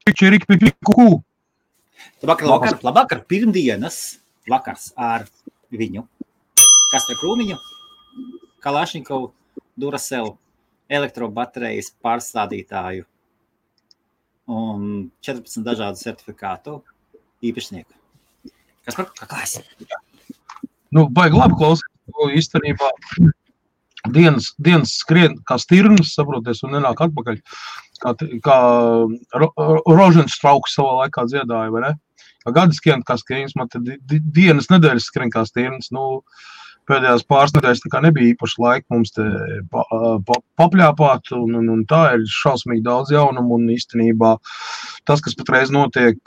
Čirikpipiku. Labvakar, pirmdienas vakars ar viņu. Kastra Krūmiņu, Kalašņikovu, Duracell, elektrobaterijas pārstādītāju un 14 dažādu certifikātu īpašnieku. Kas par klāsi? Baigi labi klausīt, īstenībā dienas skrien kā stirnas, saproties, un nenāk atpakaļ, kā Roženstrauks savā laikā dziedāja, vai ne? Kā gadi skrien kā skrienas, man tad dienas nedēļas skrien kā stirnas, pēdējās pāris nedēļas tā kā nebija īpaši laika mums te papļāpāt, un tā ir šausmīgi daudz jaunumu, un īstenībā tas, kas patreiz notiek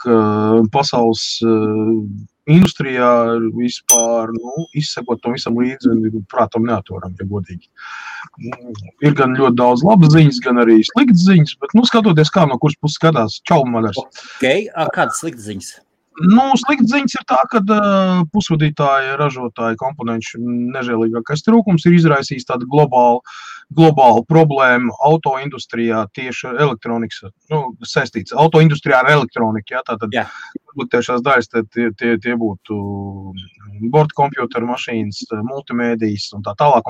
pasaules industrijā, vispār, izsekot tam visam līdzi, prātam neatvaram, ja godīgi. Ir gan ļoti daudz labas ziņas, gan arī sliktas ziņas, bet, skatoties, kā no kuras puses skatās, čau, madars. Okay, kādas sliktas ziņas? Sliktas ziņas ir tā, ka pusvadītāji, ražotāji, komponenšu nežēlīgākais trūkums ir izraisījis tādu globālu problēmu autoindustrijā tieši elektronikas, saistīts autoindustrijā ar elektroniku, tātad tiešās daļas tie būtu bordkompjuteru mašīnas, multimēdijas un tā tālāk,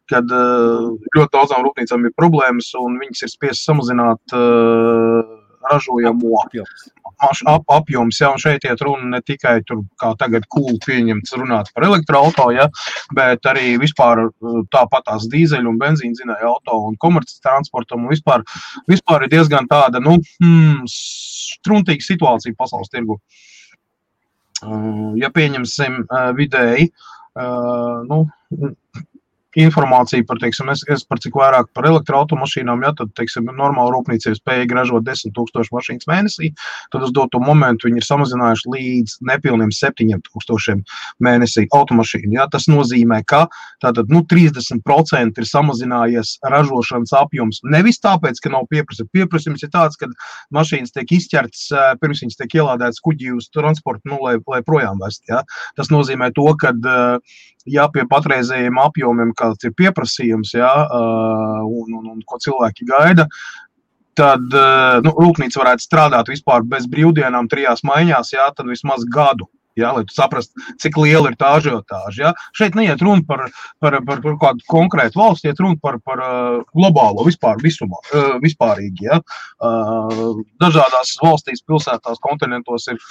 kad ļoti daudzām rūpnīcām ir problēmas un viņas ir spiesas samazināt ražojamo apjoms, un šeit iet runa ne tikai tur, kā tagad cool pieņemts runāt par elektroauto, bet arī vispār tāpatās dīzeļu un benzīna dzinēja auto un komerces transportam, un vispār ir diezgan tāda, struntīga situācija pasaules tirgu. Ja pieņemsim vidēji, informācija par, es par cik vairāk par elektroautomašīnām, tad, normāla rūpnīca ir spējīga ražot 10 000 mašīnas mēnesī, tad uz doto momentu viņi ir samazinājuši līdz nepilniem 7 000 mēnesī automašīnu. Tas nozīmē, ka tātad, 30% ir samazinājies ražošanas apjoms. Nevis tāpēc, ka nav pieprasījums. Pieprasījums ir tāds, ka mašīnas tiek izķertas, pirms viņas tiek ielādētas kuģī uz transportu, lai projām vest. Tas nozīmē to, ka pie patreizējiem apjomiem, kāds ir pieprasījums, un ko cilvēki gaida, tad rūpnīca varētu strādāt vispār bez brīvdienām 3 maiņās, tad vismaz gadu. Lai tu saprastu, cik liela ir tā ažiotāža. Šeit neiet runa par kādu konkrētu valsti, iet runa par globālo vispārīgi. Dažādās valstīs, pilsētās, kontinentos ir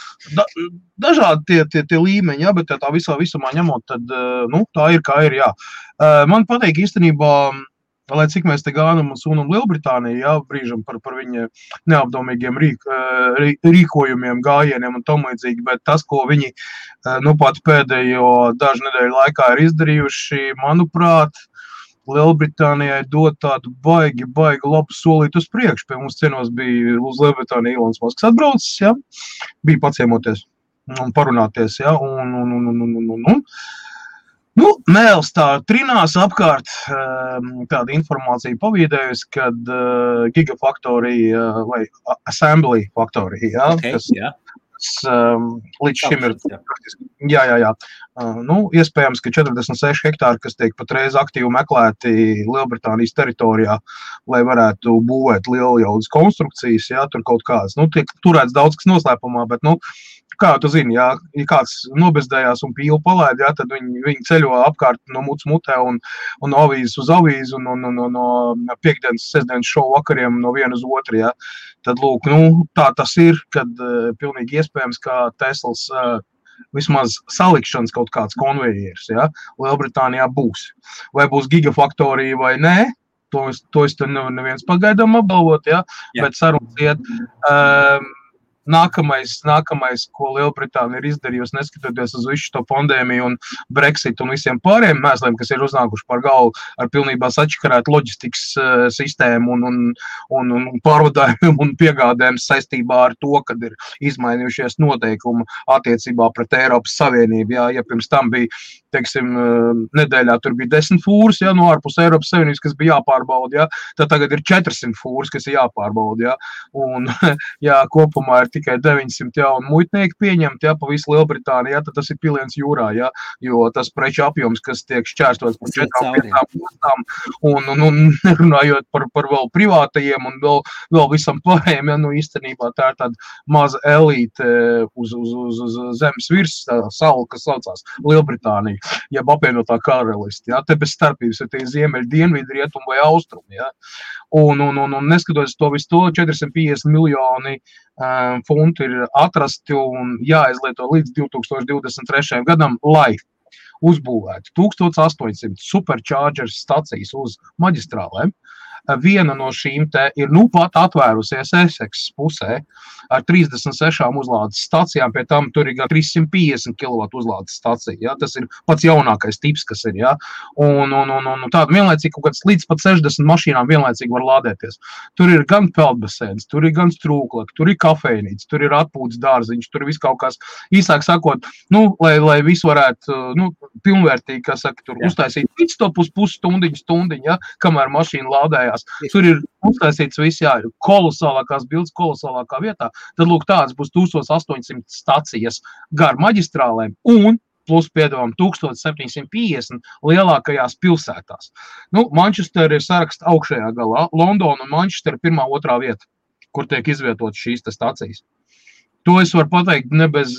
dažādi tie līmeņi, bet tā visumā ņemot, tad tā ir, kā ir. Man patīk īstenībā, lai cik mēs te gānam un sunam Lielbritāniju, brīžam par viņa neapdomīgiem rīkojumiem, gājieniem un tam līdzīgi, bet tas, ko viņi pat pēdējo dažu nedēļu laikā ir izdarījuši, manuprāt, Lielbritānijai dod tādu baigi labu solīt uz priekšu. Pie mums cienos bija uz Lielbritāniju Ilons Masks atbraucis, bija paciemoties un parunāties, Mēls tā trinās apkārt tāda informācija pavīdējusi, kad Gigafactory vai Assembly Factory, kas līdz šim ir, iespējams, ka 46 hektāri, kas tiek patreiz aktīvi meklēti Lielbritānijas teritorijā, lai varētu būvēt lieljaudas konstrukcijas, tur kaut kādas, tiek turēts daudz kas noslēpumā, bet, kā tu zini, ja kāds nobezdējās un pīlu palaid, tad viņi ceļo apkārt no muts mutē un no avīzes uz avīzi un no piekdienas, sestdienas šovu vakariem no viena uz otru, Tad, lūk, tā tas ir, kad pilnīgi iespējams, ka Teslas vismaz salikšanas kaut kāds konvejers, Lielbritānijā būs. Vai būs Gigafactory vai nē, to es te neviens pagaidām apgalvot, bet sarunas iet. Nākamais, ko Lielbritānija ir izdarījusi, neskatoties uz visu šo pandēmiju un Brexit un visiem pārējiem mēsliem, kas ir uznākuši par galvu ar pilnībā sačakarētu loģistikas sistēmu un pārvadājumiem un piegādēm saistībā ar to, kad ir izmainījušies noteikumi attiecībā pret Eiropas Savienību. Ja pirms tam bija, nedēļā tur bija 10 fūras, no ārpus Eiropas Savienības, kas bija jāpārbauda, tad tagad ir 400 fūras, kas ir jāpārbauda, un kopumā ir tikai 900 jaunu muitnieku pieņemt, ja, pa visu Lielbritāniju, ja, tad tas ir piliens jūrā, ja, jo tas preču apjoms, kas tiek šķērstots par 4-5 ostām, un nerunājot par vēl privātajiem un vēl visam pārējiem, ja, nu īstenībā tā ir tāda maza elīte uz zemes virs salu, kas saucās Lielbritānija, jeb apvienotā karalisti, ja, te bez starpības ir tie ziemeļi, dienvidi, rietumi vai austrumi, ja, un neskatoties to visu to, 450 miljoni funtu ir atrasti un jāizlieto līdz 2023. gadam, lai uzbūvētu 1800 supercharger stacijas uz maģistrālēm. Viena no šīm te ir pat atvērusies Essex pusē ar 36 uzlādes stacijām, pie tam tur ir gan 350 kW uzlādes stacija, ja? Tas ir pats jaunākais tips, kas ir, ja? Un tāda vienlaicīgi kaut kāds līdz pat 60 mašīnām vienlaicīgi var lādēties. Tur ir gan peldbasēns, tur ir gan strūklaki, tur ir kafejnīca, tur ir atpūtas dārziņš, tur ir viss kaut kas, īsāk sakot, lai visu varētu, pilnvērtīgi, kā saka, tur uztaisīt pitstopus pusstundiņu, ja? Kamēr mašīna lādējās. Tur ir uztaisīts viss, jā, kolosālākās bildes, kolosālākā vietā. Tad, lūk, tāds būs 1800 stacijas gar maģistrālēm un plus, piedāvām, 1750 lielākajās pilsētās. Manchester ir saraksta augšējā galā. Londona un Manchester 1.2. vieta, kur tiek izvietotas šīs stacijas. To es varu pateikt ne bez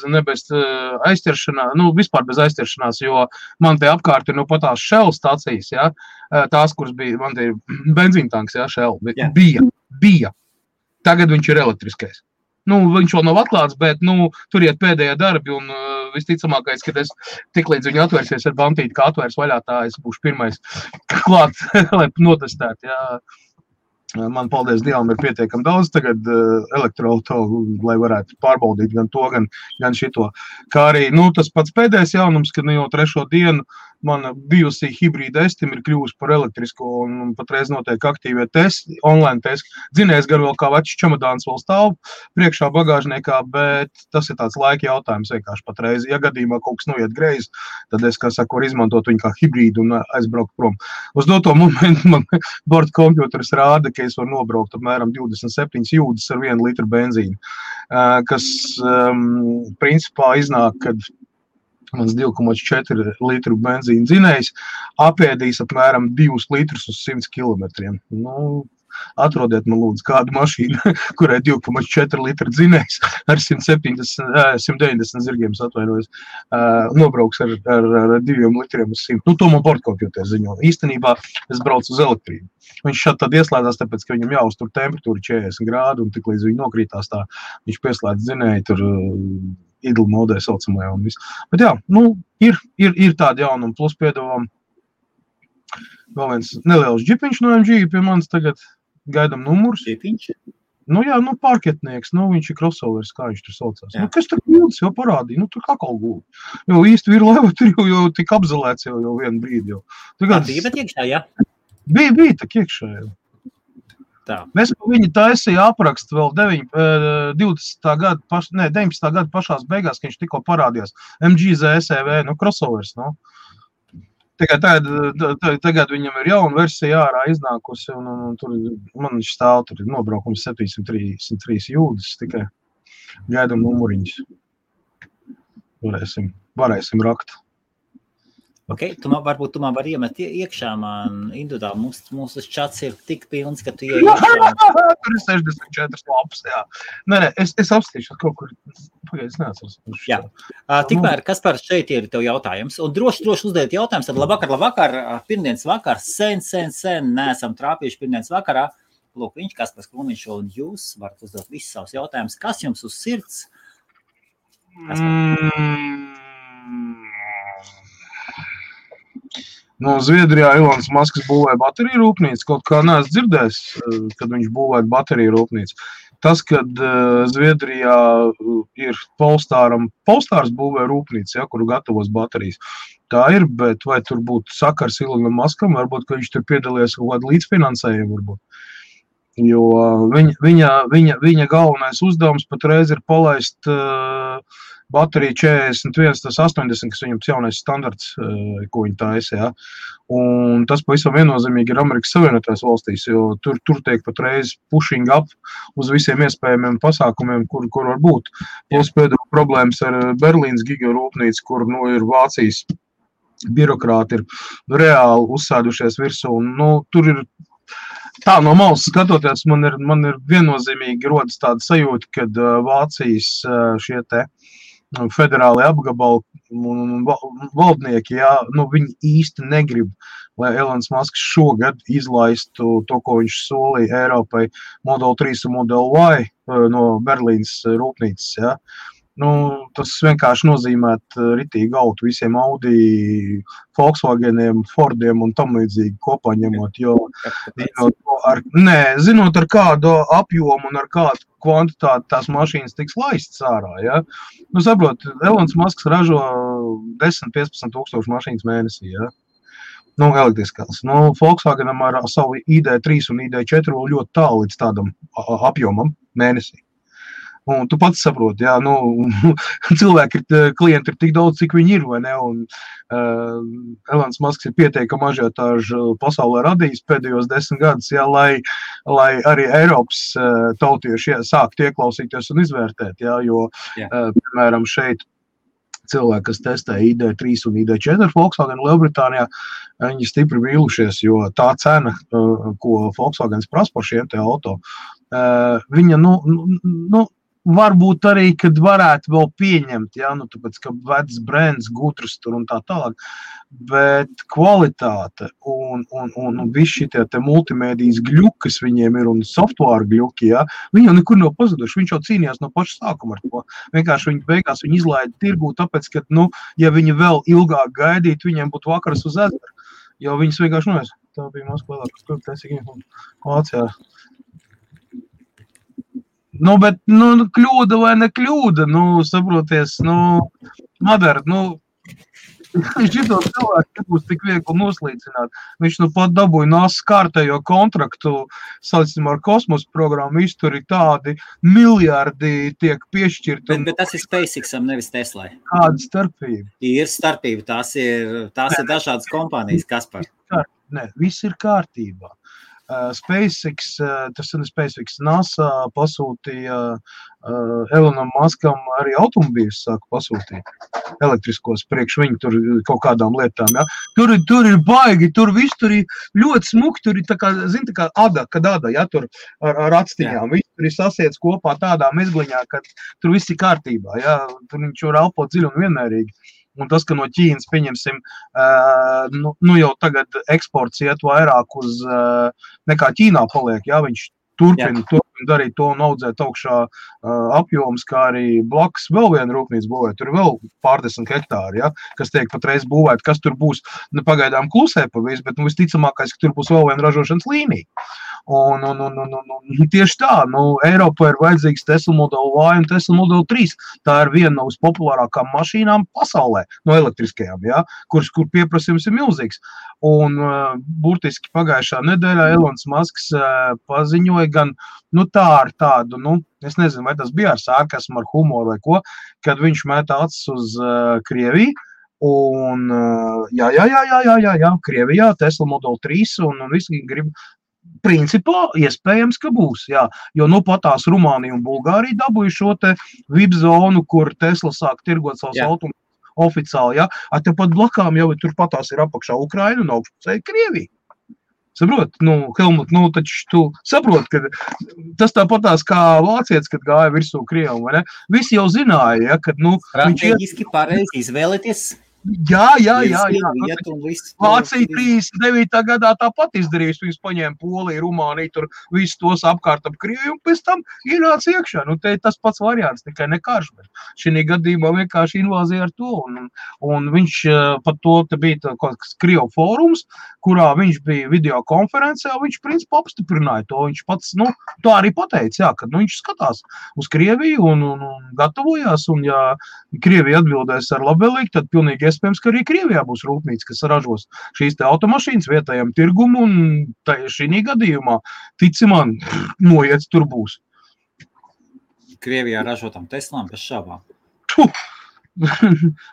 aizķeršanās, vispār bez aizķeršanās, jo man te apkārt ir patās Shell stacijas, ja, tās, kuras bija, man te ir benzīntanks, ja, Shell, bija. Tagad viņš ir elektriskais. Viņš vēl nav atklāts, bet, tur iet pēdējie darbi un visticamākais, kad es tiklīdz viņi atvērsies ar bantīti, kā atvērs vaļā, tā es būšu pirmais klāt, lai notestētu, ja. Man, paldies Dievam, ir pietiekami daudz tagad elektroauto, lai varētu pārbaudīt gan to, gan šito. Kā arī, tas pats pēdējais jaunums, kad jau 3. dienu mana bijusī hibrīda Estim ir kļuvusi par elektrisko un patreiz notiek aktīvie testi, online testi. Dzinējs gan vēl kā večs čemodāns vēl stāv priekšā bagāžniekā, bet tas ir tāds laika jautājums vienkārši patreiz. Ja gadījumā kaut kas noiet greizi, tad es, kā saku, varu izmantot viņu kā hibrīdu un aizbraukt prom. Uz doto momentu man borda kompjuters rāda, ka es varu nobraukt apmēram 27 jūdzes ar 1 litru benzīnu, kas principā iznāk, kad mans 2,4 litru benzīna dzinējs apēdīs apmēram 2 litrus uz 100 kilometriem. Atrodiet man lūdzu kādu mašīnu, kurai 2,4 litru dzinējs ar 190 zirgiem atvainojas, nobrauks ar 2 litriem uz 100. To man bordkompjuters ziņo. Īstenībā es braucu uz elektrību. Viņš šādi tad ieslēdzās, tāpēc, ka viņam jāuztur temperatūra 40 grādu, un tik līdz viņi nokrītās tā, viņš pieslēdz dzinēju tur idle modē saucamajā un viss. Bet jā, ir tādi jaunumi, plus piedāvām vēl viens neliels džipiņš no MG, pie manis tagad gaidam numurs. Džipiņš? Jā, pārketnieks, viņš ir crossovers, kā viņš tur saucās. Kas tur guldas jau parādīja? Tur kakal gulda. Jo īsti virlaiva tur jau tik apzelēts jau vienu brīdi jau. Tagad... Bija bet iekšā, jā? Bija tak iekšā jau. Tā. Mēs viņi taisīja aprakstu vēl 19. gada pašās beigās, ka viņš tikko parādījās. MG ZSEV, crossovers, Tagad viņam ir jauna versija ārā iznākusi, un tur man viņš stāv, tur ir nobraukums 733 jūdzes, tikai gaidam numuriņus. Varēsim rakt. Ok, varbūt tu man var iemet iekšā, man individuāli, mūsu čats ir tik pilns, ka tu ieej iekšā. Tur ir 64 lapas, jā. Nē, es apstīšu kaut kur, pagaid, es neatceros. Jā, tikmēr, Kaspar, šeit ir tev jautājums, un droši uzdēt jautājums, tad labvakar, pirmdienas vakar, sen, neesam trāpījuši pirmdienas vakarā. Lūk, viņš, Kaspars Krūmiņš, un jūs varat uzdot visus savus jautājumus. Kas jums uz sirds? Zviedrijā Ilons Masks būvēja bateriju rūpnīcu, kaut kā neesmu dzirdējis, kad viņš būvēja bateriju rūpnīcu. Tas, kad Zviedrijā ir Polestārs būvēja rūpnīcu, kuru gatavos baterijas. Tā ir, bet vai tur būtu sakars Ilonam Maskam, varbūt, ka viņš tur piedalījies kaut kādu līdzfinansējumu, varbūt. Jo viņa galvenais uzdevums patreiz ir palaist baterija 41, tas 80, kas viņam jaunais standarts, ko viņi taisa, jā. Un tas pavisam viennozīmīgi ir Amerikas Savienotajās valstīs, jo tur tiek patreiz pushing up uz visiem iespējamiem pasākumiem, kur var būt. Plus pēdējā problēmas ar Berlīnas gigarūpnīcu, kur ir Vācijas birokrāti ir reāli uzsēdušies virsū. Un, tur ir tā no malas skatoties, man ir viennozīmīgi rodas tāda sajūta, kad Vācijas šie te federāli apgabali un valdnieki, viņi īsti negrib, lai Elons Musks šogad izlaistu to, ko viņš solīja Eiropai Model 3 un Model Y no Berlīnas rūpnīcas, jā. Tas vienkārši nozīmēt ritīgi gautu visiem Audi, Volkswageniem, Fordiem un tam līdzīgi kopā ņemot, jo zinot ar kādu apjomu un ar kādu kvantitāti tās mašīnas tiks laistas ārā, ja? Saprot, Elons Musks ražo 10-15 tūkstoši mašīnas mēnesī, ja? Elektriskās. Volkswagenam ar savu ID3 un ID4 vēl ļoti tālu līdz tādam apjomam mēnesī. Un tu pats saproti, cilvēki klienti ir tik daudz, cik viņi ir, vai ne? Un Elons Musks ir pieteikami ažiotāžu pasaulē radījis pēdējos 10 gadus, lai arī Eiropas tautieši sāktu ieklausīties un izvērtēt, jo, piemēram, šeit cilvēki, kas testē ID3 un ID4 Volkswagen Lielbritānijā, viņi stipri vīlušies, jo tā cena, ko Volkswagens prasa par šiem te auto, viņa, varbūt arī, kad varētu vēl pieņemt, tāpēc, ka vecs brands, gudrs tur un tā tālāk, bet kvalitāte un visi šitie te multimēdijas gļuki, kas viņiem ir un software gļuki, viņi jau nekur nav pazuduši, viņš jau cīnījās no paša sākuma ar to. Vienkārši beigās viņi izlaida tirgū, tāpēc, ka, ja viņi vēl ilgāk gaidītu, viņiem būtu vakaras uz ezeru, jo viņas vienkārši tā bija Moskvā, kur taisīgi Vācijā. Bet, kļūda vai ne kļūda, saproties, Madara, šito cilvēku nebūs tik viegli noslīcināt. Viņš pat dabūja NASA kārtējo kontraktu, saucam ar kosmosa programmu, viss tur ir tādi miljardi tiek piešķirti. Bet tas ir SpaceXam, nevis Teslai. Kāda starpība? Ir starpība, tās ir dažādas kompānijas, Kaspar. Nē, viss ir kārtībā. SpaceX, tas ir SpaceX, NASA pasūtīja Elonam Muskam arī automobīļus sāka pasūtīt elektriskos priekš viņu tur kaut kādām lietām, ja. Tur ir baigi, tur viss tur ir ļoti smuki, tur ir tā kā ada, ja, tur ar atstiņām, viss tur ir sasiets kopā tādā mezgliņā, ka tur viss ir kārtībā, ja, tur viņš var elpot dziļi un vienmērīgi. Un tas, ka no Ķīnas, pieņemsim, jau tagad eksports iet vairāk uz nekā Ķīnā paliek, jā, viņš turpina darīt to un audzēt augšā apjoms, kā arī blakus vēl viena rūpnīca būvēt. Tur ir vēl pārdesmit hektāri, ja, kas tiek patreiz būvēt, kas tur būs, pagaidām klusē pa visu, bet visticamākais, ka tur būs vēl viena ražošanas līnija. Un tieši tā, Eiropā ir vajadzīgs Tesla Model Y un Tesla Model 3. Tā ir viena no vispopulārākām mašīnām pasaulē, no elektriskajām, ja, kur pieprasījums ir milzīgs. Un burtiski pagājušā nedēļā Elons Musks paziņoja gan, tā ar tādu, es nezinu, vai tas bija ar sarkasmu, ar humoru vai ko, kad viņš mētā acis uz Krieviju. Un jā, Krievijā Tesla Model 3 un visi grib. Principā iespējams, ka būs, jā, jo patās Rumānija un Bulgārija dabūja šo te VIP zonu, kur Tesla sāk tirgot savus automobiļus oficiāli, jā, tepat blakām jau tur patās ir apakšā Ukraina un augšpusē Krievija. Saprot, Helmut, taču tu saprot, ka tas tāpatās kā vācietis, kad gāja virsū Krievam, vai ne? Visi jau zināja, ja, kad, strateģiski pareizi izvēlēties. Jā. Vācija 39. gadā tāpat izdarījis, viņus paņēma Poliju, Rumāniju, tur visus tos apkārt ap Krieviju un pēc tam ienāca iekšā. Te ir tas pats variants, tikai ne karš, bet šī gadījumā vienkārši invāzija ar to. Un viņš pat to te bija kaut kāds Krievu fórums, kurā viņš bija video konferencē, un viņš principā apstiprināja to. Viņš pats, to arī pateica, jā, kad viņš skatās uz Krieviju un gatavojās, un ja Krievija atbildēs ar labvēlīgi, tad pilnīgi iespējams, ka arī Krievijā būs rūpnīca, kas ražos šīs te automašīnas vietējam tirgumu, un šī gadījumā, tici man, noiets tur būs. Krievijā ražotām Teslām bez šābām.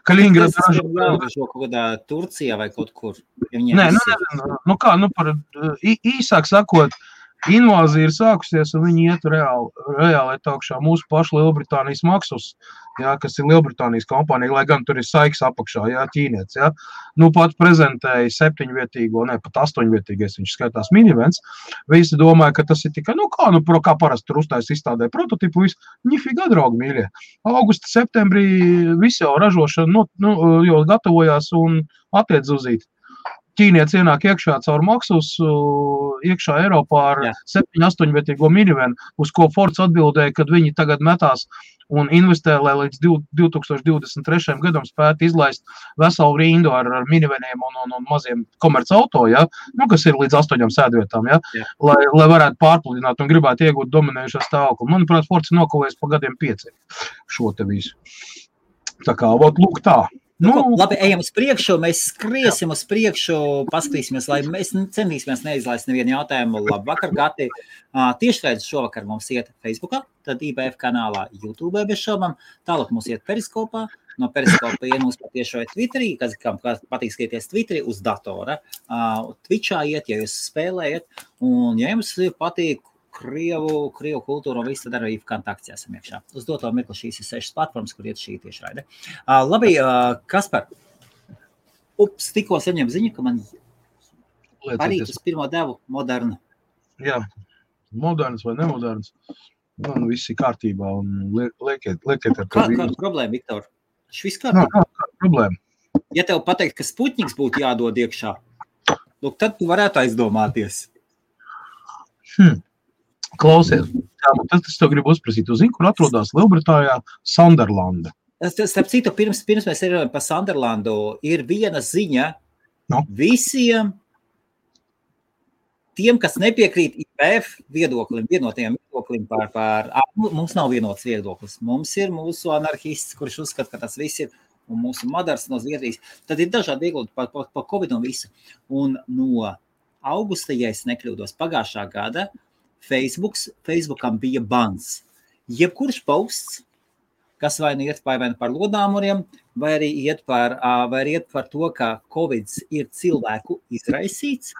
Kaliningrad ražo kaut kādā Turcijā vai kaut kur. Nē, par īsāk sakot, invāzija ir sākusies, un viņi iet reāli augšā mūsu pašu Lielbritānijas Maxus, jā, kas ir Lielbritānijas kompānija, lai gan tur ir Saiks apakšā, jā, ķīnietis, jā. Pat prezentēja 7-vietīgo, pat 8-vietīgais, viņš skaitās minivens. Visi domāja, ka tas ir tikai, kā parasti tur uztais izstādē prototipu, ņifigā draugi mīļie. Augusta, septembrī visi jau ražošana, jau gatavojās un attiec uzīt. Ķīnietis ienāk iekšā caur Maxus, iekšā Eiropā ar 7-8-vietīgo minivenu, uz ko Fords atbildēja, kad viņi tagad metās un investē, lai līdz 2023. gadam spētu izlaist veselu rindu ar miniveniem un maziem komerc auto, ja? Kas ir līdz 8 sēdvietām, ja? Lai varētu pārpludināt un gribētu iegūt dominējušo stāvokli. Manuprāt, Fords ir nokavējies pa gadiem 5 šo te visu. Tā kā, lūk tā. Labi, ejam uz priekšu, mēs skriesim uz priekšu, paskatīsimies, lai mēs centīsimies neizlaist nevienu jautājumu. Labvakar, Gati. Tiešraidzi šovakar mums iet Facebookā, tad IBF kanālā, YouTube bez šaubām, tālāk mums iet Periskopā, no Periskopa iet mums patiešo Twitterī, kam patīk skatīties Twitterī uz datora, Twitchā iet, ja jūs spēlējat, un ja jums patīk Krievu kultūru un visu, tad arī kontakts esam iekšā. Uz doto mirkli šīs ir 6 platformas, kur iet šī tiešraide. Labi, Kaspar, tikko saņem ziņu, ka man parīt uz pirmo devu modernu. Jā, moderns vai nemoderns. Viss ir kārtībā un liekiet ar to. Kāda problēma, Viktor? Tas viss kārtībā? Kāda problēma? Ja tev pateikt, ka Sputniks būtu jādod iekšā, tad tu varētu aizdomāties. Klausies, tas tev gribu uzprasīt. Tu zini, kur atrodas Lielbritānijā Sunderlanda? Starp citu, pirms mēs runājam par Sunderlandu, ir viena ziņa visiem tiem, kas nepiekrīt IBF viedoklim, vienotajam viedoklim mums nav vienots viedoklis. Mums ir mūsu anarhists, kurš uzskata, ka tas viss ir, un mūsu madars no Zviedrijas. Tad ir dažādi viedokļi par Covid un visu. Un no augusta, ja es nekļūdos, pagājušā gada, Facebookam bija bans. Jebkurš posts, kas vai nu iet par lodāmuriem, vai arī iet par to, ka Covid ir cilvēku izraisīts.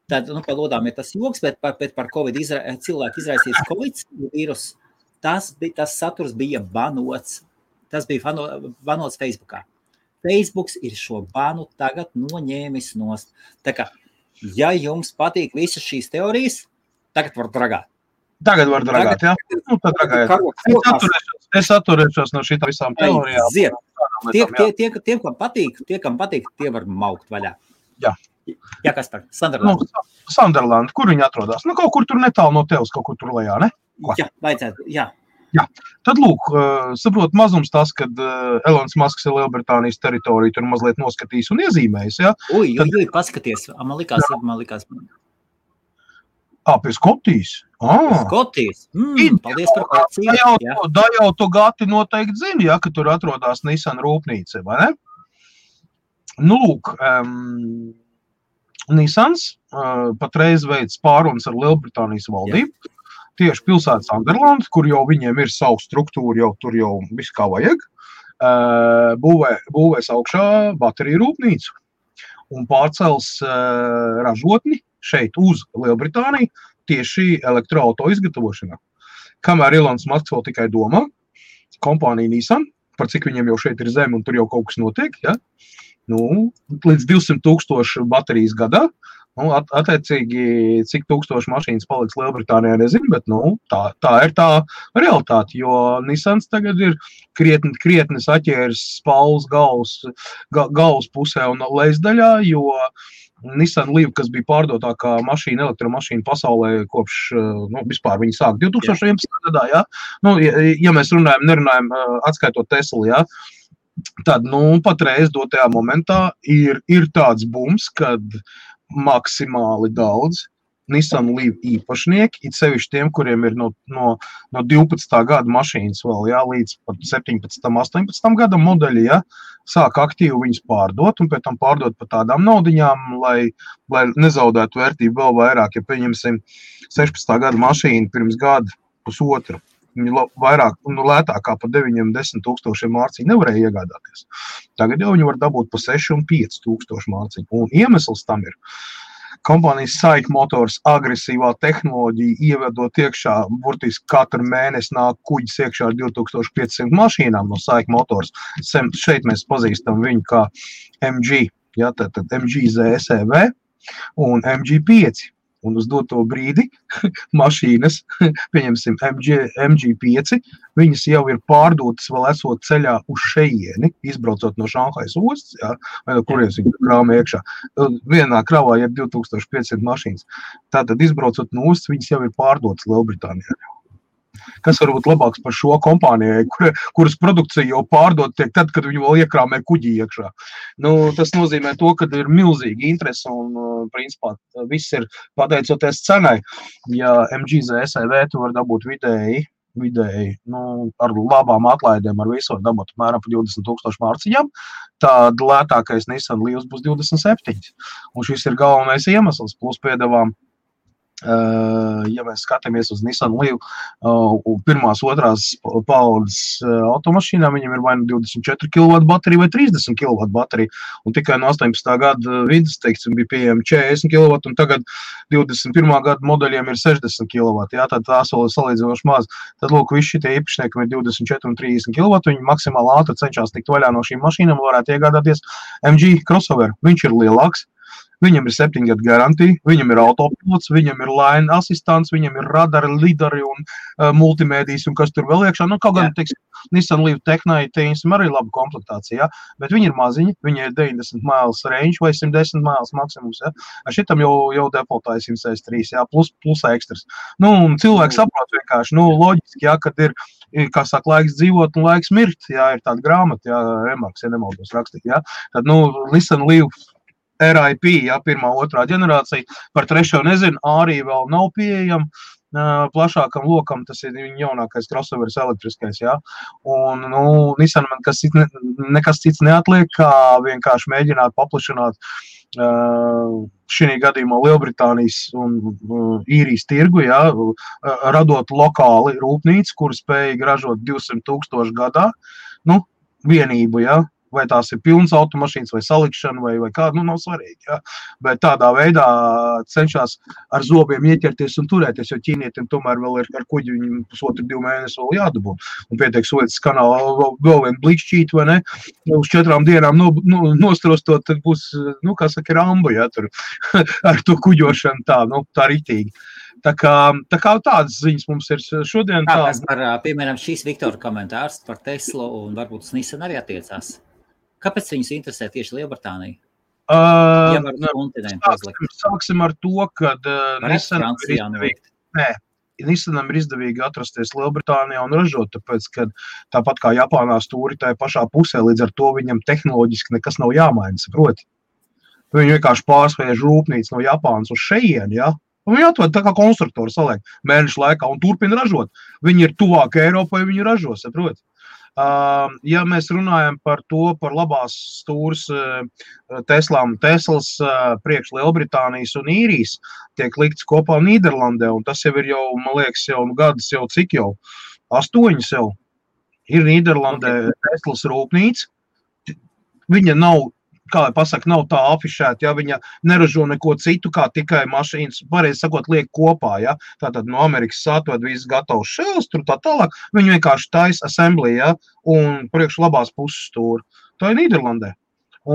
Tad, par lodām ir tas joks, bet par Covid cilvēku izraisīts Covid vīrus, tas saturs bija banots. Tas bija banots Facebookā. Facebooks ir šo banu tagad noņēmis nost. Tā kā, ja jums patīk visas šīs teorijas, tagad var dragāt. Tagad var dragāt, jā? Tad dragājiet. Es atturēšos no šitā visām teorijām. Tiem, kam patīk, tie var maukt vaļā. Jā. Jā, kas par? Sunderland. Sunderland, kur viņi atrodas? Kaut kur tur netālu no tevis, kaut kur tur lejā, ne? Jā, vajadzētu, jā. Jā. Tad, lūk, saprot mazums tas, kad Elons Musks ir Lielbritānijas teritoriju tur mazliet noskatījis un iezīmējis, jā? Paskaties, man likās. Pie Skotijas? Skotijas? Paldies par kācību. Da jau tu Gati noteikti zini, ja, ka tur atrodas Nissan rūpnīca, vai ne? Lūk, Nissans patreiz veids pārunas ar Lielbritānijas valdību. Tieši pilsētas Sunderland, kur jau viņiem ir savu struktūru, jau tur jau viss kā vajag, būvēs augšā bateriju rūpnīcu un pārcels ražotni šeit uz Lielbritāniju tieši elektroauto izgatavošanā. Kamēr Elons Musks vēl tikai domā, kompānija Nissan, par cik viņiem jau šeit ir zeme un tur jau kaut kas notiek, ja? Līdz 200,000 baterijas gadā, attiecīgi, cik tūkstoši mašīnas paliks Lielbritānijā, nezinu, bet tā ir tā realitāte, jo Nissans tagad ir krietni saķēris spalvas galvas pusē un lejasdaļā, jo Nissan Leaf, kas bija pārdotākā elektromašīna pasaulē kopš, vispār viņi sāk 2011. gadā, jā? Ja mēs nerunājam atskaitot Tesla, jā? Tad, patreiz dotajā momentā ir tāds bums, kad maksimāli daudz Nissan Leaf īpašnieki, it sevišķi tiem, kuriem ir no 12. gada mašīnas vēl, jā, līdz pat 17. 18. gada modeļi, jā, sāk aktīvi viņus pārdot un pēc tam pārdot par tādām naudiņām, lai nezaudētu vērtību vēl vairāk, ja pieņemsim 16. gada mašīnu pirms gada pusotru. vairāk, lētākā pa 9-10 tūkstošiem mārciņu nevarēja iegādāties. Tagad jau viņi var dabūt pa 6 un 5 tūkstošu mārciņu. Un iemesls tam ir kompānijas SAIC Motors agresīvā tehnoloģija, ievedot iekšā, burtiski katru mēnesi nāk kuģis iekšā ar 2500 mašīnām no SAIC Motors. Šeit mēs pazīstam viņu kā MG, ja, tad MG ZSEV un MG5. Un uz doto brīdi mašīnas, pieņemsim MG5, viņas jau ir pārdotas vēl esot ceļā uz šejieni, izbraucot no Šanhajas ostas, ja, vai no kurienes viņi krāma iekšā. Vienā kravā ir 2500 mašīnas. Tātad izbraucot no ostas, viņas jau ir pārdotas Lielbritānijā. Kas var būt labāks par šo kompānijai, kuras produkcija jau pārdot tiek tad, kad viņi vēl iekrāmē kuģī iekšā. Tas nozīmē to, ka ir milzīgi interesi un, principā, viss ir pateicoties cenai. Ja MG ZSEV tu var dabūt vidēji, ar labām atlaidēm, ar visu var dabūt apmēram pa 20,000 mārciņām, tad lētākais Nissan Leafs būs 27. Un šis ir galvenais iemesls, plus piedevām. Ja mēs skatāmies uz Nissan Leaf, pirmās, otrās paudzes automašīnām, viņam ir vai 24 kW baterija vai 30 kW baterija, un tikai no 18. gada vidus, teiksim, bija pieejami 40 kW, un tagad 21. gada modeļiem ir 60 kW, jā, tad tās vēl ir salīdzinoši maz. Tad, lūk, visi šitie īpašnieki ir 24 un 30 kW, viņi maksimāli ātri cenšas tikt vaļā no šīm mašīnām, varētu iegādāties MG crossover. Viņš ir lielāks. Viņam ir 7 gadu garantija, viņam ir autopilots, viņam ir line asistants, viņam ir radari, lidari un multimēdijas un kas tur vēl iekšā. Kaut gan, teiksim, Nissan Leaf Technai, teiksim, arī laba komplektācija, ja? Bet viņi ir maziņi, viņi ir 90 miles range vai 110 miles maksimums, ja? Šitam jau defaultā ir 163, ja? Plus ekstras. Un cilvēki saprot vienkārši, loģiski, ja, kad ir, kā saka, laiks dzīvot un laiks mirt, ja, ir tāda grāmata, ja, Remarks, ja nemaldos rakstīt, ja? Tad, Nissan Leaf RIP, ja, pirmā, otrā ģenerācija, par trešo nezinu, arī vēl nav pieejama plašākam lokam, tas ir viņa jaunākais crossoveris elektriskais, ja, un, Nissan man nekas cits neatliek, kā vienkārši mēģināt paplašināt šī gadījumā Lielbritānijas un Īrijas tirgu, ja, radot lokāli rūpnīcu, kur spēja ražot 200,000 gadā, vienību, ja, vai tās ir pilnas automašīnas, vai salikšana, vai kāda, nav svarīgi, ja. Bet tādā veidā cenšas ar zobiem ieķerties un turēties, jo ķīnietiem tomēr vēl ir ar kuģi viņiem 1,5–2 mēnesi vēl jādabūt. Un pietiek Suecas kanālā vēl vien blikšķīt, vai ne, uz 4 dienām nostrostot, tad būs, kā saka, Rambo, ja, tur ar to kuģošanu tā ritīgi. Tā kā tādas ziņas mums ir šodien. Piemēram, šīs Viktora komentārs par Teslu un varbūt Nissan arī attiecās. Kāpēc viņus interesē tieši Lielbritānija? Sāksim ar to, ka Nissanam ir izdevīgi atrasties Lielbritānijā un ražot, tāpēc, ka tāpat kā Japānā stūri tajā pašā pusē, līdz ar to viņam tehnoloģiski nekas nav jāmaina, saproti. Viņi vienkārši pārsviež rūpnīcu no Japānas uz šejieni, ja? Un viņi atved tā kā konstruktori saliek mēnešu laikā un turpina ražot. Viņi ir tuvāk Eiropai, viņi ražo, saproti. Ja mēs runājam par labās stūras Teslas priekš Lielbritānijas un Īrijas, tiek likts kopā Nīderlandē, un tas jau ir jau, man liekas, jau gadus jau cik jau, 8 jau. Ir Nīderlandē Teslas rūpnīca, viņa nav, kā pasaka, nav tā afišēta, ja viņa neražo neko citu, kā tikai mašīnas, pareizi sakot, liek kopā, ja, tātad no Amerikas atved viss gatavs šels, tur tā tālāk, viņi vienkārši taisa assembly, ja, un priekš labās puses stūra. Tā ir Nīderlandē.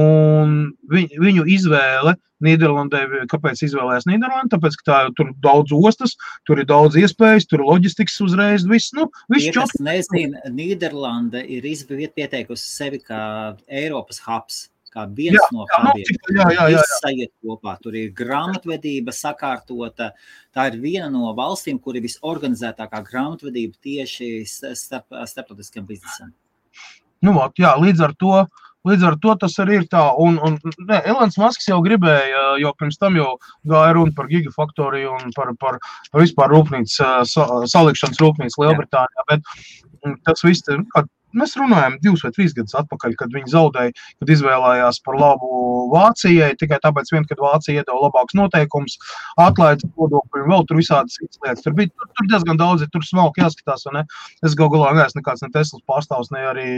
Un viņu izvēle Nīderlandē, kāpēc izvēlējās Nīderlandi? Tāpēc, ka tur daudz ostas, tur ir daudz iespējas, tur ir loģistikas uzreiz, viss, viss čot. Ja nezinu, Nīderlande ir pieteikusi sevi kā Eiropas hubs. Kā viens no hubiem. Viss sajiet kopā. Tur ir grāmatvedība sakārtota. Tā ir viena no valstīm, kur ir visorganizētākā grāmatvedība tieši starptautiskam biznesam. Līdz ar to tas arī ir tā. Un Elons Musks jau gribēja, jo pirms tam jau gāja runa par gigafaktoriju un par vispār rūpnīcu, salikšanas rūpnīcu Lielbritānijā, bet tas viss Mēs runājam 2 vai 3 gadus atpakaļ, kad viņi zaudēja, kad izvēlējās par labu Vācijai, tikai tāpēc kad Vācija iedeva labākus noteikumus, atlaides nodokļu un vēl tur visādas citas lietas. Tur diezgan daudz, tur smalki jāskatās, vai ne? Es galā neesmu nekāds ne Teslas pārstāvs, ne arī,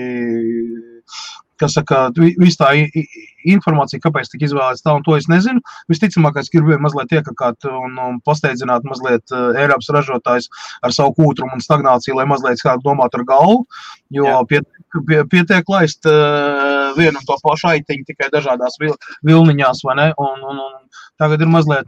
kas saka, viss tā informācija, kāpēc tika izvēlēts tā, un to es nezinu. Visticamākais, gribēju mazliet iekakāt un pasteidzināt mazliet Eiropas ražotājs ar savu kūtrumu un stagnāciju, lai mazliet kādu domāt ar galvu, jo pietiek laist vienu un to pašu aitiņu tikai dažādās vilniņās, vai ne? Un tagad ir mazliet,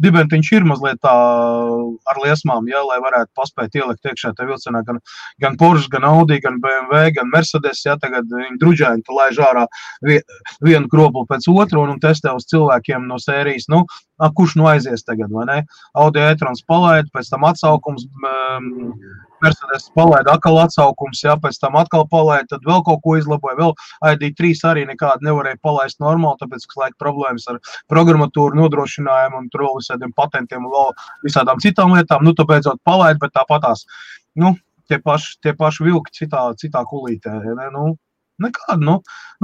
dibentiņš ir mazliet tā ar liesmām, lai varētu paspēt ielikt iekšā tā vilcenā gan Porsche, gan Audi, gan BMW, gan Mercedes, tagad viņi druģēni laiž ārā vienu kroplu pēc otru un testē uz cilvēkiem no sērijas, kurš aizies tagad, vai ne? Audi e-trons palaid, pēc tam atsaukums, Mercedes palaid atkal atsaukums, pēc tam atkal palaid, tad vēl kaut ko izlaboja, vēl ID3 arī nekādu nevarēja palaist normāli, tāpēc, ka laika problēmas ar programmatūru nodrošinājumu un tur vēl visādiem patentiem un vēl visādām citām lietām, tā beidzot palaid, bet tāpatās, tie paši vilki citā kulītē, ne? Nekādu,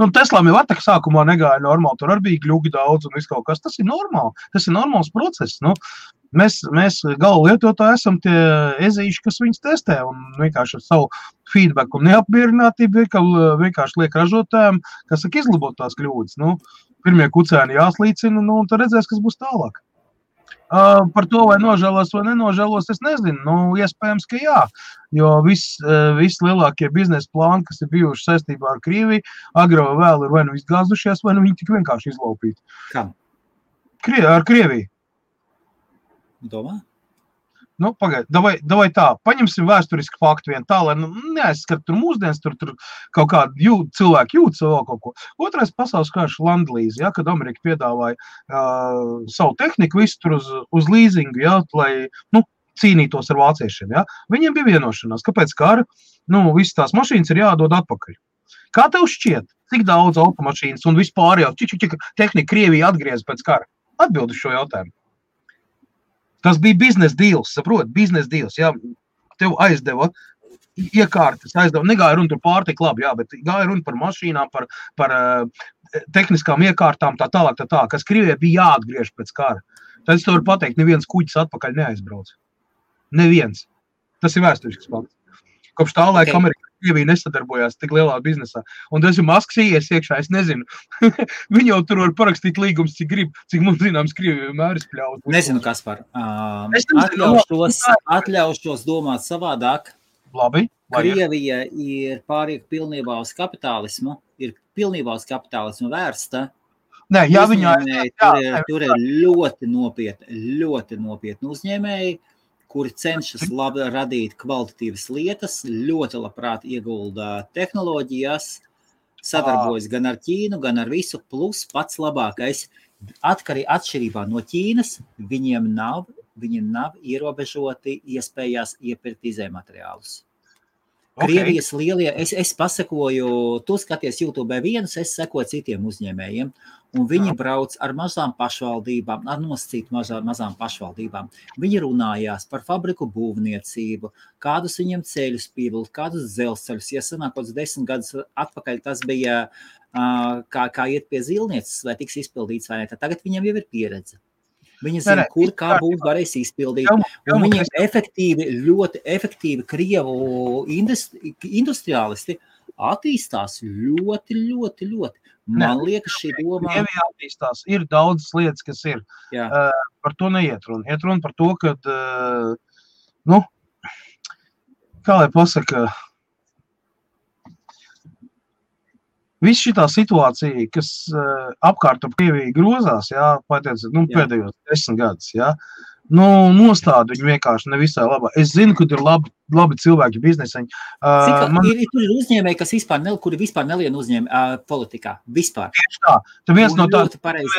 Teslām jau atāk sākumā negāja normāli, tur arī bija gļugi daudz un viss kaut kas, tas ir normāli, tas ir normāls process, Mēs gala lietotāji esam tie ezīši, kas viņus testē un vienkārši ar savu feedback un neapmierinātību vienkārši liek ražotājiem, kas saka izlabot tās kļūdas. Pirmie kucēni jāslīcina un tad redzēs, kas būs tālāk. Par to, vai nožēlos vai nenožēlos, es nezinu. Iespējams, ka jā, jo viss lielākie biznesa plāni, kas ir bijuši saistībā ar Krieviju, agro vai vēl ir vai nu izgāzušies, vai nu viņi tik vienkārši izlaupīti. Kā? Ar Krieviju. Domā? Pagaid, davai tā, paņemsim vēsturisku faktu vien tā, lai neaizskat tur mūsdienas, tur kaut kādu cilvēku jūt savu kaut ko. Otrais pasaules karš landlīzi, kad Amerika piedāvāja savu tehniku visu tur uz līzingu, lai, cīnītos ar vāciešiem, Viņiem bija vienošanās, kāpēc kara, visas tās mašīnas ir jādod atpakaļ. Kā tev šķiet, cik daudz automašīnas un vispār jau tehnika Krievija atgriez pēc kara? Atbild uz šo jautājumu. Tas bija biznesa deals, saprot, biznesa deals, tev aizdeva iekārtas, negāja runa par pārtiku labi, bet gāja runa par mašīnām, par tehniskām iekārtām, tā tālāk, kas Krievijai bija jāatgriež pēc kara. Tad es to varu pateikt, neviens kuģis atpakaļ neaizbrauc. Neviens. Tas ir vēsturisks fakts. Kopš tā laika Amerika Krievija nesadarbojās tik lielā biznesā. Un tas ir Masks ies iekšā, es nezinu. Viņi jau tur var parakstīt līgumus, cik grib, cik mums zināms Krievija vienmēr izpļaut. Nezinu, Kaspar. Atļaušos domāt savādāk. Labi. Krievija ir pāriek pilnībā uz kapitālismu, vērsta. Nē, Tur ir ļoti nopietni uzņēmēji, kuri cenšas radīt kvalitatīvas lietas, ļoti labprāt iegulda tehnoloģijās, sadarbojas gan ar Ķīnu, gan ar visu, plus pats labākais. Atšķirībā no Ķīnas, viņiem nav ierobežoti iespējās iepirkt izējumateriālus. Krievijas lielie, es pasekoju, tu skaties YouTube vienus, es sekoju citiem uzņēmējiem, un viņi brauc ar mazām pašvaldībām, ar nosacīt mazām pašvaldībām. Viņi runājās par fabriku būvniecību, kādus viņiem ceļus pievilkt, kādus dzelzceļus. Ja sanāk, 10 gadus atpakaļ tas bija, kā iet pie zilnieces, vai tiks izpildīts vai ne, tad tagad viņam jau ir pieredze. Viņi zina, kur kā būs varēs izpildīt. Un viņiem ļoti efektīvi Krievu industriālisti attīstās ļoti. Man liekas, šī doma... Krievijā attīstās. Ir daudzas lietas, kas ir. Par to neiet runa. Iet runa par to, ka, kā lai pasaka, viss šitā situācija, kas apkārt ap Krieviju grozās, pēdējos 10 gadus, nostāda viņu vienkārši nevisai labā. Es zinu, ka ir labi cilvēki bizneseņi. Tur ir uzņēmēji, kuri vispār nelien uzņēmēji politikā. Vispār. Tieši tā. Tad viens no tādiem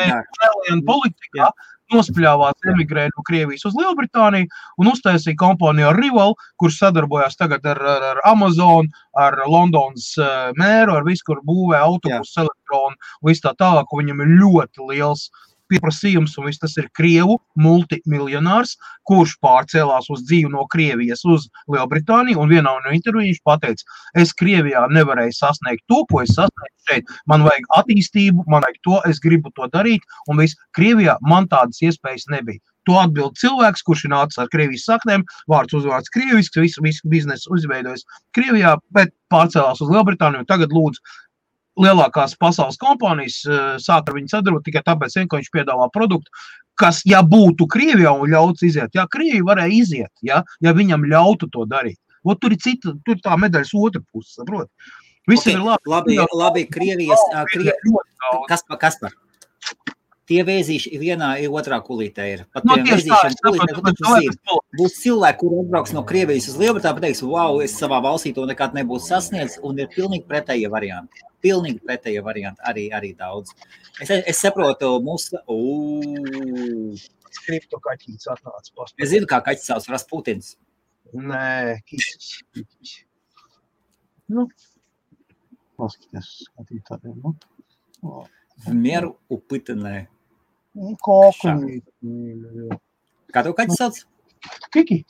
nelien politikā nospļāvās emigrēja no Krievijas uz Lielbritāniju un uztaisīja kompāniju ar Rival, kurš sadarbojās tagad ar Amazon, ar Londonas mēru, ar visu, kur būvē autobusu, elektronu, visu tā tālāk, viņam ir ļoti liels pieprasījums, un viss tas ir Krievu multimiljonārs, kurš pārcēlās uz dzīvi no Krievijas uz Lielbritāniju, un vienā no interviju viņš pateica, es Krievijā nevarēju sasniegt to, ko es sasniegtu šeit. Man vajag attīstību, man vajag to, es gribu to darīt, un viss Krievijā man tādas iespējas nebija. To atbild cilvēks, kurš ir nācis ar Krievijas saknēm, vārds uzvārds krievisks, visu biznesu uzveidojas Krievijā, bet pārcēlās uz Lielbritāniju, un tagad lūdzu lielākās pasaules kompānijas sāk ar viņu sadarbot tikai tāpēc, ka viņš piedāvā produktu, kas, ja būtu Krievijā un ļauts iziet, ja Krievija varēja iziet, ja viņam ļautu to darīt. Ot, tur ir tā medaļas otra puse, saprot? Visi ir labi, Krievijas, Kaspar. Tie vēzīši vienā otrā kulītē ir. Pat tiem vēzīšiem kulītē, būs cilvēki, kuri atbrauks no Krievijas uz Lielbritāniju, pateiks, wow, es savā valstī to nekad nebūtu sasniedz, un ir pilnīgi pretējie varianti. Pilnīgi pretējie varianti, arī daudz. Es saprotu, mūsu... Skripto kaķīts atnāca past. Es zinu, kā kaķis sauc Rasputins. Nē, kisis. Nu, paskaties, skatītājiem, nu. Mieru upitenē. Kokumi. Kā tev kaķis sauc? Kiki.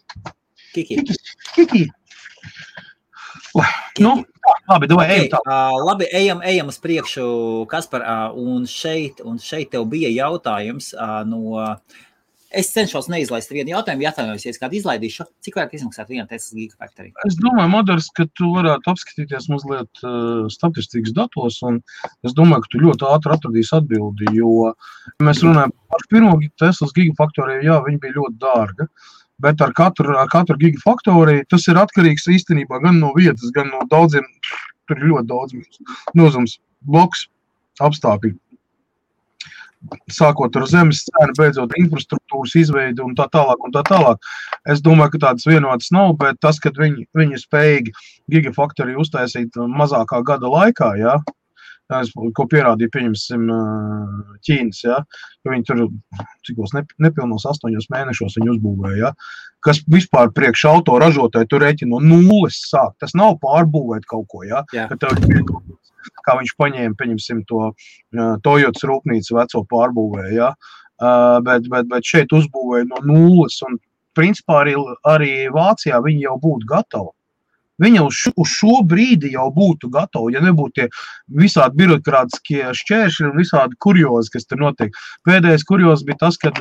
Nu, labi, ejam tā. Labi, ejam uz priekšu, Kaspar, un šeit tev bija jautājums no... Es cenšos neizlaist vienu jautājumu, ja kādu izlaidīšu. Cik vairāk izmaksāt viena Tesla Gigafactory? Es domāju, Madars, ka tu varētu apskatīties mazliet statistikas datos, un es domāju, ka tu ļoti ātri atradīsi atbildi, jo mēs runājam par pirmo Teslas Gigafactory, jā, viņa bija ļoti dārga, bet ar katru Gigafactory tas ir atkarīgs īstenībā gan no vietas, gan no daudziem, tur ir ļoti daudz nozums, bloks, apstākļi. Sākot ar zemes cenu, beidzot infrastruktūras izveidi un tā tālāk. Es domāju, ka tādas vienotas nav, bet tas, kad viņi spējīgi Gigafactory uztaisīt mazākā gada laikā, jā, ko pierādīja, pieņemsim, Ķīnas, jā, ka viņi tur, cikos nepilnos 8 mēnešos viņi uzbūvēja, jā, kas vispār priekš auto ražotāji tur rēķina no nulles sāk. Tas nav pārbūvēt kaut ko, jā, ka tev ir kā viņš paņēma, pieņemsim, to Toyotas rūpnīcu veco pārbūvēja, ja? Bet šeit uzbūvēja no nulles, un principā arī Vācijā viņi jau būtu gatavi. Viņa uz šo brīdi jau būtu gatavi, ja nebūtu tie visādi birokrātiskie šķēršļi un visādi kuriozi, kas tur notiek. Pēdējais kuriozi bija tas, kad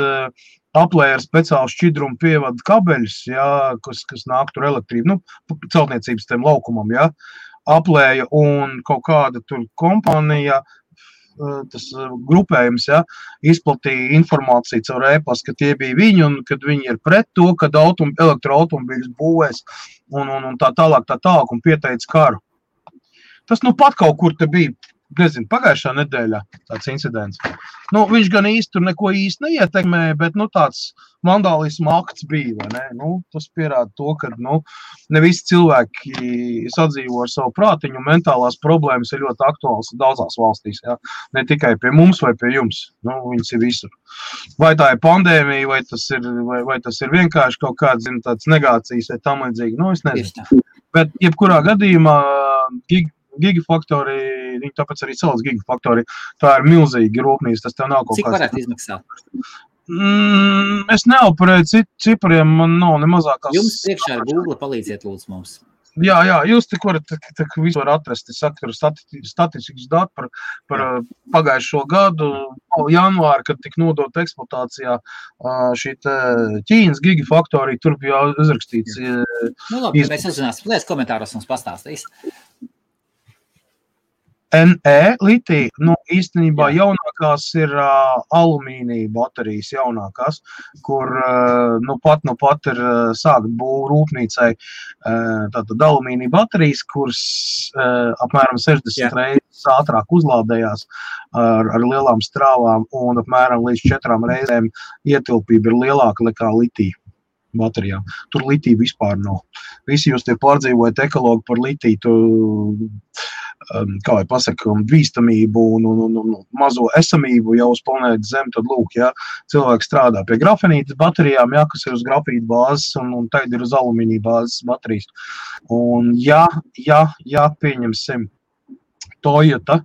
aplēja ar speciālu šķidrumu pievada kabeļus, ja, kas nāk tur elektrību, nu, celtniecības tiem laukumam, ja. Aplēja un kaut kāda tur kompānija, tas grupējums, ja, izplatīja informāciju caur e-pastu, ka tie bija viņi un kad viņi ir pret to, kad elektroautomobīļus būvēs un tā tālāk un pieteica karu. Tas nu pat kaut kur te bija, nezinu, pagājušā nedēļā tāds incidents. Nu, viņš gan īsti tur neko īsti neietekmēja, bet nu tāds vandālisma akts bija, vai ne? Nu, tas pierāda to, ka nu, ne visi cilvēki sadzīvo ar savu prātiņu, un mentālās problēmas ir ļoti aktuāls daudzās valstīs, ja? Ne tikai pie mums vai pie jums, nu, viņas ir visur. Vai tā ir pandēmija, vai tas ir vienkārši kaut kāds, zin, tāds negācijas vai tam līdzīgi, nu, es nezinu. Bet jebkurā gadījumā Gigafactory, viņi tāpēc arī sauc Gigafactory, tā ir milzīga rūpnīca, tas tev nav kaut kāds... Cik varētu izmaksāt? Es neoperēju cipariem, man nav ne mazākās... Jums priekšā ir Google, palīdziet lūdzu mums. Jā, jūs tik varat visu var atrast, es saku, statistikas dati par pagājušo gadu, janvāri, kad tika nodota eksploatācijā šī Ķīnas Gigafactory, tur bija uzrakstīts... Nu labi, mēs uzzināsim, lies komentāros mums pastāstīs. NE litija, nu, īstenībā jaunākās ir alumīnija baterijas jaunākās, kur nu pat ir sākt būvu rūpnīcai tātad alumīnija baterijas, kuras apmēram 60 reizes ātrāk uzlādējās ar lielām strāvām un apmēram līdz 4 reizēm ietilpība ir lielāka nekā litija baterijām. Tur litija vispār nav. Visi jūs tie pārdzīvojat ekologu par litiju, kā vai pasaka, bīstamību un mazo esamību jau uz planētas Zem, tad lūk, ja, cilvēki strādā pie grafenītas baterijām, ja, kas ir uz grafīta bāzes un tagad ir uz alumīnija bāzes baterijas. Un ja pieņemsim Toyota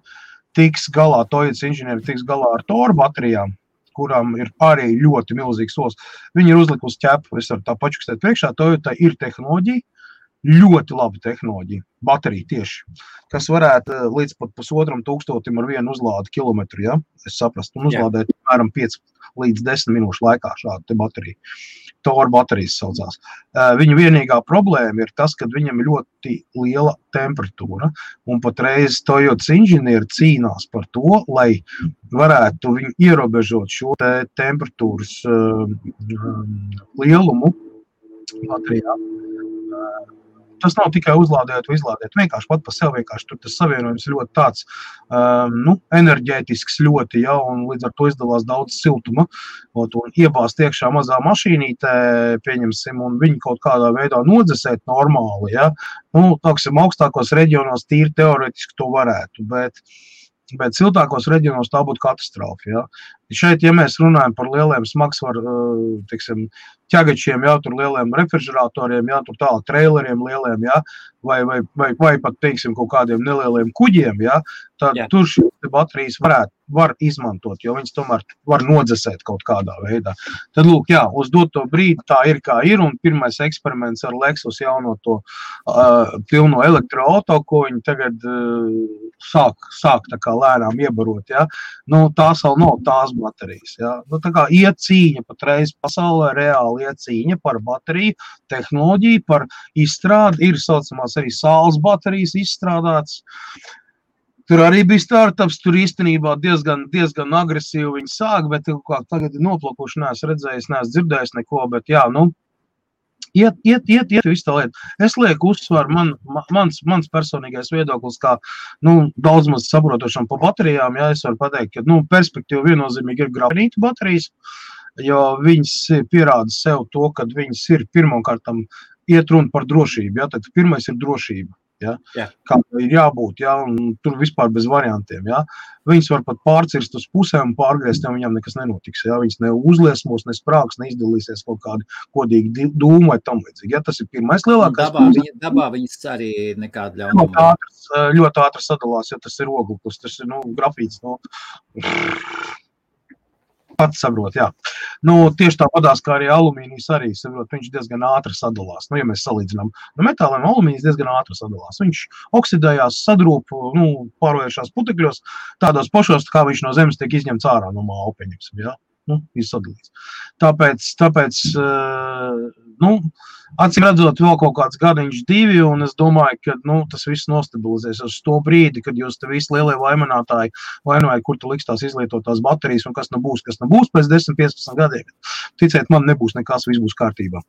tiks galā, Toyotas inženieri tiks galā ar Toru baterijām, kurām ir arī ļoti milzīgs solis. Viņi ir uzlikusi ķepu, es varu tā pačukstēt priekšā, Toyota ir tehnoloģija, ļoti laba tehnoloģija, baterija tieši, kas varētu līdz pat 1500 ar vienu uzlādi kilometru, ja? Es saprastu, un uzlādēt apmēram 5 līdz 10 minūšu laikā šādu te bateriju. Tora baterijas saucās. Viņa vienīgā problēma ir tas, ka viņam ļoti liela temperatūra, un patreiz Toyotas inženieri cīnās par to, lai varētu viņu ierobežot šo te temperatūras lielumu baterijā. Tas nav tikai uzlādēt vai izlādēt, vienkārši pat par sevi vienkārši tur tas savienojums ļoti tāds enerģētisks ļoti, ja, un līdz ar to izdalās daudz siltuma, un iebāzt iekšā mazā mašīnītē, pieņemsim, un viņu kaut kādā veidā nodzesēt normāli, ja, tāksim, augstākos reģionos tīri teoretiski to varētu, bet siltākos reģionos tā būtu katastrofa, ja. Šeit, ja mēs runājam par lieliem smagsvaru, teiksim, ķegačiem, jā, tur lieliem refrižeratoriem, jā, tur tālāk traileriem lieliem, jā, vai pat, teiksim, kaut kādiem nelieliem kuģiem, jā, tad tur šī baterijas var izmantot, jo viņas tomēr var nodzesēt kaut kādā veidā. Tad, lūk, jā, uz doto brīdi tā ir kā ir, un pirmais eksperiments ar Lexus jauno to pilno elektroauto, ko viņi tagad sāk tā kā lēnām iebarot, jā. Tās vēl nav tās baterijas, jā. Tā kā iet cīņa patreiz pasaulē, reāli iet cīņa par bateriju, tehnoloģiju, par izstrādi, ir saucamās arī saules baterijas izstrādāts. Tur arī bija startups, tur īstenībā diezgan agresīvi viņi sāk, bet tagad ir noplakuši, neesmu redzējis, neesmu dzirdējis neko, bet jā, iet visu tā lieta. Es lieku uzsvaru, mans personīgais viedoklis, kā, daudz maz saprotošam pa baterijām, jā, es varu pateikt, ka, perspektīva viennozīmīgi ir grafenīta baterijas, jo viņas pierāda sev to, kad viņas ir pirmkārtam iet runa par drošību, jā, tad pirmais ir drošība. Ja? Kā ir jābūt, ja? Un tur vispār bez variantiem. Ja? Viņas var pat pārcirst uz pusēm un pārgriezt, ja viņam nekas nenotiks. Ja? Viņas ne uzliesmos, ne sprāks, neizdalīsies kaut kādi kodīgi dūmi vai tam līdzīgi. Ja? Tas ir pirmais lielākais. Dabā viņas arī nekāda ļaunuma. Ļoti ātri sadalās, ja tas ir ogleklis, tas ir grafīts. Pats saprot, jā. Tieši tāpatās, kā arī alumīnijas arī, saprot, viņš diezgan ātri sadalās. Ja mēs salīdzinām metāliem, alumīnijas diezgan ātri sadalās. Viņš oksidējās, sadrūp, pārvēršās putekļos, tādos pašos, kā viņš no zemes tiek izņemts ārā no māla, pieņemsim, jā. Izsadalīts. Tāpēc, acīm redzot vēl kaut kāds gadiņš 2, un es domāju, ka, tas viss nostabilizēs uz to brīdi, kad jūs te visi lielie vaininātāji vainoja, kur tu liks tās izlietotās baterijas, un kas nebūs pēc 10-15 gadiem. Ticiet, man nebūs nekas, viss būs kārtībā.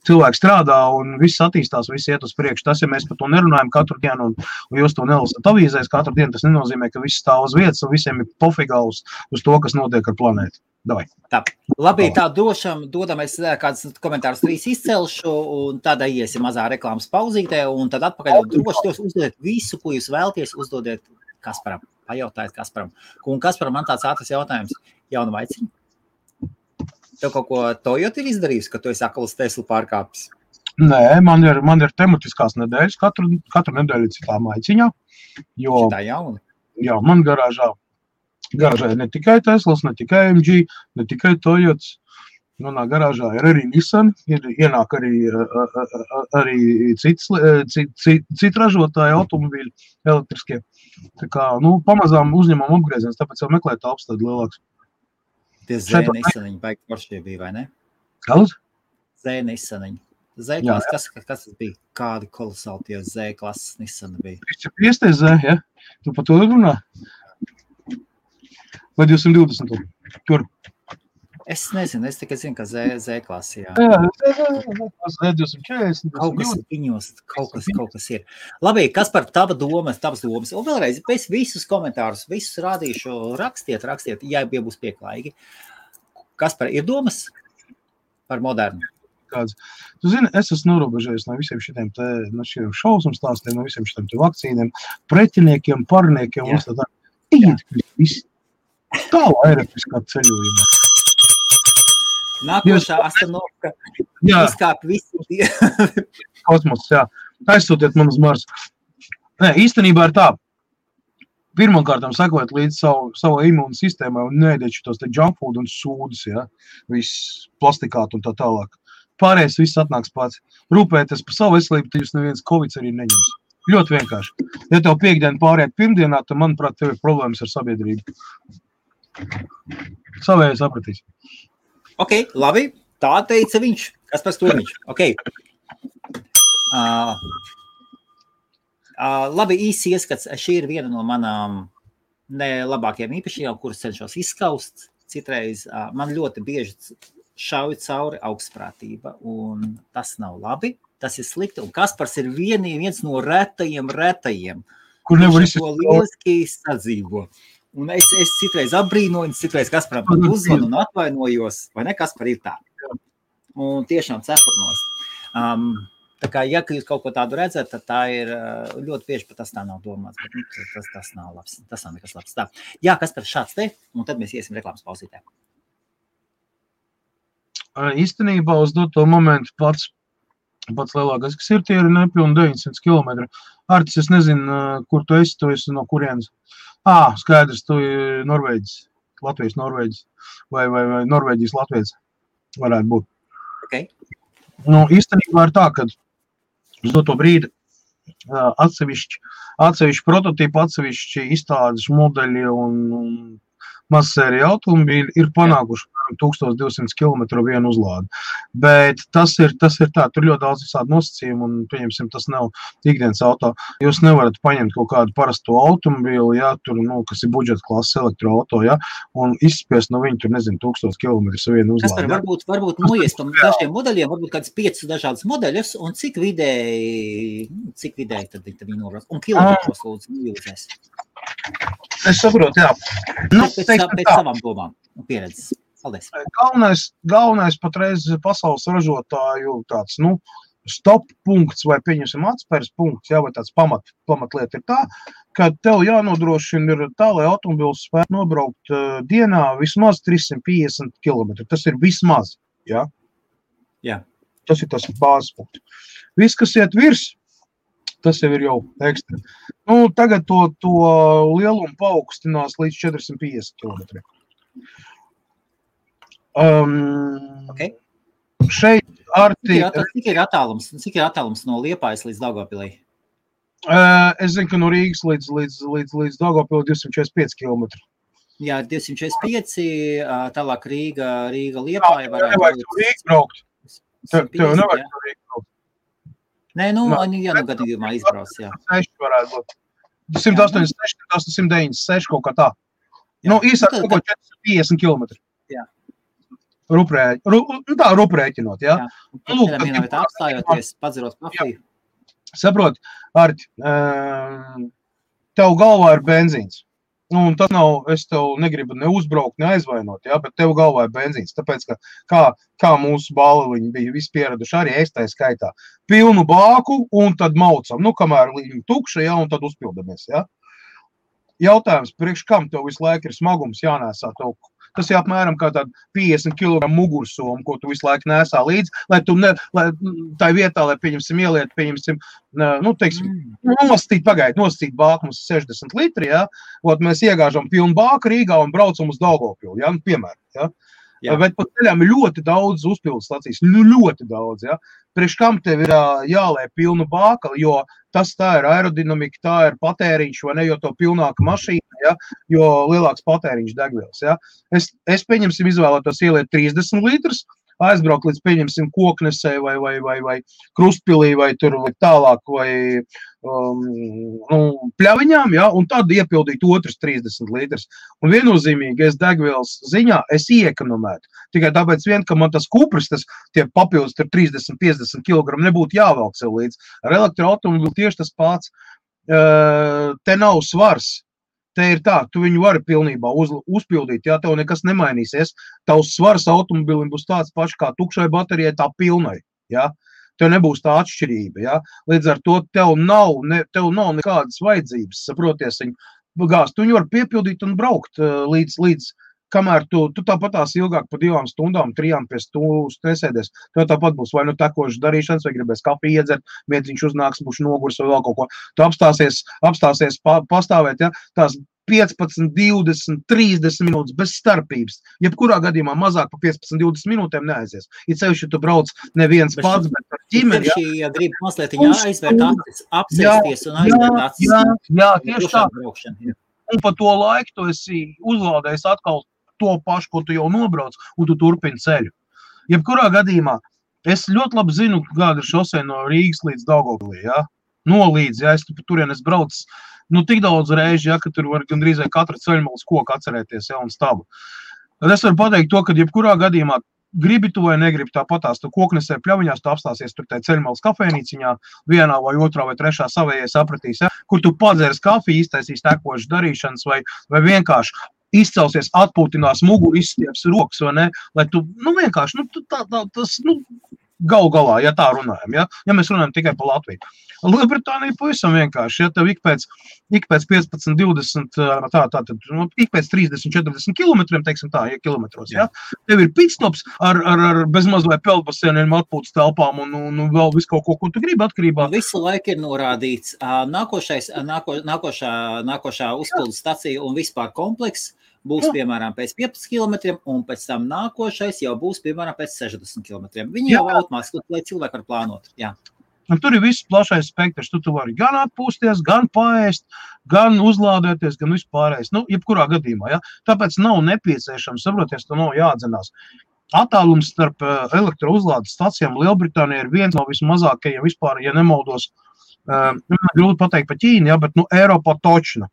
Cilvēki strādā un viss attīstās, viss iet uz priekšu. Tas, ja mēs par to nerunājam katru dienu un jūs to nelasat avīzēs katru dienu, tas nenozīmē, ka viss stāv uz vietas un visiem ir pofigā uz to, kas notiek ar planētu. Davai. Tā. Labi, tā dodam es kādus komentārus 3 izcelšu un tad iesim mazā reklāmas pauzītē un tad atpakaļ droši uzdodiet visu, ko jūs vēlties, uzdodiet Kasparam. Pajautājiet Kasparam. Un Kasparam man tāds ātrs jautājums. Jauna vaiciņa? Tev kaut ko Toyota ir izdarījis, ka tu esi akls Tesla pārkāpis? Nē, man ir tematiskās nedēļas, katru nedēļu citā maiciņā. Šitā jauna? Jā, man garāžā ne tikai Teslas, ne tikai MG, ne tikai Toyotas. Manā garāžā ir arī Nissan, ienāk arī citi ražotāji automobīļi elektriskie. Tā kā, pamazām uzņemam apgrieziens, tāpēc jau meklēt telpas tad lielāks. Tie Z-Nissaniņi baigi foršie bija, vai ne? Kāds? Z-Nissaniņi. Z-klases, kas tas bija? Kādi kolosāli tie Z-klases Nissani bija? 350 Z, ja? Tu par to runā? Vai 220? Kur? Es nezinu, es tikai zinu, ka Z-klasi, jā. Z240. Kaut kas viņos, kaut kas ir. Labi, kas par tavas domas? Un vēlreiz, es visus komentārus, visus rādīšu, rakstiet, ja būs pieklājīgi. Kas par ir domas par modernu? Kāds. Tu zini, es esmu norobežējies no visiem šitiem šausmu stāstiem, no visiem šitiem vakcīniem, pretiniekiem, parniekiem. Tā aerobiskā ceļojumā. Nākošā astanovka izkāp visi. Kosmos, jā. Aizsūtiet man uz Marsu. Nē, īstenībā ir tā. pirmkārtām sekot līdz savu imūnu sistēmai un neēdiet šitos te junk food un sūdus, ja? Viss plastikāt un tā tālāk. Pārējais viss atnāks pats. Rūpēties par savu veselību, tad jūs neviens Covid arī neņems. Ļoti vienkārši. Ja tev piekdiena pāriet pirmdienā, tad, manuprāt, tev ir problēmas ar sabiedrību. Savēji sapratīs. Ok, labi. Tā teica viņš. Kaspars Krūmiņš. Ok. Labi, īsi ieskats. Šī ir viena no manām nelabākajām īpašībām, kuras cenšos izskaust. Citreiz man ļoti bieži šauj cauri augstprātība, un tas nav labi. Tas ir slikti, un Kaspars ir viens no retajiem, kur nevar to lieliski sadzīvo. Un es citreiz apbrīnoju, citreiz Kasparam pat uzvanu un atvainojos, vai ne, Kaspar ir tā? Un tiešām cepurnos. Tā kā, ja jūs kaut ko tādu redzat, tad tā ir ļoti bieži, pat tas tā nav domāts, bet tas nav labs, tas nav nekas labs. Tā. Jā, Kaspar, šāds te, un tad mēs iesim reklāmas pausītē. Īstenībā uz doto momentu pats lielākais, kas ir, tie ir nepilni 900 km. Artis, es nezinu, kur tu esi no kurienes. Skaidrs, tu ir Norvēģis, Latvijas Norvēģis, vai Norvēģijas Latvijas varētu būt. Okay. Nu, īstenībā ir tā, ka uz doto brīdi atsevišķi prototipi, atsevišķi izstādes modeļi un mazsērija automobīļi ir panākuši 1200 km vienu uzlādi. Bet tas ir tā, tur ļoti daudz visādi nosacījumi un, pieņemsim, tas nav ikdienas auto. Jūs nevarat paņemt kaut kādu parasto automobīli, ja, tur, kas ir budžeta klases elektroauto, ja, un izspiest no viņu, tur, nezinu, 1000 km vienu uzlādi. Kaspar, varbūt noies tam dažiem modeļiem, varbūt kāds 5 dažādas modeļus, un cik vidēji tad viņi nobrauc, un kilometros lūdzu jūties. Es saprotu, jā. Pēc savām domām un pieredzes. Paldies. Galvenais patreiz pasaules ražotāju tāds, stop punkts vai pieņemsim atspērs punkts, jā, vai tāds pamatlieta ir tā, ka tev jānodrošina ir tā, lai automobils spētu nobraukt dienā vismaz 350 km. Tas ir vismaz, jā? Jā. Tas ir tas bāzes punkts. Viss, kas iet virs, tas jau ir jau ekstra. Tagad to lielumu paaugstinās līdz 450 km. Okay. Šeit Cik ir attālums no Liepājas līdz Daugavpilī? Es zinu, ka no Rīgas līdz Daugavpilī 245 km. Jā, 245, tālāk Rīga Liepāja varētu būt. Nevajag to Rīgas braukt. Tev nevajag to Rīgas braukt. Nē, gadījumā izbrauc, jā. 6 varētu būt. 286, 896 kaut kā tā. Īsāk kaut ko 450 km. Jā. Ruprēķinot, jā. Vienā vietā apstājoties, padzerot kafiju. Saprot, Arti, tev galvā ir benzīns. Tas nav, es tev negribu ne uzbraukt, ne aizvainot, jā, bet tev galvā ir benzīns. Tāpēc, ka kā mūsu bāliņi bija visi pieraduši, arī es tā skaitā. Pilnu bāku un tad maucam. Kamēr viņi tukša, jā, un tad uzpildamies, jā. Jautājums, priekš kam tev visu laiku ir smagums jānēsā tev? Tas ir apmēram kā tāda 50 kg mugursoma, ko tu visu laiku nēsā līdzi, lai tu tā vietā, lai pieņemsim ieliet, nosacīt bāku mums 60 litri, ja, mēs iegāžam pilnu bāku Rīgā un braucam uz Daugavpili, ja, piemēram, ja. Jā. Bet pa ceļām ir ļoti daudz uzpildes stacijas, ļoti daudz, ja. Priekš kam tev ir jālē pilnu bāka, jo tas tā ir aerodinamika, tā ir patēriņš, vai ne, jo to pilnāka mašīna, ja, jo lielāks patēriņš degvielas, ja. Es pieņemsim izvēlētos ieliet 30 litrus, aizbraukt līdz pieņemsim Koknesē vai Krustpilī vai tur vai tālāk vai Pļaviņām, ja, un tad iepildīt otrs 30 litrus. Un viennozīmīgi es degvielas ziņā es iekonomētu. Tikai tāpēc ka man tas kupris, tie papildus 30-50 kg nebūtu jāvelk sev līdz. Ar elektroautomobili tieši tas pats. Te nav svars. Te ir tā, tu viņu vari pilnībā uzpildīt, ja tev nekas nemainīsies. Tavs svars automobilim būs tāds pašs kā tukšai baterijai, tā pilnai, ja. Tev nebūs tā atšķirība, ja. Līdz ar to tev nav nekādas vajadzības, saproties, viņu gāzt. Tu viņu var piepildīt un braukt līdz kamēr tu tāpat tās ilgāk pa 2 stundām, 3 pie stūras nesēdies, tev tāpat būs vai nu tekošas darīšanas, vai gribēs kafiju iedzert, miedziņš uznāks, būs nogurs vai vēl kaut ko. Tu apstāsies pastāvēt, ja, tās 15, 20, 30 minūtes bez starpības. Jebkurā gadījumā mazāk pa 15, 20 minūtēm neaizies. Ja sevišķi tu brauc neviens pats, bet ar ģimeni. Ja grib mazliet aizvērt acis, apsēsties un aizvērt acis. Jā, tieši tā. Un pa to laiku tu esi uzlādējis atkal to pašu, ko tu jau nobrauc, un tu turpini ceļu. Jebkurā gadījumā, es ļoti labi zinu, kāda ir šosei no Rīgas līdz Daugavpilī, ja? Nolīdz, ja es turien es braucu, tik daudz reizi, ja, ka tur var gandrīz katra ceļmalas koku atcerēties, ja, un stabu. Tad es varu pateikt to, ka jebkurā gadījumā gribi tu vai negribi tāpatās, tu koknesē pļaviņās, tu apstāsies tur tai ceļmalas kafejnīciņā, vienā vai otrā vai trešā savējai sapratīs, ja, kur tu padzērs kafiju, iztaisīs tekošas darīšanas vai vienkārši izcelsies, atpūtinās muguru, izstieps rokas, vai ne, lai tu, vienkārši, tas, galu galā, ja tā runājam, ja mēs runājam tikai par Latviju. Lielbritānija pavisam vienkārši, ja tev ik pēc 15, 20, ik pēc 30, 40 kilometriem, teiksim tā, ja kilometros, ja, tev ir pitstops ar bezmaz vai peldbasieniem, atpūtas telpām un vēl visu kaut ko tu gribi atkarībā. Visu laiku ir norādīts nākošā uzpildu stacija un vispār kompleks būs, piemēram, pēc 15 kilometriem, un pēc tam nākošais jau būs, piemēram, pēc 60 kilometriem. Viņi jau automātiski, lai cilvēki var plānot. Jā. Un tur ir viss plašais spektrs. Tu vari gan atpūsties, gan paēst, gan uzlādēties, gan vispārējais. Jebkurā gadījumā, ja? Tāpēc nav nepieciešams, saproties, tu nav jāatdzenās. Attālums starp elektrouzlādes stacijām Lielbritānijā ir viens no vismazākajiem vispār, ja nemaldos, grūti pateikt pa Ķīnu, ja, bet Eiropā točna.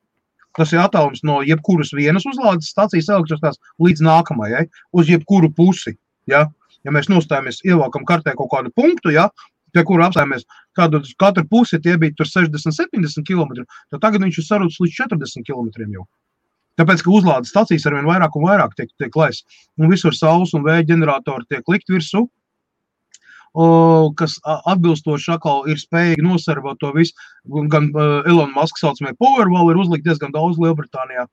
Tas ir attālums no jebkuras vienas uzlādes stacijas elektrostās līdz nākamajai, uz jebkuru pusi. Ja, mēs nostājamies, ievelkam kartē kaut kādu punktu, ja, pie kura apstājamies katru pusi, tie bija tur 60-70 km, tad tagad viņš ir sarūts līdz 40 km jau. Tāpēc, ka uzlādes stacijas arvien vairāk un vairāk tiek laists. Un visur saules un vēja ģeneratori tiek likt virsū, kas atbilstoši atkal ir spējīgi nosarvot to visu. Gan Elon Musk saucamie Powerwall ir uzlikt diezgan daudz Lielbritānijā.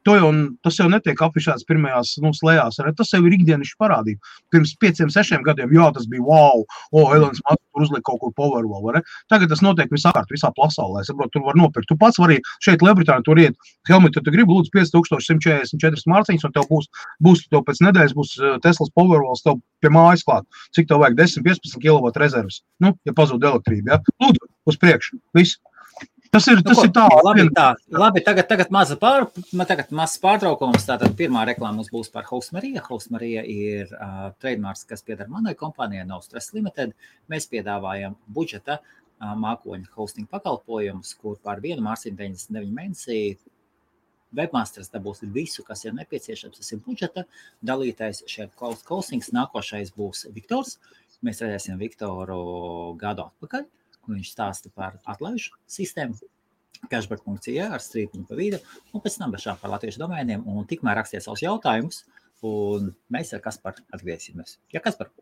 Tas jau netiek afišēts pirmajās slējās. Tas jau ir ikdienišķi parādība. Pirms 5-6 gadiem, tas bija wow, Elons Musk tur uzliek kaut ko Powerwall. Var, Tagad tas notiek visapkārt, visā pasaulē. Saprot, tur var nopirkt. Tu pats vari šeit Lielbritānijā tur iet helmetu, tu gribi lūdzu 5144 mārciņas, un tev būs tev pēc nedēļas būs Teslas Powerwalls tev pie mājas klāt. Cik tev vajag 10-15 kW rezerves, ja pazūd elektrība. Ja? Lūdzu, uz priekšu, viss. Tas ir tā. Labi, tagad mazs pārtraukums. Tātad pirmā reklāma mums būs par Hostmarija. Hostmarija ir trademarks, kas pieder manai kompānijai No Stress Limited. Mēs piedāvājam budžeta mākoņu hosting pakalpojumus, kur par vienu mārciņu 99 mēnesī webmasters dabūs visu, kas ir nepieciešams. Tas ir budžeta dalītais šeit cloud hostings. Nākošais būs Viktors. Mēs redzēsim Viktoru gadu atpakaļ. Viņš stāsta par atlaižu sistēmu, cashback.ie ar strīpiņu pa vidu, un pēc tam bešā par latviešu domēniem, un tikmēr rakstiet savus jautājumus, un mēs ar Kasparu atgriezīsimies. Ja, Kaspar?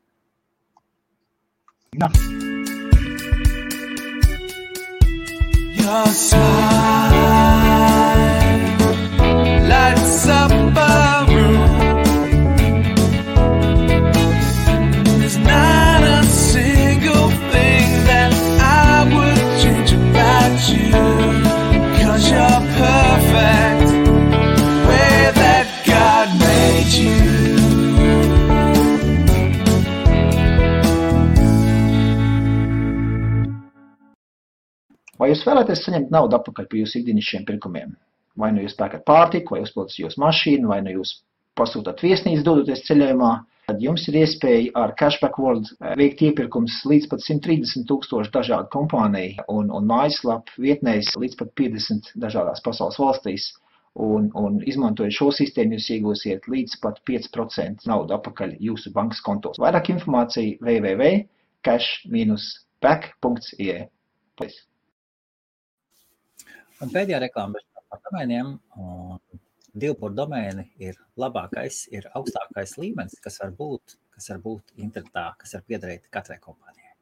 Jā. Your smile lights up a room. There's not a single thing that I would change about you, 'cause you're perfect the way that God made you. Vai jūs vēlaties saņemt naudu atpakaļ par jūsu ikdienišķiem pirkumiem? Vai nu jūs pērkat pārtiku, vai uzpildat jūsu mašīnu, vai nu jūs pasūtat viesnīcu dodoties ceļojumā, tad jums ir iespēja ar Cashback World veikt iepirkums līdz pat 130,000 dažādu kompāniju un mājaslapu vietnēs līdz pat 50 dažādās pasaules valstīs. Un izmantojot šo sistēmu, jūs iegūsiet līdz pat 5% naudu atpakaļ jūsu bankas kontos. Vairāk informācija www.cash-back.ie. Un pēdējā reklāma par domēniem. 2 domēni ir labākais, ir augstākais līmenis, kas var būt internetā, kas var piederēt katrai kompānijai.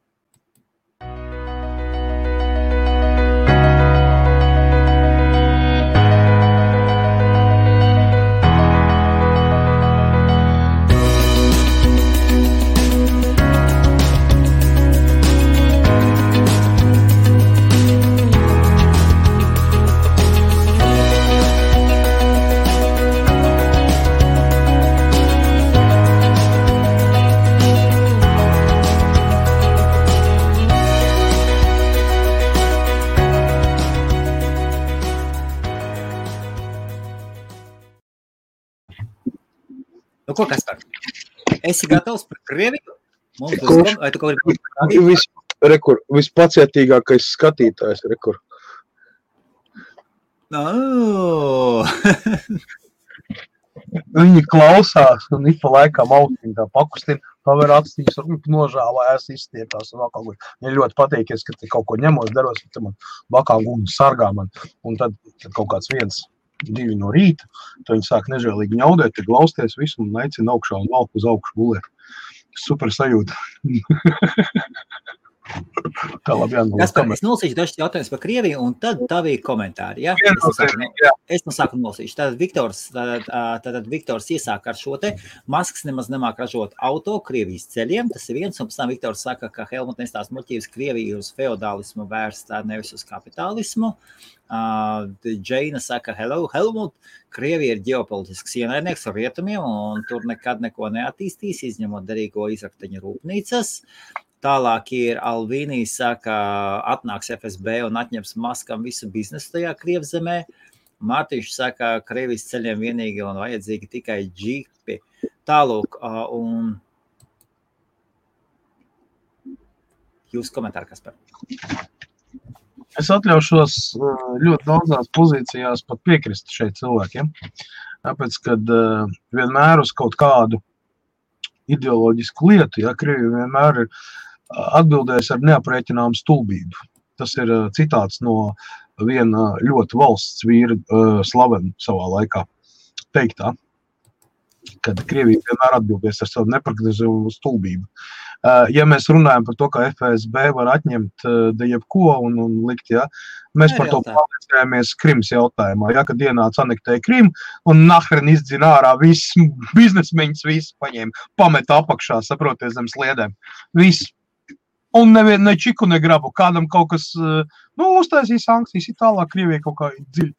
Nu, ko, Kaspar? Esi gatavs par Krieviju? Mums būs, vai tu kaut kādā Vispacietīgākais skatītājs, rekur. Viņi klausās, un ik pa laikām austiņ tā pakustina, paver atstīņas, un nožālājās, izstiepās, un vēl kaut kur. Viņi ļoti pateikies, ka te kaut ko ņemos, daros, ka man bakā gumni sargā man, un tad kaut kāds 1-2 no rīta, tad viņi sāk nežēlīgi ņaudēt, tad glausties visu, un aicina augšā, un valk uz augšu gulēt. Super sajūta. Tā labi jānolūk. Kaspar, es nolasīšu dažs jautājums par Krieviju, un tad tavī komentāri, ja? Es no sāku nolasīšu. Tātad Viktors iesāk ar šo te. Masks nemaz nemāk ražot auto Krievijas ceļiem. Tas ir viens, un pēc tam Viktors saka, ka Helmut nestāst muļķības Krievija uz feodālismu vērstā, nevis uz kapitālismu. Džeina saka, hello, Helmut, Krievija ir ģeopolitisks ienaidnieks ar rietumiem, un tur nekad neko neattīstīs, izņemot derīgo izrakteņu rūpnīcas. Tālāk ir Alvīnija saka, atnāks FSB un atņems Maskam visu biznesu tajā Krievzemē. Mārtiņš saka, Krievijas ceļiem vienīgi un vajadzīgi tikai džipi. Tālūk, un jūs komentāri, Kaspar? Es atļaušos ļoti daudzās pozīcijās pat piekrist šeit cilvēkiem. Tāpēc, kad vienmēr uz kaut kādu ideoloģisku lietu, ja, Krievija vienmēr ir atbildējis ar neaprēķināmu stulbību. Tas ir citāts no viena ļoti valsts vīra slavena savā laikā teiktā, kad Krievija vienmēr atbildēs ar savu neparedzējumu stulbību. Ja mēs runājam par to, ka FSB var atņemt jebko un likt, ja, mēs par to pārliecējāmies Krimas jautājumā, ja, kad ienāca anektēja Krimu un nahren izdzina ārā viss biznesmeņus, visu paņēma, pameta apakšā, saproties zem sliedēm. Viss. Un ne čiku, ne grabu. Kādam kaut kas, uztaisīja sankcijas, ir tālāk Krievija kaut kā dziļi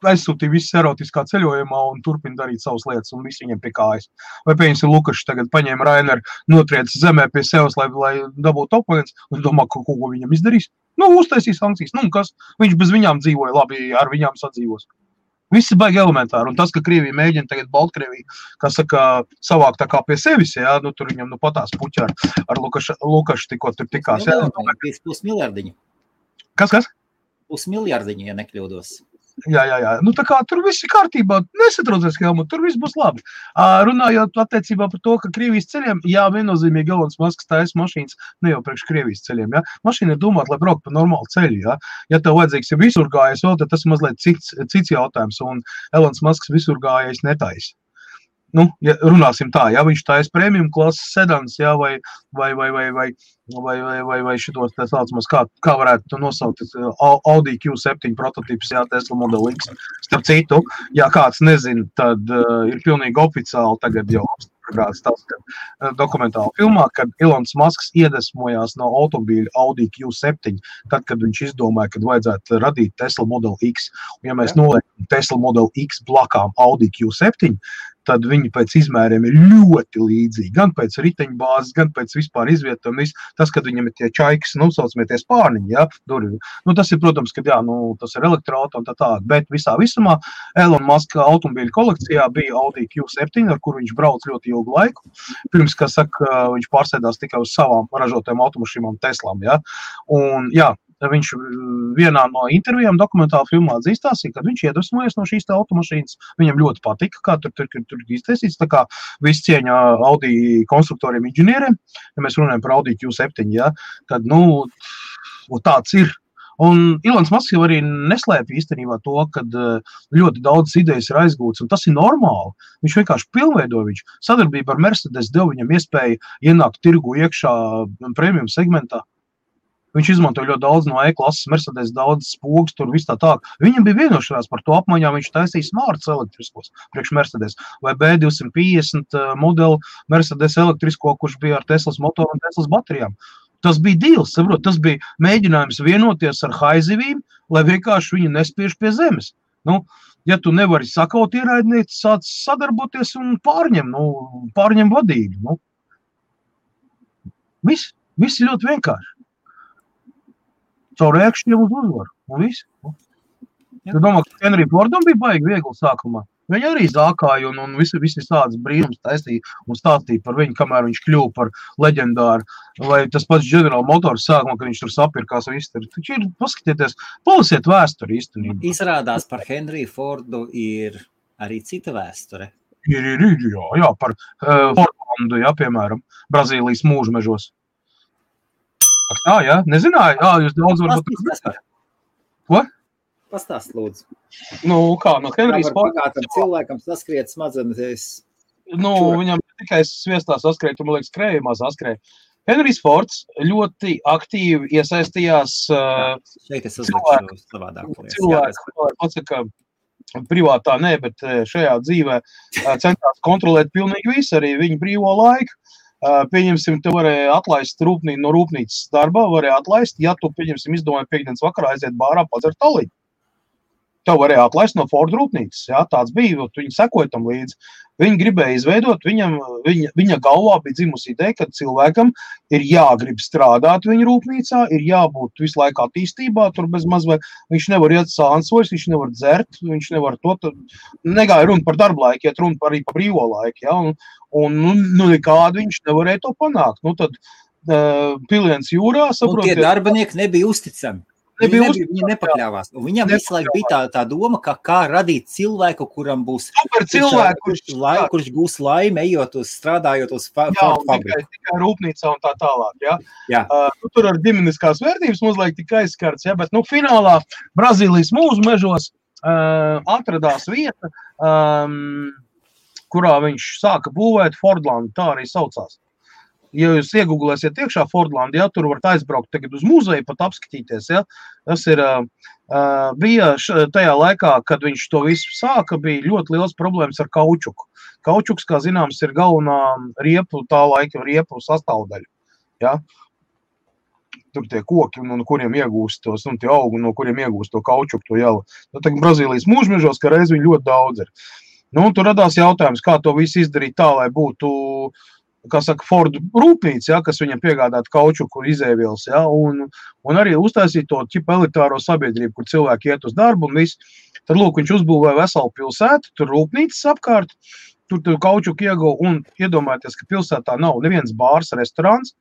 aizsūtīja visu erotiskā ceļojumā un turpina darīt savas lietas un visu viņiem pie kājas. Vai pieņemsim Lukašs tagad paņēma Raineru, notriec zemē pie sevis, lai dabūtu oponents, un domā, ko viņam izdarīs? Uztaisīja sankcijas. Kas? Viņš bez viņām dzīvoja, labi, ar viņām sadzīvos. Viss ir baigi elementāri, un tas, ka Krievija mēģina tagad Baltkrieviju, kā saka, savāk tā kā pie sevis, jā, tur viņam patās puķi ar Lukašu tikko tur tikās. Jā, 5 miljardiņu. Kas? 5 miljardiņu, ja nekļūdos. Jā. Tā kā tur viss ir kārtībā, nesatraucies, Helmut, tur viss būs labi. Runājot attiecībā par to, ka Krievijas ceļiem, jā, viennozīmīgi Elonas Masks taisa mašīnas, ne jau priekš Krievijas ceļiem, jā. Mašīna ir domāta, lai braukt pa normālu ceļu, jā. Ja tev vajadzīgs ir visurgājais vēl, tad tas ir mazliet cits jautājums, un Elonas Masks visurgājais netaisa. Ja runāsim tā, ja viņš taisa premium klases sedans, jā, vai šitos tā saucamās, kā varētu nosaukt, Audi Q7 prototips, jā, Tesla Model X. Starp citu, ja kāds nezina, tad ir pilnīgi oficiāli tagad jau apstiprināts tas, ka dokumentāli filmā, kad Elons Musks iedvesmojās no automobīļa Audi Q7, tad, kad viņš izdomāja, kad vajadzētu radīt Tesla Model X. Un ja mēs noliekam Tesla Model X blakām Audi Q7, tad viņi pēc izmēriem ir ļoti līdzīgi. Gan pēc riteņbāzes, gan pēc vispār izvietojuma. Tas, kad viņam ir tie čaikas, saucamie tie spārniņi, ja, durvi. Tas ir, protams, kad jā, tas ir elektroauto un tā. Bet visā visumā Elon Musk automobīļu kolekcijā bija Audi Q7, ar kuru viņš brauc ļoti ilgu laiku. Pirms, kā saka, viņš pārsēdās tikai uz savām ražotajām automašīnām Teslām, ja. Un, jā, viņš vienā no intervijām dokumentāla filmā atzīstās, kad viņš iedvesmojas no šīs automašīnas. Viņam ļoti patika, kā tur iztaisīts, tā kā viss cieņa Audi konstruktoriem, inženieriem, ja mēs runājam par Audi Q7, ja, tad, tāds ir. Un Elons Musks jau arī neslēpj īstenībā to, kad ļoti daudz idejas ir aizgūtas, un tas ir normāli. Viņš vienkārši pilnveido viņš. Sadarbība ar Mercedes deva viņam iespēju ienākt tirgu iekšā premium segmentā. Viņš izmantoja ļoti daudz no E-klases, Mercedes daudz spogus, tur viss tā. Viņam bija vienošanās par to apmaiņā, viņš taisīja smarts elektriskos priekš Mercedes vai B250 modeli Mercedes elektrisko, kurš bija ar Teslas motoru un Teslas baterijām. Tas bija deals, saprot, tas bija mēģinājums vienoties ar haizivīm, lai vienkārši viņi nespiež pie zemes. Ja tu nevari sakaut ierēdnieci, sāc sadarboties un pārņem vadību. Viss ir ļoti vienkārši. Caur ēkšķiem uz uzvaru. Un viss. Tu domā, ka Henry Fordam bija baigi viegli sākumā. Viņi arī zākāja un visi tādas brīnums taistīja un stāstīja par viņu, kamēr viņš kļuva par leģendāru. Vai tas pats General Motors sākumā, kad viņš tur sapirkās viss. Taču ir, paskatieties, palasiet vēsturi īstenībā. Izrādās par Henriju Fordu ir arī cita vēsture. Jā, par Fordlandu, jā, piemēram, Brazīlijas mūžmežos. Tā, jā, nezināju? Jā, jūs daudz varbūt... Ko? Pastāst, lūdzu. Nu, kā, no Henrijas Forda... Pagātam cilvēkam saskriet smadzenes. Nu, viņam tikai sviestā saskrēja, tu, man liekas, krējumā saskrēja. Henrijs Fords ļoti aktīvi iesaistījās šeit es uzlikšu savādāk. Cilvēku, pasaka, privātā nē, bet šajā dzīvē centās kontrolēt pilnīgi visu, arī viņu brīvo laiku. Pieņemsim, tu varēja atlaist no rūpnīcas darbā, varēja atlaist, ja tu, pieņemsim, izdomāji piekdienas vakarā aiziet bārā padzert taliņu. Tev varēja atlaist no Ford rūpnīcas, jā, tāds bija, viņi sekoja tam līdzi. Viņi gribēja izveidot, viņa galvā bija dzimusi ideja, ka cilvēkam ir jāgrib strādāt viņa rūpnīcā, ir jābūt visu laiku attīstībā, tur bez mazvai, viņš nevar iet sānsvojas, viņš nevar dzert, viņš nevar to, negāja runa par darba laiku, iet runa arī par brīvo laiku, jā, un nekādi viņš nevarēja to panākt. Nu, tad piliens jūrā, saprotiet. Un tie darbinieki nebija uzticami. Viņi nepakļāvās. Un viņam visu laiku bija tā doma, kā radīt cilvēku, kuram būs kurš gūs laimi, ejot strādājot uz fabriku. Tikai rūpnīcā un tā tālāk. Ja? Tur ar ģimeniskās vērtības mazliet tika aizskarts, ja? Bet finālā Brazīlijas mūžmežos atradās vieta, kurā viņš sāka būvēt Fordlandu, tā arī saucās. Ja jūs iegūglēsiet iekšā Fordlandu, ja, tur varat aizbraukt tagad uz muzeju, pat apskatīties, ja, tas ir, bija tajā laikā, kad viņš to visu sāka, bija ļoti liels problēmas ar kaučuku. Kaučuks, kā zināms, ir galvenā tā laika riepu sastāvdaļa, ja. Tur tie koki, no kuriem iegūst tos, un tie augi, no kuriem iegūst to kaučuku, to jalu. Tagad Brazīlijas mūžmežos, ka reiz viņi ļoti daudz ir. Nu, tur radās jautājums, kā to visu izdarīt tā, lai būtu kā saka, Ford rūpnīca, ja, kas viņam piegādātu kaučuku izēvielas, ja, un arī uztaisīt to ķipa elitāro sabiedrību, kur cilvēki iet uz darbu un viss. Tad, lūk, viņš uzbūvēja veselu pilsētu, tur rūpnīcas apkārt, tur kaučuku ieguva, un iedomājieties, ka pilsētā nav neviens bārs, restorāns,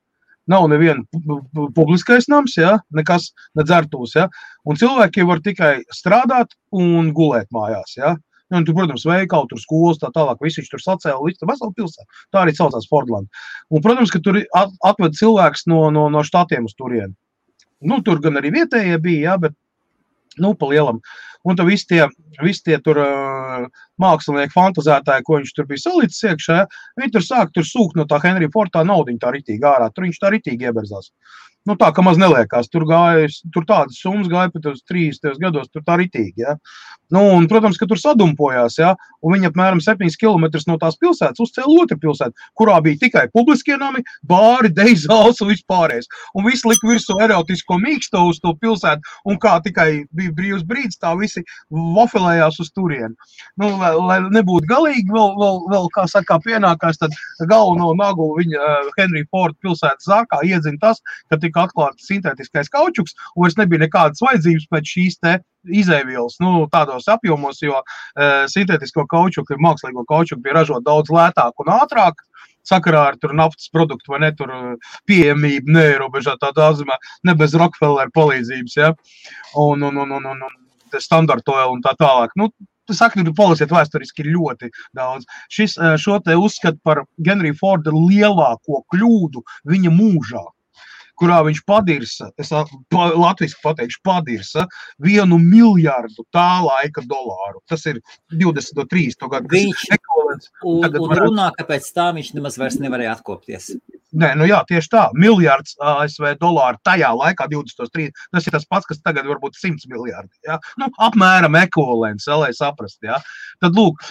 nav neviena publiskais nams, ja, nekas, ne dzertūs, ja, un cilvēki var tikai strādāt un gulēt mājās, ja. Un tur, protams, veikali, tur skolas, tā tālāk, visi viņš tur sacēla, līdz veselu pilsētu. Tā arī saucās Fordland. Un, protams, ka tur atved cilvēks no štatiem uz turieni. Nu, tur gan arī vietējie bija, jā, bet, nu, pa lielam. Un tad visi tie tur mākslinieki fantazētāji, ko viņš tur bija salīdzis iekšā, viņi tur sāk sūkt no tā Henrija Forda naudiņu tā ritīgi ārā. Tur viņš tā ritīgi ieberzās. Nu, tā, ka maz neliekās. Tur tādas summas gāja pat uz 30 gados, tur tā ritīgi, ja. Nu, un, protams, ka tur sadumpojās, ja, un viņi apmēram 7 kilometrus no tās pilsētas uzcēla otru pilsētu, kurā bija tikai publiskie nami, bāri, dejzāls un vispārējais. Un visi lika virsū erotisko mīksto uz to pilsētu, un kā tikai bija brīvs brīdis, tā visi vafelējās uz turieni. Nu, lai nebūtu galīgi, vēl kā saka, pienākās, tad galveno nagu viņa Henrija Forda pilsētas zārkā iedzina tas, ka tika atklāts sintētiskais kaučuks, un vairs nebija nekādas vajadzības pēc šīs te izēvielas, nu, tādos apjomos, jo sintētisko kaučuku, mākslīgo kaučuku bija ražot daudz lētāk un ātrāk, sakarā ar tur naftas produktu vai ne tur pieejamību, neierobežotā daudzumā, ne bez Rockefeller palīdzības, ja, un standard oil un tā tālāk. Nu, saka, tu palasiet vēsturiski ir ļoti daudz. Šo te uzskata par Henrija Forda lielāko kļūdu viņa mūžā, kurā viņš padirsa, es latviski pateikšu, padirsa 1 miljardu tā laika dolāru. Tas ir 23. gadu. Viņš un runā, ka pēc tā viņš nemaz vairs nevarēja atkopties. Nē, nu jā, tieši tā. Miljards ASV dolāru tajā laikā 23. Tas ir tas pats, kas tagad varbūt 100 miljardi. Ja? Nu, apmēram ekvivalents, lai saprast. Ja? Tad, lūk,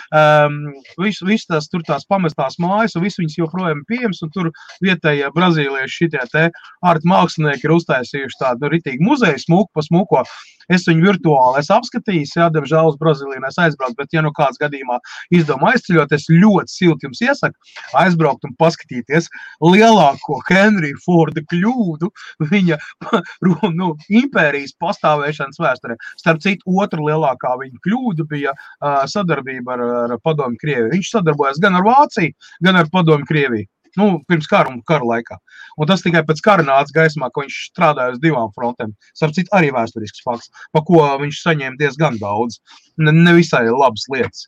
viss tās pamestās mājas, un viss viņas joprojām pieejams, un tur vietējie brazīlieši šitie te ārti mākslinieki ir uztaisījuši tādu ritīgi muzeju smuku pa smuko. Es viņu virtuāli esmu apskatījis, jā, diemžēl uz Brazīliju aizbraukt, bet ja nu kāds gadījumā izdomā aizceļot, es ļoti silti jums iesaku aizbraukt un paskatīties. Liela lielāko Henrija Forda kļūdu viņa impērijas pastāvēšanas vēsturē. Starp citu, otra lielākā viņa kļūda bija sadarbība ar Padomju Krieviju. Viņš sadarbojas gan ar Vāciju, gan ar Padomju Krieviju. Pirms kara un kara laikā. Un tas tikai pēc kara nāca gaismā, ka viņš strādāja uz 2 frontēm. Starp citu, arī vēsturisks fakts, pa ko viņš saņēma diezgan daudz. Nevisai labas lietas.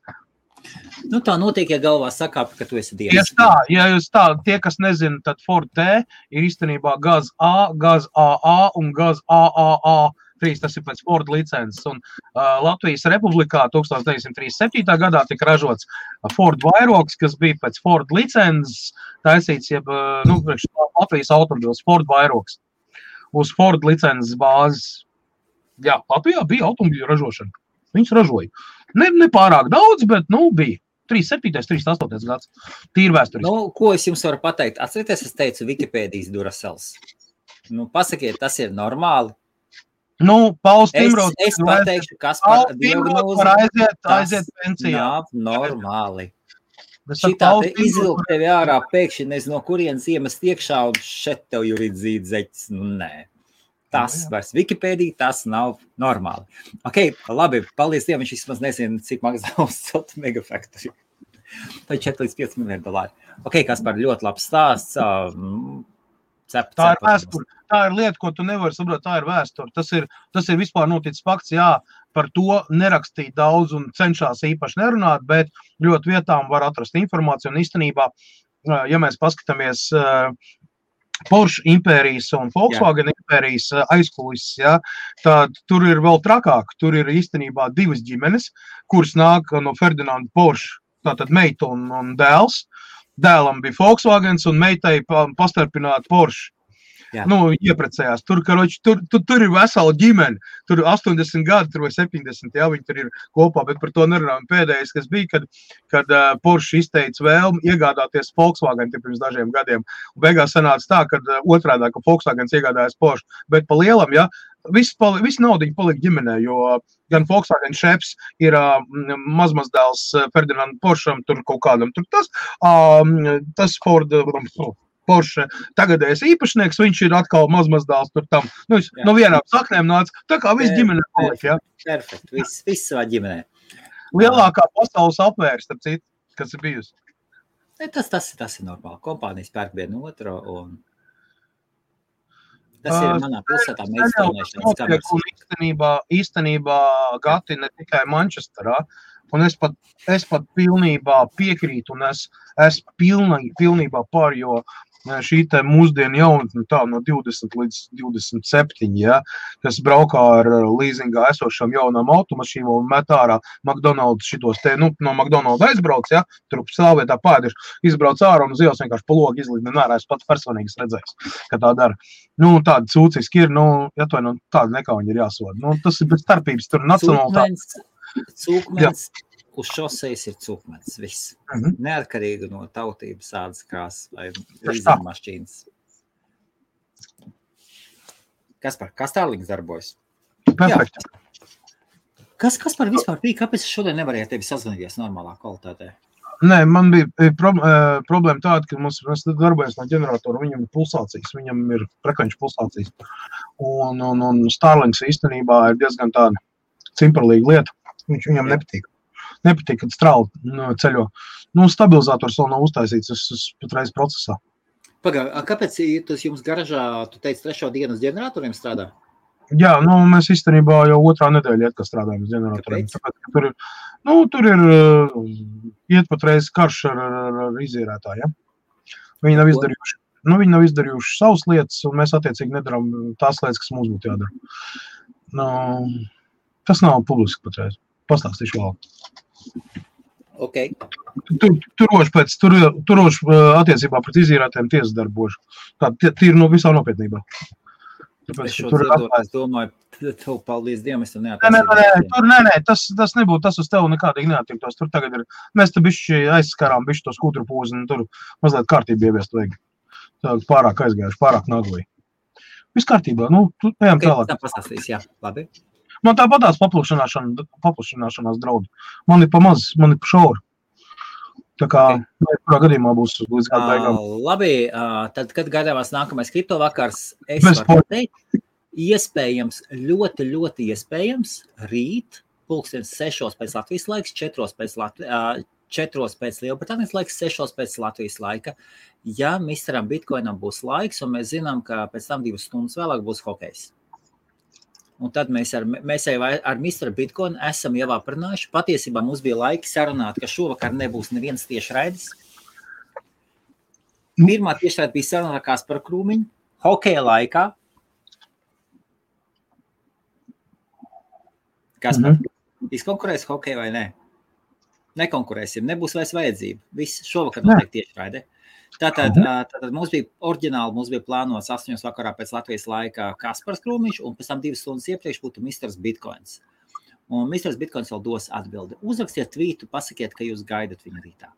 Tā notiek, ja galvā sakāp, ka tu esi dievs. Tieši tā, ja jūs tie, kas nezina, tad Ford T ir īstenībā gaz A, gaz AA un gaz AAA. Tas ir pēc Ford licences. Un Latvijas Republikā 1937. gadā tika ražots Ford vairogs, kas bija pēc Ford licences taisīts, Latvijas automobils Ford vairogs. Uz Ford licences bāzes. Jā, Latvijā bija automobīļu ražošana. Viņus ražoja. Ne pārāk daudz, bet, bija. 37. 38. gads. Tīri vēsturiski. Ko es jums varu pateikt? Atcerieties, es teicu Wikipēdijas Duracels. Pasakiet, tas ir normāli. Pauls Timrods. Es pateikšu, kas par diagnozi. Aiziet pensijā. Nav normāli. Šitā te izvilkt tevi ārā pēkšņi, nezinu, no kurienes iemest iekšā un šeit tev juridzīd zeķis. Nē. Tas vairs Wikipēdija, tas nav normāli. Labi, paldies Dievam, viņš vismaz nezina, cik maksā uz megafaktori. Tā ir 4 līdz 5 miljardi $. Kaspar, ļoti labs stāsts. Tā ir vēsture. Tā ir lieta, ko tu nevari saprot, tā ir vēsture. Tas ir vispār noticis fakts, jā, par to nerakstīt daudz un cenšās īpaši nerunāt, bet ļoti vietām var atrast informāciju. Un īstenībā, ja mēs paskatāmies Porsche impērijas un Volkswagen impērijas aizkulises, ja, tad tur ir vēl trakāk. Tur ir īstenībā 2 ģimenes, kuras nāk no Ferdinanda Porsche, tātad meita un dēls. Dēlam bija Volkswagens un meitai pastarpināta Porsche. Ieprecējās. Tur ir vesela ģimene. Tur 80 gadi, tur vai 70, jā, viņi tur ir kopā, bet par to nerunājam. Pēdējais, kas bija, kad Porsche izteica vēlmi iegādāties Volkswagen pirms dažiem gadiem. Un beigās sanāca tā, kad otrādā, ka Volkswagens iegādājas Porsche. Bet pa lielam, jā, viss naudiņa palika ģimenē, jo gan Volkswagen šeps ir mazmazdēls Ferdinand Porscham, tur kaut kādam, tur tas Ford Porsche tagadējais īpašnieks, viņš ir atkal mazmazdēls tur tam. No vienām saknēm nāca, tā kā viss ģimenē palika, jā. Perfekt, viss savā ģimenē. Lielākā pasaules apvērs, starp citu, kas ir bijusi. Tas ir normāli. Kompānijas pērk vienu otru un tas ir manā pilsētā meistarnēšanas kameras. Īstenībā Gati ne tikai Manchesterā, un es pat pilnībā piekrītu, un es pilnībā par, jo šī te mūsdienu jaunatne tā no 20 līdz 27, ja, kas braukā ar līzingā esošām jaunām automašīnām un met ārā McDonald's šitos te, no McDonald's aizbrauc, ja, tur stāvvietā pēdiši, izbrauc ārā un uz ielas vienkārši pa logu izlīd, nērā, es pats personīgi redzējis, ka tā dara. Tāda sūciski ir, tāda nekauņi ir jāsoda. Tas ir bez starpības, tur nacionāli Cūkmens uz šosejas ir cūkmens, viss. Neatkarīgi no tautības, ādas krāsas vai līdzmašķīnas. Kaspar, kā Starlings darbojas? Perfekti. Kaspar vispār bija, kāpēc es šodien nevarēju tevi sazvanīties normālā kvalitātē? Nē, man bija problēma tāda, ka mēs darbojamies no ģeneratora, viņam ir pulsācijas, viņam ir frekvenču pulsācijas. Un Starlings īstenībā ir diezgan tāda cimperlīga lieta. Viņam nepatīk. Nepatīk, kad strāli ceļo. Stabilizators vēl nav uztaisīts, es patreiz procesā. Kāpēc tas jums garažā, tu teici, 3. dienu uz ģeneratoriem strādā? Jā, mēs īstenībā jau 2. nedēļa iet, ka strādājam uz ģeneratoriem. Tāpēc, tur ir iet patreiz karš ar izīrētāju, ja? Viņi nav izdarījuši savas lietas, un mēs attiecīgi nedaram tās lietas, kas mums būtu jādara. Tas nav publiski patreiz. Pastāstīšu vēl. Tur roši attiecībā pret izīrētiem tiesas darbošu. Tā ir visā nopietnībā. Es domāju, tev paldies Dievam, es tev neattiecību. Nē, tas nebūtu, tas uz tev nekādīgi neattiektos. Tur tagad ir, mēs te bišķi aizskarām bišķi to skūtru pūzi, un tur mazliet kārtību ieviest vajag. Tā pārāk aizgājuši, pārāk naglī. Viss kārtībā, ejam tālāk. Tā pastāstīs, jā, labi. Man tāpatās paplašināšanās draudi. Man ir pa maz, man ir pa šauri. Tā kā, kurā gadījumā būs līdz gada beigām. Labi, tad, kad gaidāmās nākamais kripto vakars, es Bez varu teikt, iespējams, ļoti, ļoti iespējams, rīt, 6:00 pēc Latvijas laiks, 4:00 pēc Lielbritānijas laiks, 6:00 pēc Latvijas laika. Ja Misteram Bitcoinam būs laiks, un mēs zinām, ka pēc tam 2 stundas vēlāk būs hokejs. Un tad mēs jau ar Misteru Bitcoinu esam jau aprunājuši. Patiesībā mums bija laika sarunāt, ka šovakar nebūs neviens tiešraidis. Pirmā tiešraida bija saruna ar Kasparu Krūmiņu, hokeja laikā. Kaspar, izkonkurēs hokeju vai ne? Nekonkurēsim, nebūs vairs vajadzība. Viss šovakar notiek tiešraide. Tātad mums bija plānots 8:00 vakarā pēc Latvijas laika Kaspars Krūmiņš, un pēc tam 2 stundas iepriekš būtu Misters Bitcoins. Un Misters Bitcoins vēl dos atbildi. Uzrakstiet tvītu, pasakiet, ka jūs gaidat viņu rītā.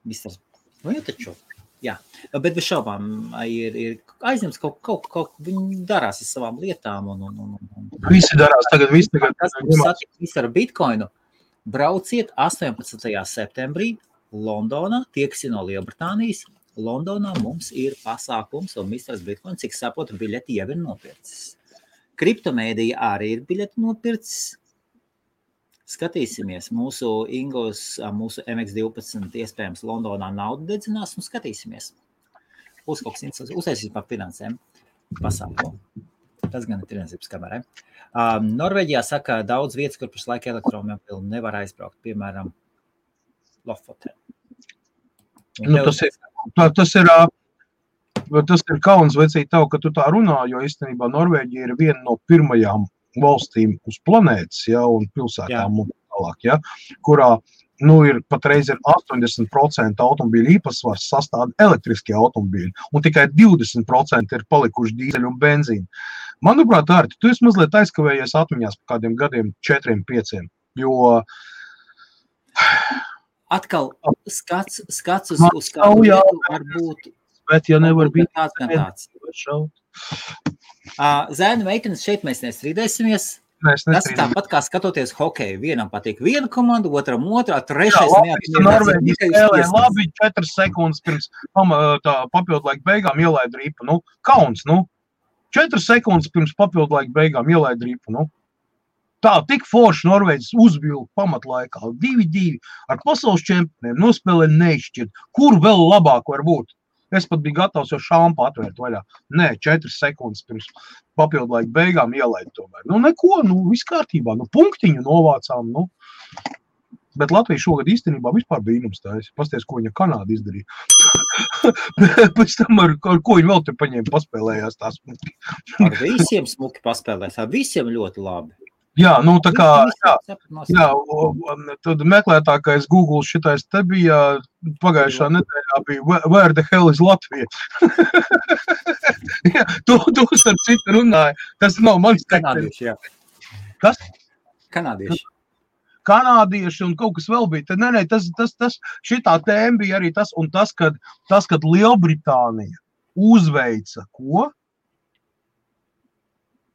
Misters, nu jau taču. Jā, bet bez šaubām ir aizņemts kaut viņi darās ar savām lietām. Visi darās tagad. Tas satikt Misteru Bitcoinu. Brauciet 18. septembrī Londonā, tie, kas ir no Lielbritānijas. Londonā mums ir pasākums, un Misters Bitcoin, cik saprotu, biļeti jau ir nopircis. Kriptomēdija arī ir biļeti nopircis. Skatīsimies, mūsu Ingos, mūsu MX12 iespējams Londonā naudu dedzinās, un skatīsimies. Būs kaut kas interesants, uztaisīs par finansēm pasākumu. Tas gan ir tirdzniecības kamerai. Norvēģijā saka daudz vietas, kur pašlaik elektromobili nevar aizbraukt, piemēram, Lofoten. Tas ir kauns vecīt tev, ka tu tā runā, jo īstenībā Norvēģija ir viena no pirmajām valstīm uz planētas, ja, un pilsētām un tālāk, ja, kurā ir patreiz ir 80% automobīļu īpatsvars sastāv elektriskie automobīļi, un tikai 20% ir palikuši dīzeļu un benzīnu. Manuprāt, Arti, tu esi mazliet aizkavējies atmiņās par kādiem gadiem 4-5, jo atkal skats uz kādu vietu var būt. Bet ja nevar būt tāds. Zēnu meitenes šeit mēs nestrīdēsimies. Tas ir tāpat kā skatoties hokeju. Vienam patīk viena komanda, otram otrā, trešais neatmierās. Labi, 4 sekundes pirms papildu laika beigām ielaid ripu. Kauns, 4 sekundes pirms papildu laika beigām ielaid ripu. Tā, tik forši Norvēģis uzvilka pamatlaikā 2-2 ar pasaules čempioniem, nospēlē neizšķirt. Kur vēl labāk var būt? Es pat biju gatavs jau šāmpu atvērt vaļā. Nē, 4 sekundes pirms papildu laika beigām ielaid tomēr. Neko, viss kārtībā, punktiņu novācām, Bet Latvija šogad īstenībā vispār brīnums tājas. Pasties, ko viņa Kanāda izdarīja. Pēc tam ar ko viņa vēl te paņēma paspēlējās tā smuki. Ar visiem smuki paspēlēs, ar visiem ļoti labi. Jā, tā kā, tad meklētākais Google šitais te bija pagājušā nedēļā bija Where the hell is Latvija? Tu starp citu runāji. Tas nav mans Kanādieši, jā. Kas? Kanādieši un kaut kas vēl bija. Nē, tas šitā tēma bija arī tas, un tas, kad Lielbritānija uzveica ko?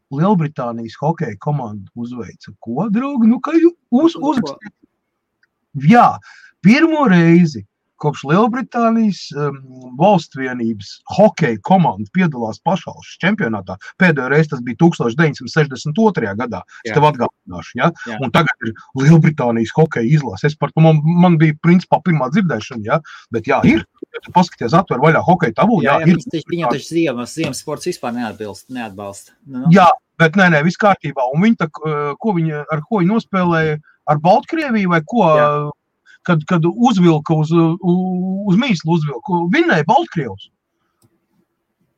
Lielbritānijas hokeja komanda uzveica ko, draugi? Kā uzrakstīt? Jā, pirmo reizi kopš Lielbritānijas valstvienības hokeja komanda piedalās pašvalsts čempionātā. Pēdējo reizi tas bija 1962. gadā. Es tev atgādināšu, ja? Un tagad ir Lielbritānijas hokeja izlase. Man bija principā pirmā dzirdēšana, ja? Bet jā, ir. Ja tu paskaties, atver vaļā hokeja tavu, ir. Viņam taču ziemas sports vispār neatbalsta. Jā, bet nē, viss kārtībā. Un viņi ar ko viņi nospēlēja? Ar Baltkrieviju vai ko? Jā. Kad uzvilka uz mīslu uzvilka, vinnēja Baltkrievs.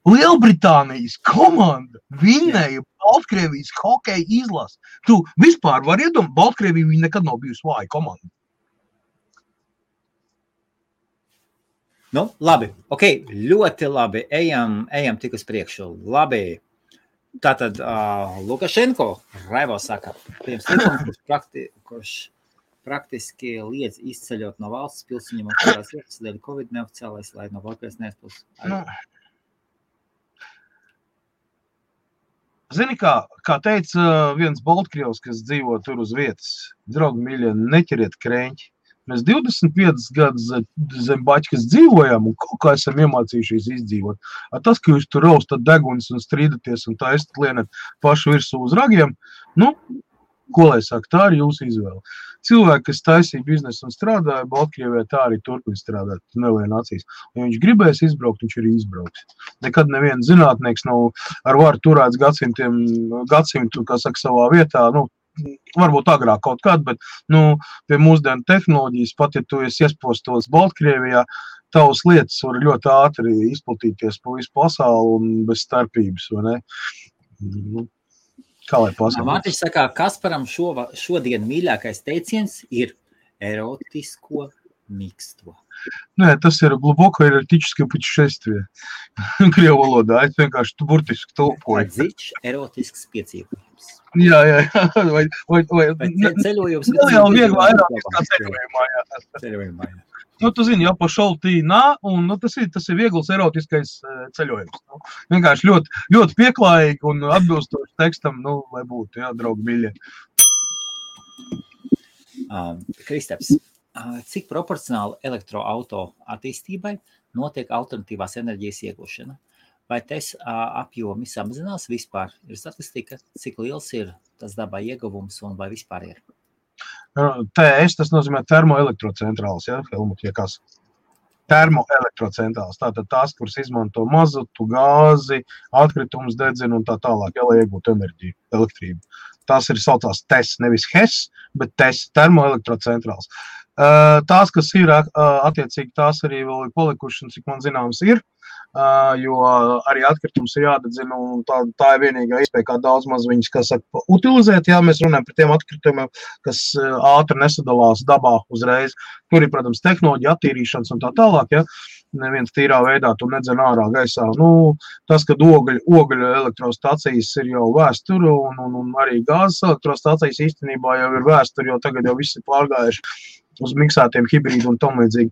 Lielbritānijas komanda vinnēja Baltkrievijas hokeja izlasi. Tu vispār var iedomāt, Baltkrievija viņa nekad nav bijusi vāja komanda. Labi, ļoti labi, ejam tik uz priekšu, labi. Tātad Lukašenko, Raivo saka, pirms likums, kurš praktiski liedz izceļot no valsts pilsēņiem un kurās vietas dēļ Covid neoficiālais, lai no valkais neizpūs. Zini, kā teica viens Baltkrievs, kas dzīvo tur uz vietas, draugi mīļie, neķeriet kreņķi. Mēs 25 gadus zem baķkas dzīvojām un kaut kā esam iemācījušies izdzīvot. Tas, ka jūs tur raustat degunis un strīdaties un taistat lienat pašu virsū uz ragiem, nu, ko lai saka, tā ir jūsu izvēle. Cilvēki, kas taisīja biznesu un strādāja Baltkrievijā, tā arī turpina strādāt, nelien acīs. Ja viņš gribēs izbraukt, viņš arī izbrauks. Nekad neviens zinātnieks nav ar varu turēts gadsimtu, kā saka, savā vietā, nu, varbūt agrāk kaut kād, bet, nu, pie mūsdienu tehnoloģijas, pat ja tu esi iespostos Baltkrievijā, tavas lietas var ļoti ātri izplatīties pa visu pasauli un bez starpības, vai ne? Nu, kā lai pasaka? Mārtiņš saka, Kasparam šodien mīļākais teiciens ir erotisko miksto. Nē, tas ir gluboko erotičskie putešествия. Krievu valodā, es vienkārši burtiski tulkoju. Dziļš erotisks piedzīvojums. Jā. Vai ceļojums. Jau vieglā erotiskā ceļojumā, jā. Nu, tu zini, jau pa šoltīnā, un nu, tas ir viegls erotiskais ceļojums. Nu, vienkārši ļoti pieklājīgi un atbilstoši tekstam, nu, lai būtu, jā, draugi mīļie. Kristaps, cik proporcionāli elektroauto attīstībai notiek alternatīvās enerģijas iegūšana? Vai tes apjomi samazinās vispār? Ir statistika, cik liels ir tas dabā ieguvums un vai vispār ir? TS, tas nozīmē termoelektrocentrāls, ja, Helmut, ja kas? Termoelektrocentrāls, tātad tās, kuras izmanto mazutu, gāzi, atkritumus dedzina un tā tālāk, ja, lai iegūtu enerģiju, elektrību. Tās ir saucās TES, nevis HES, bet TES, termoelektrocentrāls. Tās, kas ir, attiecīgi, tās arī vēl ir palikuši, un cik man zināms ir, jo arī atkritums ir jādedzina, un tā ir vienīgā iespēja, kā daudz maz viņas, kā saka, utilizēt, jā, mēs runājam par tiem atkritumiem, kas ātri nesadalās dabā uzreiz. Tur ir, protams, tehnoloģija attīrīšanas un tā tālāk, jā. Neviens tīrā veidā tu nedzen ārā gaisā. Nu, tas, kad ogļu elektrostacijas ir jau vēsturi un arī gāzes elektrostacijas īstenībā jau ir vēsturi, jo tagad jau visi pārgājuši uz miksētiem hibrīdu un tam līdzīgi.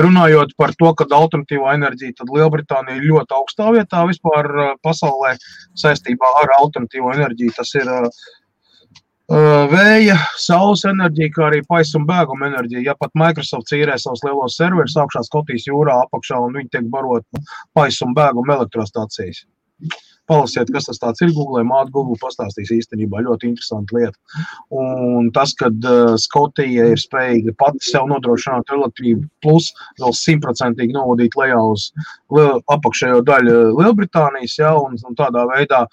Runājot par to, ka alternatīvā enerģija, tad Lielbritānija ir ļoti augstā vietā vispār pasaulē saistībā ar alternatīvo enerģiju. Tas ir vēja, saules enerģija, kā arī paisa un bēguma enerģija. Ja pat Microsoft īrē savus lielos serverus augšā Skotijas jūrā apakšā un viņi tiek barot paisa un bēguma elektrostacijas. Palasiet, kas tas tāds ir, Google, māte Google pastāstīs īstenībā ļoti interesanti lieta. Un tas, kad Skotija ir spējīga pati sev nodrošināt elektrību plus vēl 100% novadīt lejā uz apakšējo daļu Lielbritānijas, ja, un tādā veidā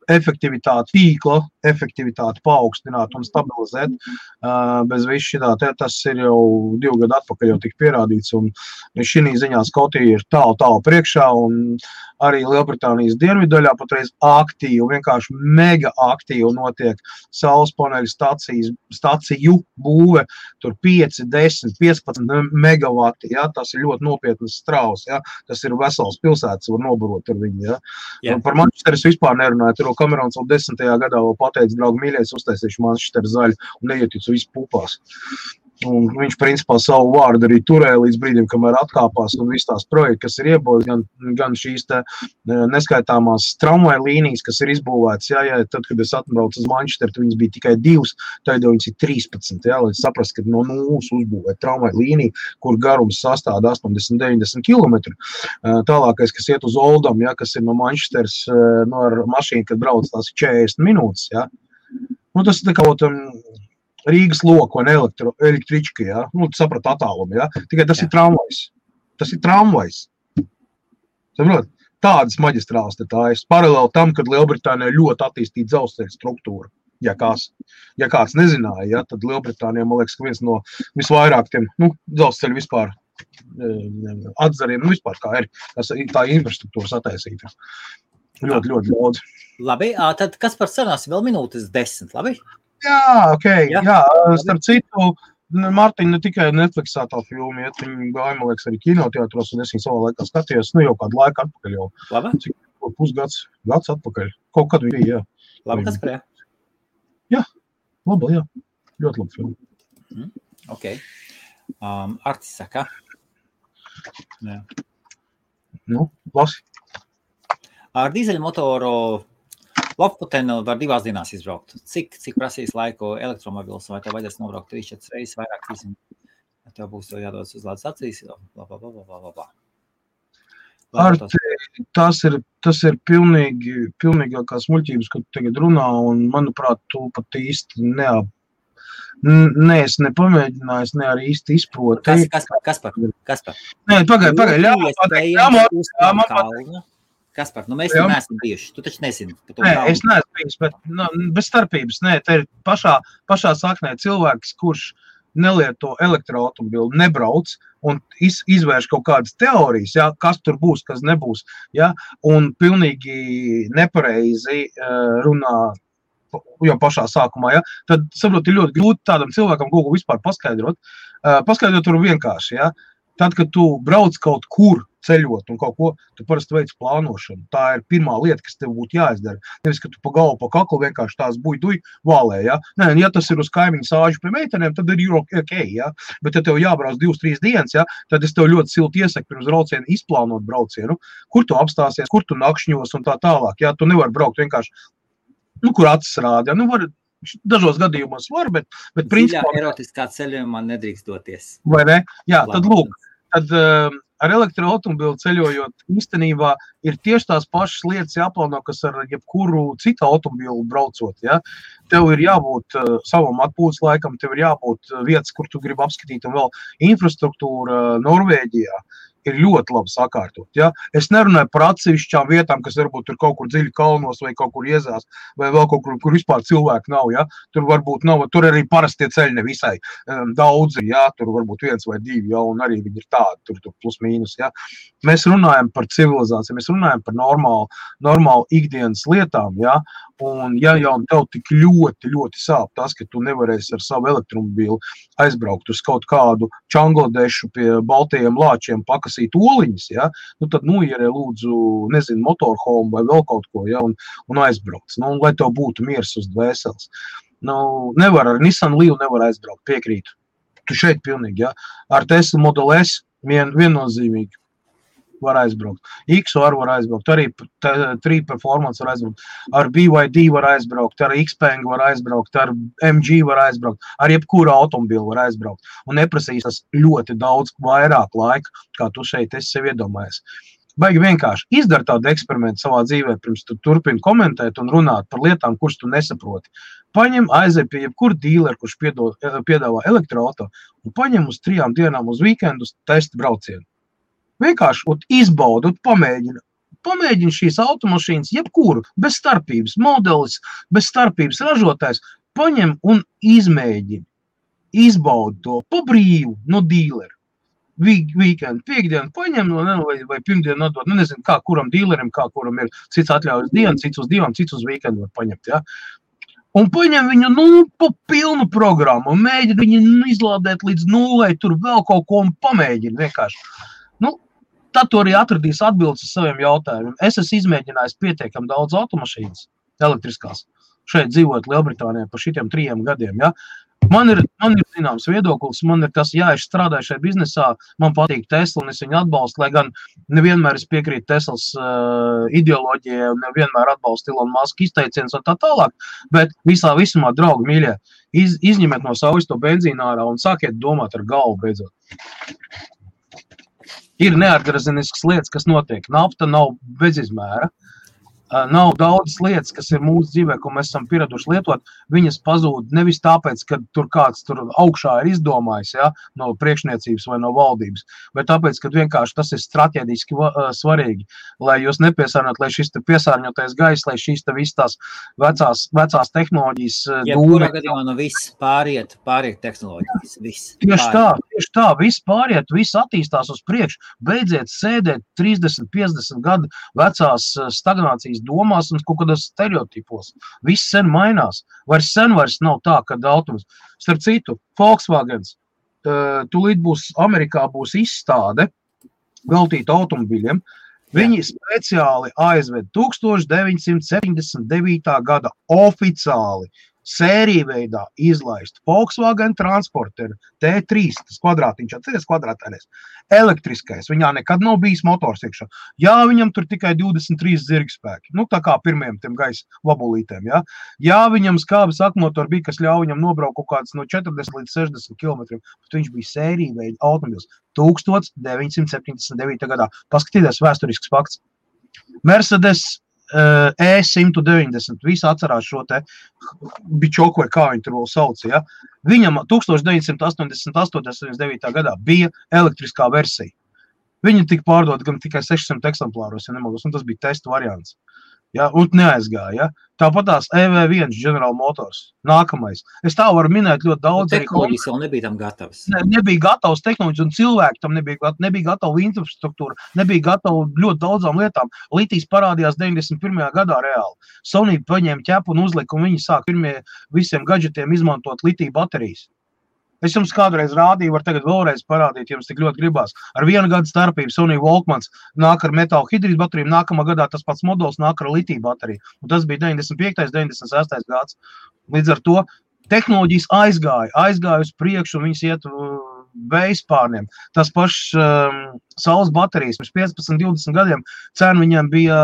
tīkla efektivitāti paaugstināt un stabilizēt bez visu šitā. Tas ir jau 2 gadu atpakaļ jau tik pierādīts, un šī ziņā Skotija ir tālu priekšā, un arī Lielbritānijas dienvidaļā patreiz aktīvi, vienkārši mega aktīvi notiek saules paneļu staciju būve, tur 5, 10, 15 megavati, ja, tas ir ļoti nopietnas strauss, ja, tas ir vesels pilsētas, var nobarot ar viņu, ja. Yeah. Par Manchesteru vispār nerunāju, tur Kamerons vēl 10. gadā vēl pateica, draugi mīļais, uztaisīšu Manchesteru zaļu un neieticu visu pupās. Un viņš principā savu vārdu arī turēja līdz brīdim, kamēr atkāpās un viss tās projekti, kas ir iebūvēts, gan šīs te neskaitāmās tramvaja līnijas, kas ir izbūvētas, jā, tad, kad es atbraucu uz Manchesteru, tad viņas bija tikai 2, tad jau viņas ir 13, jā, lai saprast, ka no nulles uzbūvēt tramvaja līniju, kur garums sastāda 80-90 km. Tālākais, kas iet uz Oldham, jā, kas ir no Manchesteras, no ar mašīnu, kad brauc tās 40 minūtes, jā. Nu, tas ir tā kā Rīgas loku un električka, ja? Nu, tu saprati attālumu, ja? Tikai tas ir tramvajs. Tas ir tramvajs. Saprot? Tādas maģistrāls te tā ir. Paralēli tam, kad Lielbritānijā ļoti attīstīta dzelzceļa struktūra. Ja kāds nezināja, ja? Tad Lielbritānijā, man liekas, ka viens no visvairāk tiem, dzelzceļa vispār atzariem, vispār kā ir tā infrastruktūras attaisīta. Ļoti daudz. Labi, tad kas par sarunās vēl minūtes 10, labi? Jā, ok, jā. Starp citu, Mārtiņa ne tikai Netflixā tā filma, ja viņi gāja, man liekas, arī kinoteātros, un es viņu savā laikā skatījos, jau kādu laiku atpakaļ jau. Labi? Cik pusgads atpakaļ. Kaut kad viņi bija, jā. Labi, kas par jā? Jā, laba, jā. Ļoti laba filma. Ok. Artis saka? Jā. Nu, lasi. Ar dīzeļmotoru Loputenu var 2 dienās izbraukt. Cik prasīs laiku elektromobils, vai tev vajadzēs nobraukt 3-4 reizes vairāk, tev būs to jādodas uz lādes acīs, blablabla. Tas ir pilnīgākās muļķības, kad tu tagad runā, un, manuprāt, tu pat īsti es nepamēģināju, ne arī īsti izproti. Kaspar? Nē, pagaid, Kaspar, mēs te neesam bijuši, tu taču nezini. Nē, es neesmu bijis, bet bez starpības, nē, te ir pašā saknē cilvēks, kurš nelieto elektroautomobili, nebrauc un izvērš kaut kādas teorijas, ja, kas tur būs, kas nebūs, ja, un pilnīgi nepareizi runā jau pašā sākumā, ja, tad, saprot, ir ļoti grūti tādam cilvēkam kaut ko vispār paskaidrot. Paskaidrot tur vienkārši, ja. Tad, kad tu brauc kaut kur ceļot un kaut ko, tu parasti veic plānošanu. Tā ir pirmā lieta, kas tev būtu jāizdara. Nevis, ka tu pa galvu, pa kaklu vienkārši tās buj vālē, ja. Nē, ja tas ir uz kaimiņu sāžu pie meitenēm, tad ir ok, ja. Bet, ja tev jābrauc 2-3 dienas, ja, tad es tev ļoti silti iesaku pirms braucienu izplānot braucienu, kur tu apstāsies, kur tu nakšņos un tā tālāk, ja. Tu nevari braukt vienkārši, kur acis rāda, ja. Dažos gadījumos var, bet principā... Dziļā erotiskā ceļojumā nedrīkst doties. Vai ne? Jā, tad lūk, tad ar elektroautomobili ceļojot īstenībā ir tieši tās pašas lietas jāplāno, kas ar jebkuru citu automobilu braucot, ja? Tev ir jābūt savam atpūtas laikam, tev ir jābūt vietas, kur tu gribi apskatīt, un vēl infrastruktūra Norvēģijā ir ļoti labi sakārtot, ja? Es nerunāju par atsevišķām vietām, kas varbūt tur kaut kur dziļi kalnos vai kaut kur iezās, vai vēl kaut kur vispār cilvēku nav, ja? Tur varbūt nav, tur arī parastie ceļi nevisai daudzi, ja? Tur varbūt 1 vai 2, ja? Un arī viņi ir tādi, tur plus mīnus, ja? Mēs runājam par civilizāciju, mēs runājam par normālu ikdienas lietām, ja? Un ja jau tev tik ļoti sāp tas, ka tu nevarēsi ar savu elektromobīlu aizbraukt uz kaut kādu Čangladešu pie baltajiem lāčiem pakasīt oliņas, ja? Tad ierē lūdzu, nezinu, motorhome vai vēl kaut ko, ja? Un aizbrauc, un lai tev būtu miers uz dvēseles. Nevar ar Nissan Leaf nevar aizbraukt, piekrītu. Tu šeit pilnīgi, ja? Ar Tesla Model S viennozīmīgi var aizbraukt. XR var aizbraukt, arī 3 Performance var aizbraukt, ar BYD var aizbraukt, ar Xpeng var aizbraukt, ar MG var aizbraukt, ar jebkuru automobili var aizbraukt. Un neprasīs tas ļoti daudz vairāk laika, kā tu šeit esi sev iedomājies. Baigi vienkārši izdara tādu eksperimentu savā dzīvē, pirms tu turpini komentēt un runāt par lietām, kuras tu nesaproti. Paņem, aizej pie jebkuru dīleru, kurš piedāvā elektroauto, un paņem uz 3 dienām uz weekendus testa braucienu. Vienkārši izbaudi, pamēģini šīs automašīnas, jebkuru, bez starpības, modelis, bez starpības ražotājs, paņem un izmēģini, izbaudi to pa brīvu no dīleru. Weekend, piekdienu paņem, vai pirmdienu nodot, nezinu, kā kuram dīlerim, kā kuram ir cits atļaujas dienu, cits uz 2, cits uz weekendu var paņemt, ja. Un paņem viņu, pa pilnu programmu, un mēģini viņu izlādēt līdz 0, tur vēl kaut ko un pamēģini vienkārši. Tad tu arī atradīs atbildes uz saviem jautājumiem. Es esmu izmēģinājis pietiekami daudz automašīnas elektriskās. Šeit dzīvot Lielbritānijā par šitiem 3 gadiem, ja. Man ir zināms viedoklis, man ir tas, ja es strādāju šajā biznesā, man patīk Tesla un es viņu atbalstu, lai gan nevienmēr es piekrītu Teslas ideoloģijai un nevienmēr atbalstu Elon Musk izteicienus un tā tālāk, bet visumā, draugi mīļie, izņemiet no savas to benzīnu ārā un sākiet domāt ar galvu beidzot. Ir neatgrazeniskas lietas, kas notiek. Nafta nav bezizmēra. Nav daudzas lietas, kas ir mūsu dzīvē, ko mēs esam pieraduši lietot. Viņas pazūd nevis tāpēc, ka tur kāds tur augšā ir izdomājis, ja, no priekšniecības vai no valdības, bet tāpēc, ka vienkārši tas ir strateģiski svarīgi, lai jūs nepiesārņot, lai šis te piesārņotais gaiss, lai šīs te visas tās vecās tehnoloģijas jebkurā gadījumā no viss pāriet tehnoloģijas, viss. Tieši tā, viss pāriet, viss attīstās uz priekšu, beidziet sēdēt 30-50 gadu vecās stagnācijas domās un kaut kādos stereotipos. Viss sen mainās. Vairs nav tā, kad autobus. Starp citu, Volkswagens, tūlīt Amerikā būs izstāde veltīta automobiļiem. Viņi speciāli aizved 1979. gada oficiāli sēriju veidā izlaist Volkswagen Transporter T3, tas kvadrātiņš, atceries kvadrātēnēs, elektriskais, viņā nekad nav bijis motors iekšā. Jā, viņam tur tikai 23 zirgspēki, nu tā kā pirmiem tiem gaisa vabulītēm, jā. Jā, viņam skābes akmotori bija, kas ļauj viņam nobraukt kaut kāds no 40 līdz 60 kilometriem, bet viņš bija sēriju veida automobils 1979. gadā. Paskatieties vēsturisks fakts. Mercedes E190, visi atcerās šo te bičoku vai kā viņi tur vēl sauc, ja? Viņam 1988. gadā bija elektriskā versija. Viņi tika pārdot gan tikai 600 eksemplāros, ja nemaldos, un tas bija testa variants. Ja, un neaizgāja. Ja. Tāpatās EV1 General Motors. Nākamais. Es tā varu minēt ļoti daudz. Tehnoloģijas vēl nebija tam gatavas. Nebija gatavs tehnoloģijas, un cilvēki tam nebija gatava infrastruktūra, nebija gatava ļoti daudzām lietām. Litijs parādījās 91. gadā reāli. Sony paņēma ķepu un uzlika, un viņi sāk pirmie visiem gadžetiem izmantot litiju baterijas. Es jums kādreiz rādīju, var tagad vēlreiz parādīt, jums tik ļoti gribās. Ar 1 gadu starpību Sony Walkmans nāk ar metāla hidrīdu bateriju, nākamā gadā tas pats modelis nāk ar litiju bateriju. Un tas bija 95. 96. gads. Līdz ar to tehnoloģijas aizgāja uz priekšu, un viņas iet vējspārniem. Tas pašs saules baterijas pirms 15-20 gadiem cena viņiem bija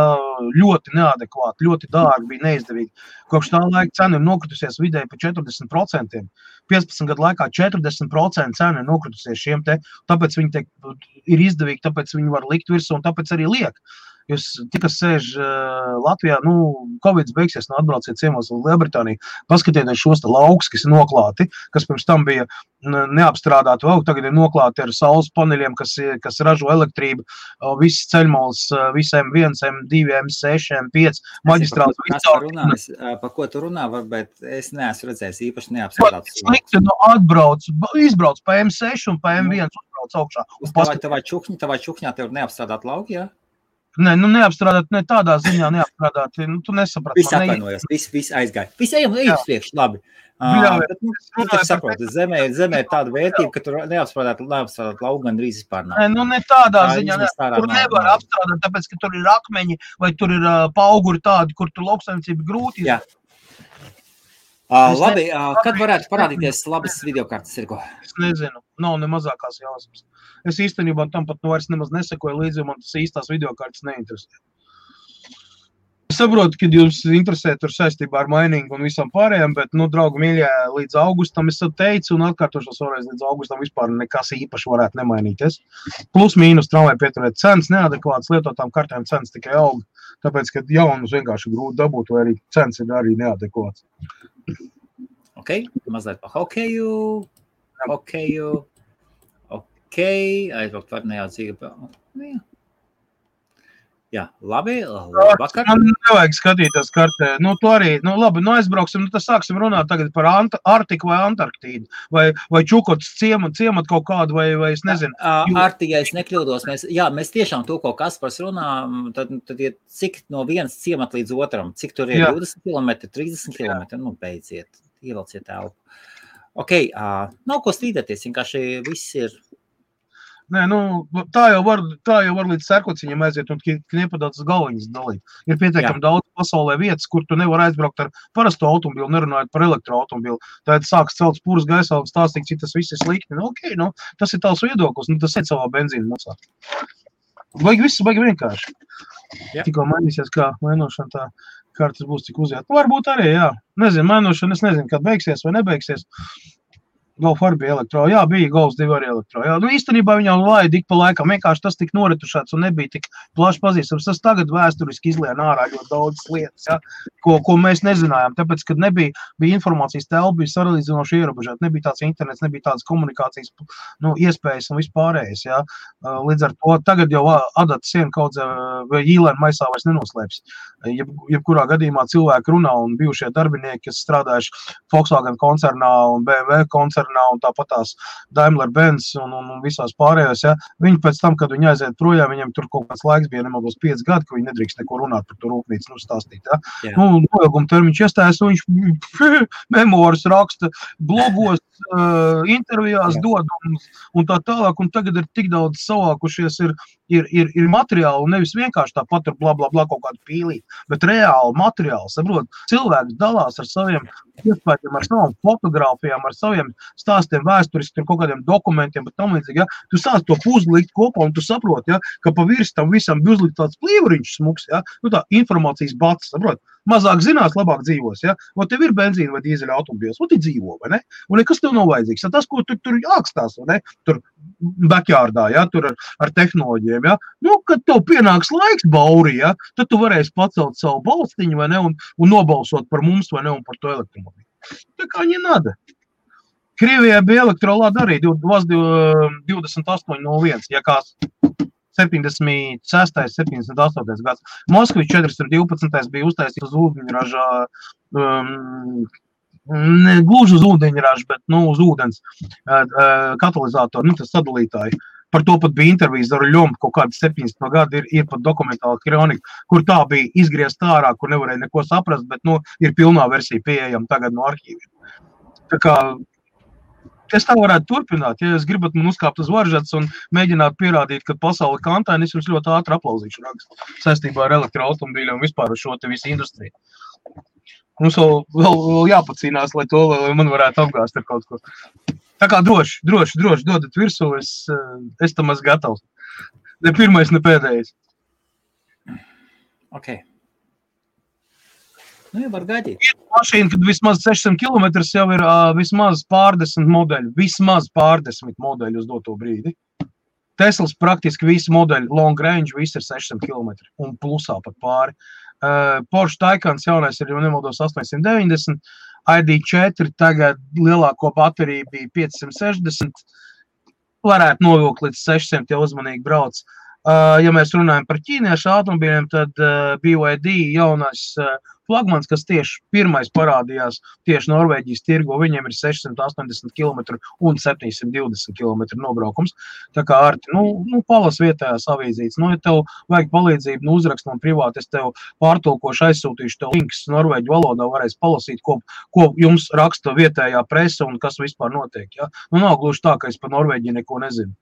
ļoti neadekvāta, ļoti dārga, bija neizdevīga. Kopš tā laika cena ir nokritusies vidēji pa 40%. 15 gadu laikā 40% cena ir nokritusies šiem te, tāpēc viņi ir izdevīgi, tāpēc viņi var likt virsū un tāpēc arī liek. Jūs tikas sēž Latvijā, Covids beigsies, atbrauciet ciemos uz Lielbritāniju, paskatieties šos te laukus, kas ir noklāti, kas pirms tam bija neapstrādāti, vēl tagad ir noklāti ar saules paneļiem, kas ražo elektrību, visas ceļmolas, visi M1, M2, M6, M5, maģistrāls. Par ko tu runā, bet es neesmu redzējis īpaši neapstrādāts. Slikti, izbrauc pa M6 un pa M1 uzbrauc augšā. Tavā čukņā tev neapstrādāt lauki, jā? Nē, neapstrādāt, ne tādā ziņā neapstrādāt, tu nesaprati. Viss atvainojās, viss aizgāja. Viss ejam priekš, labi. Tu saproti, zemē ir tāda vērtība, ka tur neapstrādāt lauku gan drīz vispār nav. Nē, ne tādā ziņā, tur nevar apstrādāt, tāpēc, ka tur ir akmeņi vai tur ir pauguri tādi, kur tur lauksaimniecība grūti. Jā. Labi, kad varētu parādīties labas videokartes, Sirgo? Es nezinu, nav ne mazākās jāsmas. Es īstenībā tam pat vairs nemaz nesekoju līdzi, jo man tas īstās videokartes neinteresē. Es saprotu, ka jūs interesē tur saistībā ar mainingu un visam pārējiem, bet, draugi mīļie, līdz augustam es teicu un atkārtošos vēlreiz līdz augustam vispār nekas īpaši varētu nemainīties. Plus mīnus tramvai pieturēt cenas, neadekvātas lietotām kartēm cenas tikai aug, tāpēc, ka jaunus vienkārši grūti dabūt, vai arī cenas ir arī neadekvātas. Ok, mazliet pa hokeju, aizbraukt var nejaucīgi. Jā, labi, vakar. Man nevajag skatīties kartē. Tu arī, labi, aizbrauksim, tad sāksim runāt tagad par Arktiku vai Antarktīdu, vai Čukotas ciemat kaut kādu, vai es nezinu. Arktika, es nekļūdos, mēs tiešām to, ko Kaspars runā, tad ir cik no vienas ciemat līdz otram, cik tur ir 20 km, 30 km, beidziet, ievelciet telpu. Ok, nav ko strīdēties, vienkārši viss ir. Nē, tā jau var līdz Sērkociņam aiziet un kniepadātas galviņas dalīt. Ir pietiekami daudz pasaulē vietas, kur tu nevar aizbraukt ar parasto automobilu, nerunājot par elektroautomobilu. Tad sāks celt spūras gaisā un stāstīt, cik tas viss ir slikti. Tas ir tavs viedoklis, tas ir savā benzīna maksā. Viss baigi vienkārši. Tikko mainīsies, kā mainošana tā kartas būs cik uziet. Varbūt arī, jā. Nezinu, mainošana, es nezinu, kad beigsies vai nebeigsies. Golf arī bija elektro, jā, bija Golfs 2 arī elektro, jā. Īstenībā viņam laida ik pa laikam, vienkārši tas tik noretušāts un nebija tik plaši pazīstams. Tas tagad vēsturiski izlien ārā ļoti daudz lietas, jā, ko mēs nezinājām, tāpēc, kad bija informācijas telpa, bija saralīdzinoši ierobežot, nebija tāds internets, nebija tādas komunikācijas, iespējas un vispārējais, jā. Līdz ar to tagad jau adata siena kaudzē vai īlēna maisā vairs nenoslēpjas. Jebkurā gadījumā cilvēki runā un bijušie darbinieki, kas strādājuši Volkswagen koncernā un BMW koncernā un tāpatās Daimler-Benz un visās pārējās, ja, viņi pēc tam, kad viņi aiziet projām, viņiem tur kaut kāds laiks bija nemaldos 5 gadi, ka viņi nedrīkst neko runāt par to rūpnīcu, stāstīt, ja. Noilguma termiņš iestājas, un viņš memoras raksta, blogos, intervijās dod un tā tālāk, un tagad ir tik daudz savākušies, ir materiāli, nevis vienkārši tāpat ar bla, bla, bla kaut kādu pīlī, bet reāli materiāli, saprot, cilvēks dalās ar saviem iespējām, ar savām fotogrāfijām, ar saviem stāstiem vēsturiski, ar kaut kādiem dokumentiem, bet tam līdzīgi, ja, tu sāc to puzli likt kopā un tu saproti, ja, ka pa virs tam visam bija uzlikt tāds plīvuriņš smuks, ja, nu tā informācijas bats, saprot, mazāk zinās, labāk dzīvos, ja, un tev ir benzīna vai dīzeļa automobils, un tu dzīvo, vai ne, un nekas tev nav vajadzīgs, ja tas, ko tur jākstās, vai ne, tur backyardā, ja, tur ar tehnoloģiem, ja, nu, kad tev pienāks laiks bauri, ja, tad tu varēsi pacelt savu balstiņu, vai ne, un nobalsot par mums, vai ne, un par to elektromobili. Tā kā не надо. Krievijā bija elektrolāda arī 2801, ja kāds 76. 78. gads. Moskvi 412. bija uztaisīts uz ūdeņražā, ne gluži uz ūdeņraža, bet, nu, uz ūdens katalizātoru, nu, tas sadalītāji. Par to pat bija intervijas ar Ļomu, kaut kādi 17. gadi ir pat dokumentāla kronika, kur tā bija izgriezt ārā, kur nevarēja neko saprast, bet, nu, ir pilnā versija pieejama tagad no arhīviem. Tā kā es tā varētu turpināt, ja jūs gribat man uzkāpt uz varžats un mēģināt pierādīt, ka pasauli kantaini, es jums ļoti ātri aplauzīšu rakstu saistībā ar elektroautomobīļiem un vispār ar šo te visu industriju. Mums vēl jāpacīnās, lai to, lai man varētu apgāst ar kaut ko. Tā kā droši, dodat virsū, es tam esmu gatavs. Ne pirmais, ne pēdējais. Ok. Nu, jau var gaidīt. Ir mašīna, kad vismaz 600 km jau ir vismaz pārdesmit modeļu. Vismaz pārdesmit modeļu uz doto brīdi. Teslas praktiski visi modeļi long range, visi ir 600 km un plusā pat pāri. Porsche Taycans jaunais ir, jau nemaldos, 890. ID4 tagad lielāko bateriju bija 560. Varētu novilkt līdz 600, ja uzmanīgi brauc. Ja mēs runājam par ķīniešu automobīļiem, tad BYD jaunais flagmans, kas tieši pirmais parādījās tieši Norvēģijas tirgo, viņiem ir 680 km un 720 km nobraukums. Tā kā Arti, nu palas vietējās avīzītes. Nu, ja tev vajag palīdzību, nu uzrakst man privāti, es tev pārtulkošu, aizsūtīšu tev links norvēģu valodā, varēs palasīt, ko jums raksta vietējā presa un kas vispār notiek. Ja? Nu, nav gluži tā, ka es par Norvēģiju neko nezinu.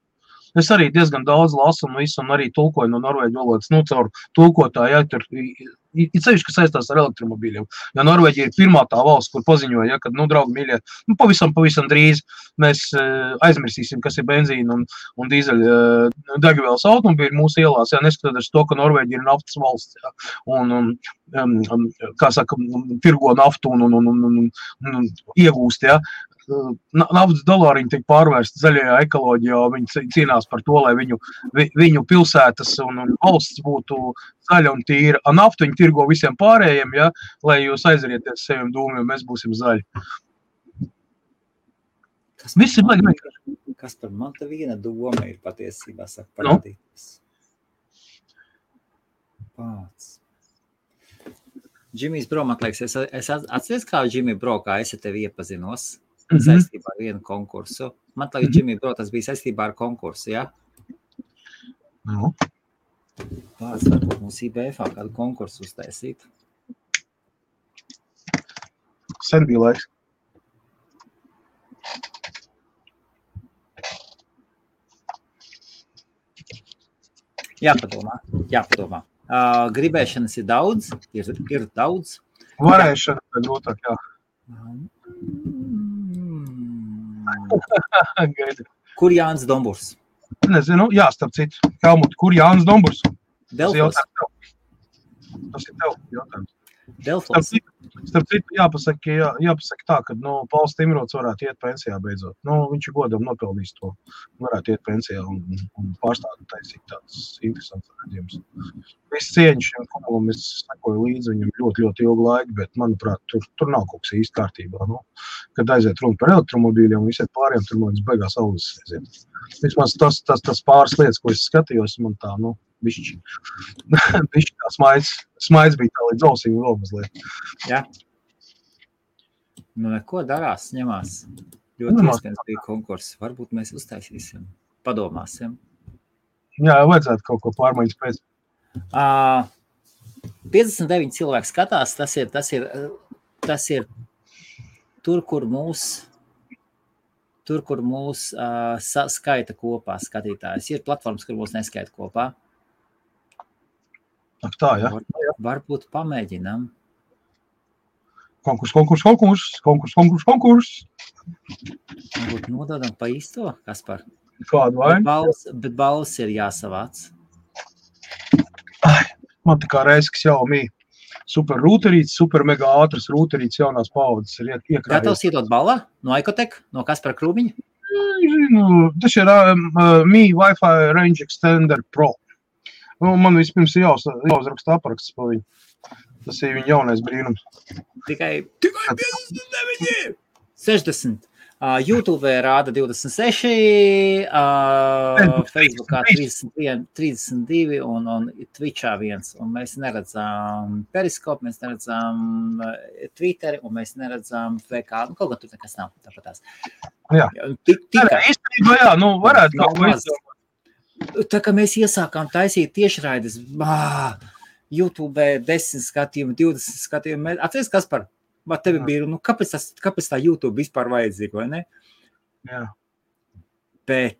Es arī diezgan daudz lasu un visu, un arī tulkoju no norvēģu valodas, nu, caur tulkotāju, ja, tur ir ceļš, kas saistās ar elektromobīļiem. Ja Norvēģija ir pirmā tā valsts, kur paziņoja, ja, kad, nu, draugi mīļie, nu, pavisam drīz mēs aizmirsīsim, kas ir benzīna un dīzeļa degvielas automobīļi mūsu ielās, ja, neskatoties to, ka Norvēģija ir naftas valsts, ja, un kā saka, tirgo naftu un iegūst, ja. Naftas dolāriņi tiek pārvērsti zaļajā ekoloģijā, viņi cīnās par to, lai viņu pilsētas un valsts būtu zaļa un tīra. Naftu viņi tirgo visiem pārējiem, ja, lai jūs aizarieties saviem dūmiem, mēs būsim zaļi. Viss ir vienkārši. Kas par man te viena doma ir patiesībā, saka, parādīties. Pāc. Džimijs Bro, man liekas, es atceries, kā Džimij Bro, kā es ar tevi iepazinos saistībā ar vienu konkursu. Man liekas, Džimij Bro, tas bija saistībā ar konkursu, ja? Nu. Pāc, varbūt mums IBF-ā kādu konkursu uztaisīt. Sen bija laiks. Jāpadomā. Gribēšanas ir daudz, ir daudz. Varēšana grūtāk, jā. Kur Jānis Domburs? Nezinu, jā, starp citu. Helmut, kur Jānis Domburs? Delfos. Tas ir tev jautājums. Delfos. Starp citu, jāpasaka tā, ka, nu, Pauls Timrots varētu iet pensijā beidzot. Nu, viņš ir godam nopelnījis to. Varētu iet pensijā un pārstāvēt taisīt tāds interesants redzījums. Viss cieņš šiem kumulam, es sekoju līdzi viņam ļoti ilgu laiku, bet, manuprāt, tur nav kaut kas īsti kārtībā. Nu, kad aiziet runa par elektromobīļiem un visiet pāriem, tur man beigās algas aiziet. Vismaz tas pāris lietas, ko es skatījos, man tā, nu, bišķi tā smaids bija tā līdz ausīm vēl mazliet. Jā. Nu, neko darās, ņemās. Ļoti iespējams bija konkurss. Varbūt mēs uztaisīsim, padomāsim. Jā, vajadzētu kaut ko pārmaiņas pēc. 59 cilvēki skatās, tas ir tur, kur mūs tur, kur mūs skaita kopā skatītājs. Ir platformas, kur mūs neskaita kopā. Ak tā, ja? Varbūt pamēģinām. Konkurs. Varbūt nododam pa īsto, Kaspar. Kādu vainu? Bet balvas ir jāsavāc. Man tā kā Reisks jau super rūterīts, super mega ātras rūterīts jaunās paudzes ir iekrājies. Gatavs iedot balvā no Ikotek, no Kaspara Krūmiņa? Tas ir Mi Wi-Fi Range Extender Pro. Man vispirms ir jāuzraksta apraksts par viņu. Tas ir viņa jaunais brīnums. Tikai 59! 60. YouTube rāda 26, Facebookā 32 un Twitchā 1. Un mēs neredzām Periskopu, mēs neredzām Twitteri un mēs neredzām VK. Kaut kā tur nekas nav tāpatās. Jā. Īstenībā jā, varētu kaut ko izdomāt. Tā kā mēs iesākām taisīt tiešraides, YouTube 10 skatījumi, 20 skatījumi. Atceries, Kaspar? Vai tevi bija, kāpēc tā YouTube vispār vajadzīga, vai ne? Jā. Bet...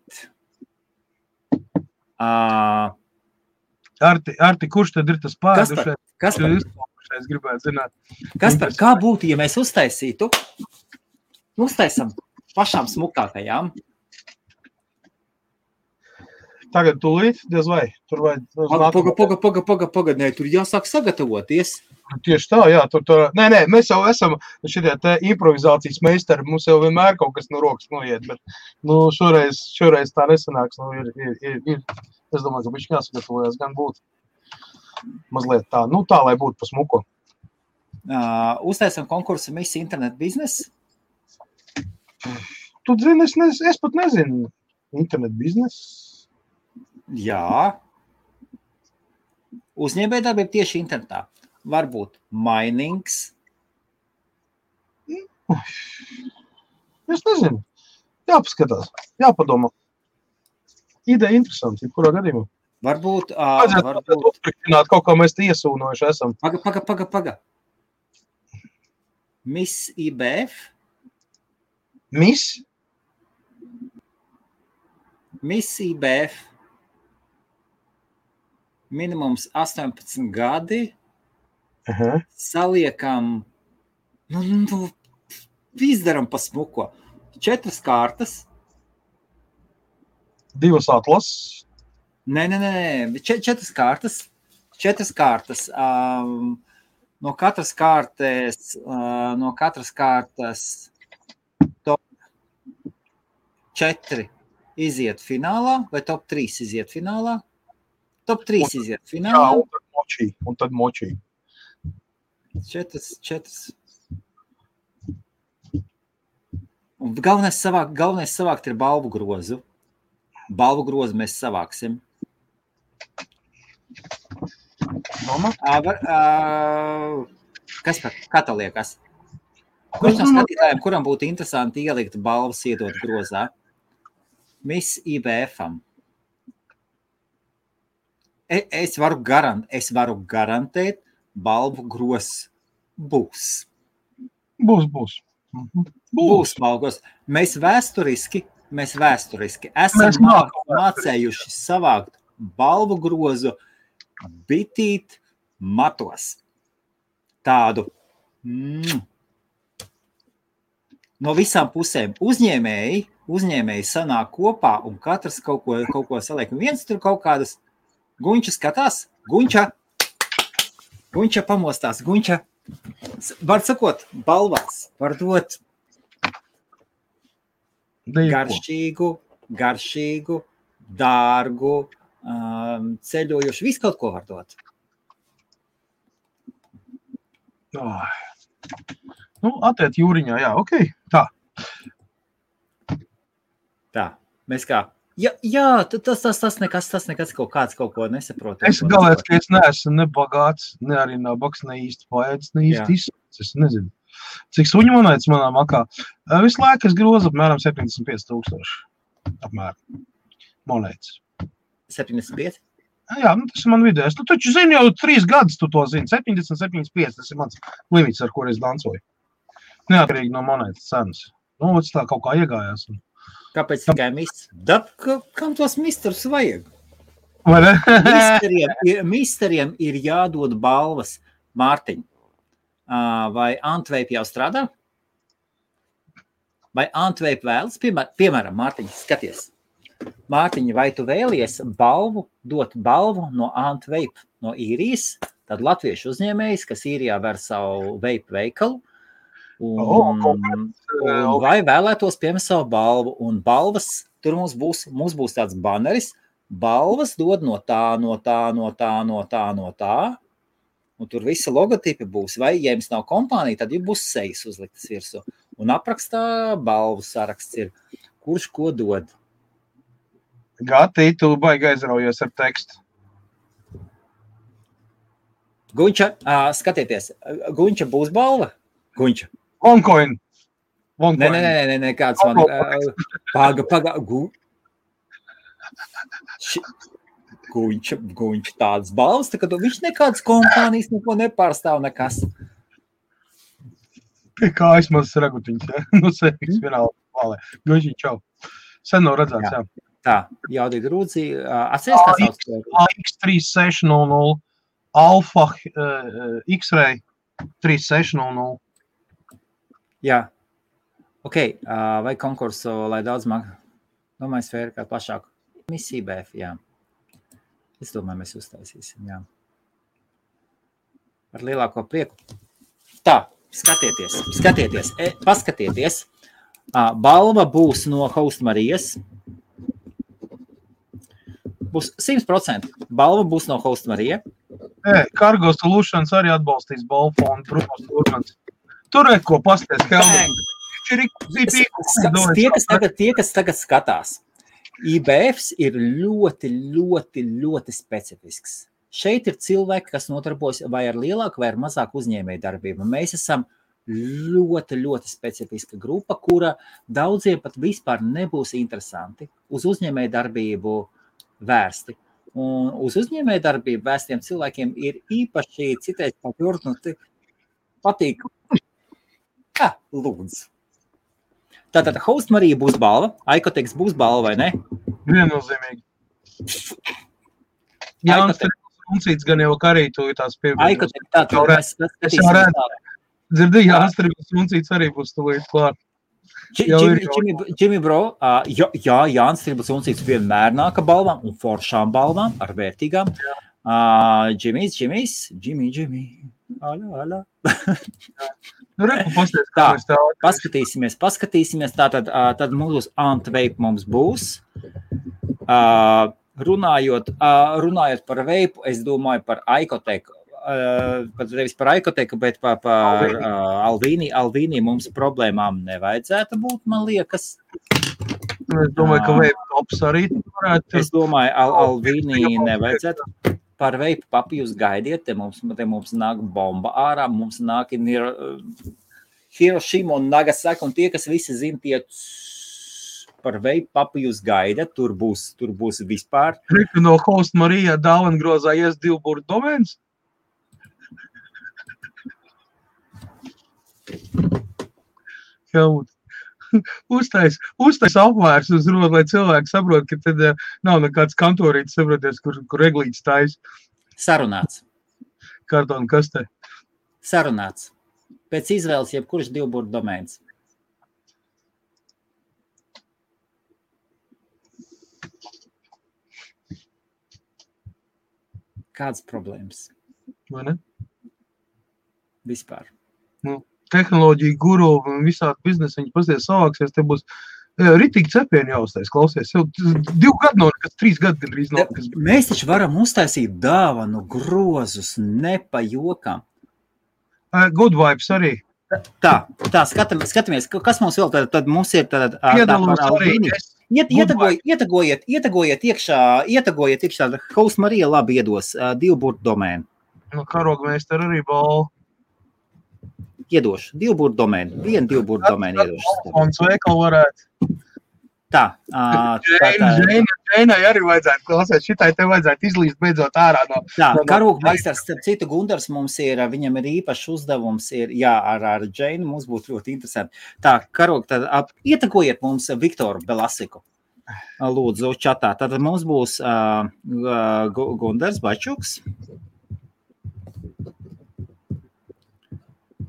Arti, kurš tad ir tas pēdušais? Kaspar, Es gribētu zināt. Kaspar, kā būtu, ja mēs uztaisam pašām smukākajām? Tagad tūlīt, diez vai? Tur vai? Paga, nē, tur jāsāk sagatavoties. Tieši tā, jā. Nē, mēs jau esam šitie te improvizācijas meistari, mums jau vienmēr kaut kas no rokas noiet, bet šoreiz tā nesanāks. Es domāju, ka bišķi jāsagatavojas gan būt mazliet tā, tā, lai būtu pa smuko. Uztaisam konkursu Miss Internet Biznes? Tu zini, es pat nezinu. Internet biznes? Jā. Uzņēmējdarbība tieši internetā. Varbūt minings. Es nezinu. Jāpaskatās. Jāpadomā. Ideja interesanti, kurā gadījumā. Varbūt. Uzpriktināt kaut kā mēs iesūnojuši esam. Paga. Miss IBF? Miss? Miss IBF. Minimums 18 gadi. Saliekam, izdaram pa smuko. 4 kārtas. 2 atlases. Nē, 4 kārtas. 4 kārtas. No katras kārtas top 4 iziet finālā, vai top 3 iziet finālā? Top 3 iziet finālā. Jā, un tad močī. 4. Un galvenais savākt ir balvu grozu. Balvu grozu mēs savāksim. Kas kā tā liekas? Kurš no skatītājiem, kuram būtu interesanti ielikt balvas iedot grozā? Miss IBF-am. Es varu garantēt, balvu grozs būs. Būs. Būs balvu grozs. Mēs vēsturiski esam mācējuši savākt balvu grozu bitīt matos. Tādu no visām pusēm uzņēmēji sanāk kopā un katrs kaut ko saliek. Viens tur kaut kādas Guņča skatās, Guņča pamostās, Guņča, var sakot, balvās, var dot garšīgu, dārgu, ceļojuši, visu kaut ko var dot. Atiet jūriņā, jā, okei, tā. Tā, mēs kā? Jā, tas nekas kaut ko nesaprot. Es galēt, ka es neesmu ne bagāts, ne arī nabaks, ne īsti paēdis, ne īsti izsūcis. Es nezinu, cik suņu monētas manā makā. Visu laiku es grozu apmēram 75,000 apmēram monētas. 75? Jā, tas ir man vidējais. Tu taču zini jau 3 gadus, tu to zini. 70, 75, tas ir mans limits, ar kur es dancoju. Neatkarīgi no monētas cenas. Tas tā kaut kā iegājās. Kāpēc tikai misteri? Kam tos misterus vajag? Vai ne? Misteriem ir jādod balvas. Mārtiņ, vai Antveip jau strādā? Vai Antveip vēlas? Piemēram, Mārtiņ, skaties. Mārtiņ, vai tu vēlies dot balvu no Antveip, no Īrijas, tad latviešu uzņēmējs, kas Īrijā ver savu veipu veikalu, un vai vēlētos pieņemt savu balvu, un balvas, tur mums būs tāds baneris, balvas dod no tā, un tur visi logotipi būs, vai, ja jums nav kompānija, tad jums būs sejas uzliktas virsū, un aprakstā balvu saraksts ir, kurš ko dod. Gati, tu baigi aizraujies ar tekstu. Guņča, skatieties, Guņča būs balva? Guņča. OneCoin. Nē, kāds man... Paga. Guņča tāds balvas, tā ka viņš nekādas kompānijas neko nepārstāv nekas. Pie kājas mazas ragutiņas, ja? Nu, sēpīgs vienāli valē. Guņčiņ, čau. Sen nav redzēts, jā. Tā, jaudīgi rūdzi. Atceries, kā sauc? AX3600, Alfa X-Ray 3600. Jā. Ok, vai konkursu, lai daudz domāju, sfēra kā plašāku? Misija BF, jā. Es domāju, mēs uztaisīsim, jā. Ar lielāko prieku. Tā, skatieties, paskatieties. Balva būs no Host Marijas. Būs 100%. Balva būs no Host Marija. Cargo Solutions arī atbalstīs balvu fondu, Brunos Turmans. Tur ko pasties, Helmut. Tie, kas tagad skatās, IBFs ir ļoti specifisks. Šeit ir cilvēki, kas notarbojas vai ar lielāku vai ar mazāku uzņēmēju darbību. Mēs esam ļoti specifiska grupa, kura daudziem pat vispār nebūs interesanti uz uzņēmēju darbību vērsti. Un uz uzņēmēju darbību vērstiem cilvēkiem ir īpaši citreiz patīk. Lūdzu. Tātad Host Marija būs balva, Aikoteks būs balva, vai ne? Viennozīmīgi. Jānis Tribus gan jau karītu tās piebildes. Aikoteks, tātad mēs skatīsim tālāk. Dzirdī, Jānis Tribus arī būs tuvīt klāt. Jimmy Bro, jā, Jānis Tribus vienmēr nāka balvām un foršām balvām ar vērtīgām. Jimmy. Alā. Tā, paskatīsimies. Tad mums Antveip mums būs. Runājot par veipu, es domāju par Aikoteku. Nevis par Aikoteku, bet par Alvīni. Alvīni mums problēmām nevajadzētu būt, man liekas. Es domāju, ka veipu tops arī varētu. Es domāju, Alvīni nevajadzētu. Par veipu papi jūs gaidiet, te mums nāk bomba ārā, mums nāk Hirošima un Nagasaki, un tie, kas visi zina, tie par veipu papi jūs gaidat, tur būs vispār. No Host Marija dāvangrozā ies 2 burtu domēns? Helmut. Uztais apvērs uz rodu, lai cilvēki saprot, ka tad nav nekāds kantorītis, saproties, kur reglīts tais. Sarunāts. Kartona kastē. Sarunāts. Pēc izvēles jebkurš 2 burtu domēns. Kādas problēmas? Vai ne? Vispār. Tehnoloģija guru un visādi biznesi, viņi pasties savāksies, te būs ritīgi cepieni jāuztais, klausies. Jau 2 gadu nav, kas 3 gadu gandrīz nav. Mēs taču varam uztaisīt dāvanu grozus, nepajokam. Good vibes arī. Tā, skatāmies, kas mums vēl tad mums ir tad Piedalūs arī. Ietegojiet iekšā, Host Marija labi iedos 2 burtu domēnu. No karogmeister arī balvu. Iedošu 2 burtu domēnu, 1-2 burtu domēnu iedošu. Un sveikal varētu. Tā. Džēnai arī vajadzētu klausēt, šitai te vajadzētu izlīst beidzot ārā no... Tā, karogmeistars, starp citu, Gundars mums ir, viņam ir īpašs uzdevums, ar Džēnu mums būtu ļoti interesanti. Tā, karog, tad ietekojiet mums Viktoru Belasiku. Lūdzu, čatā. Tad mums būs Gundars Bačuks.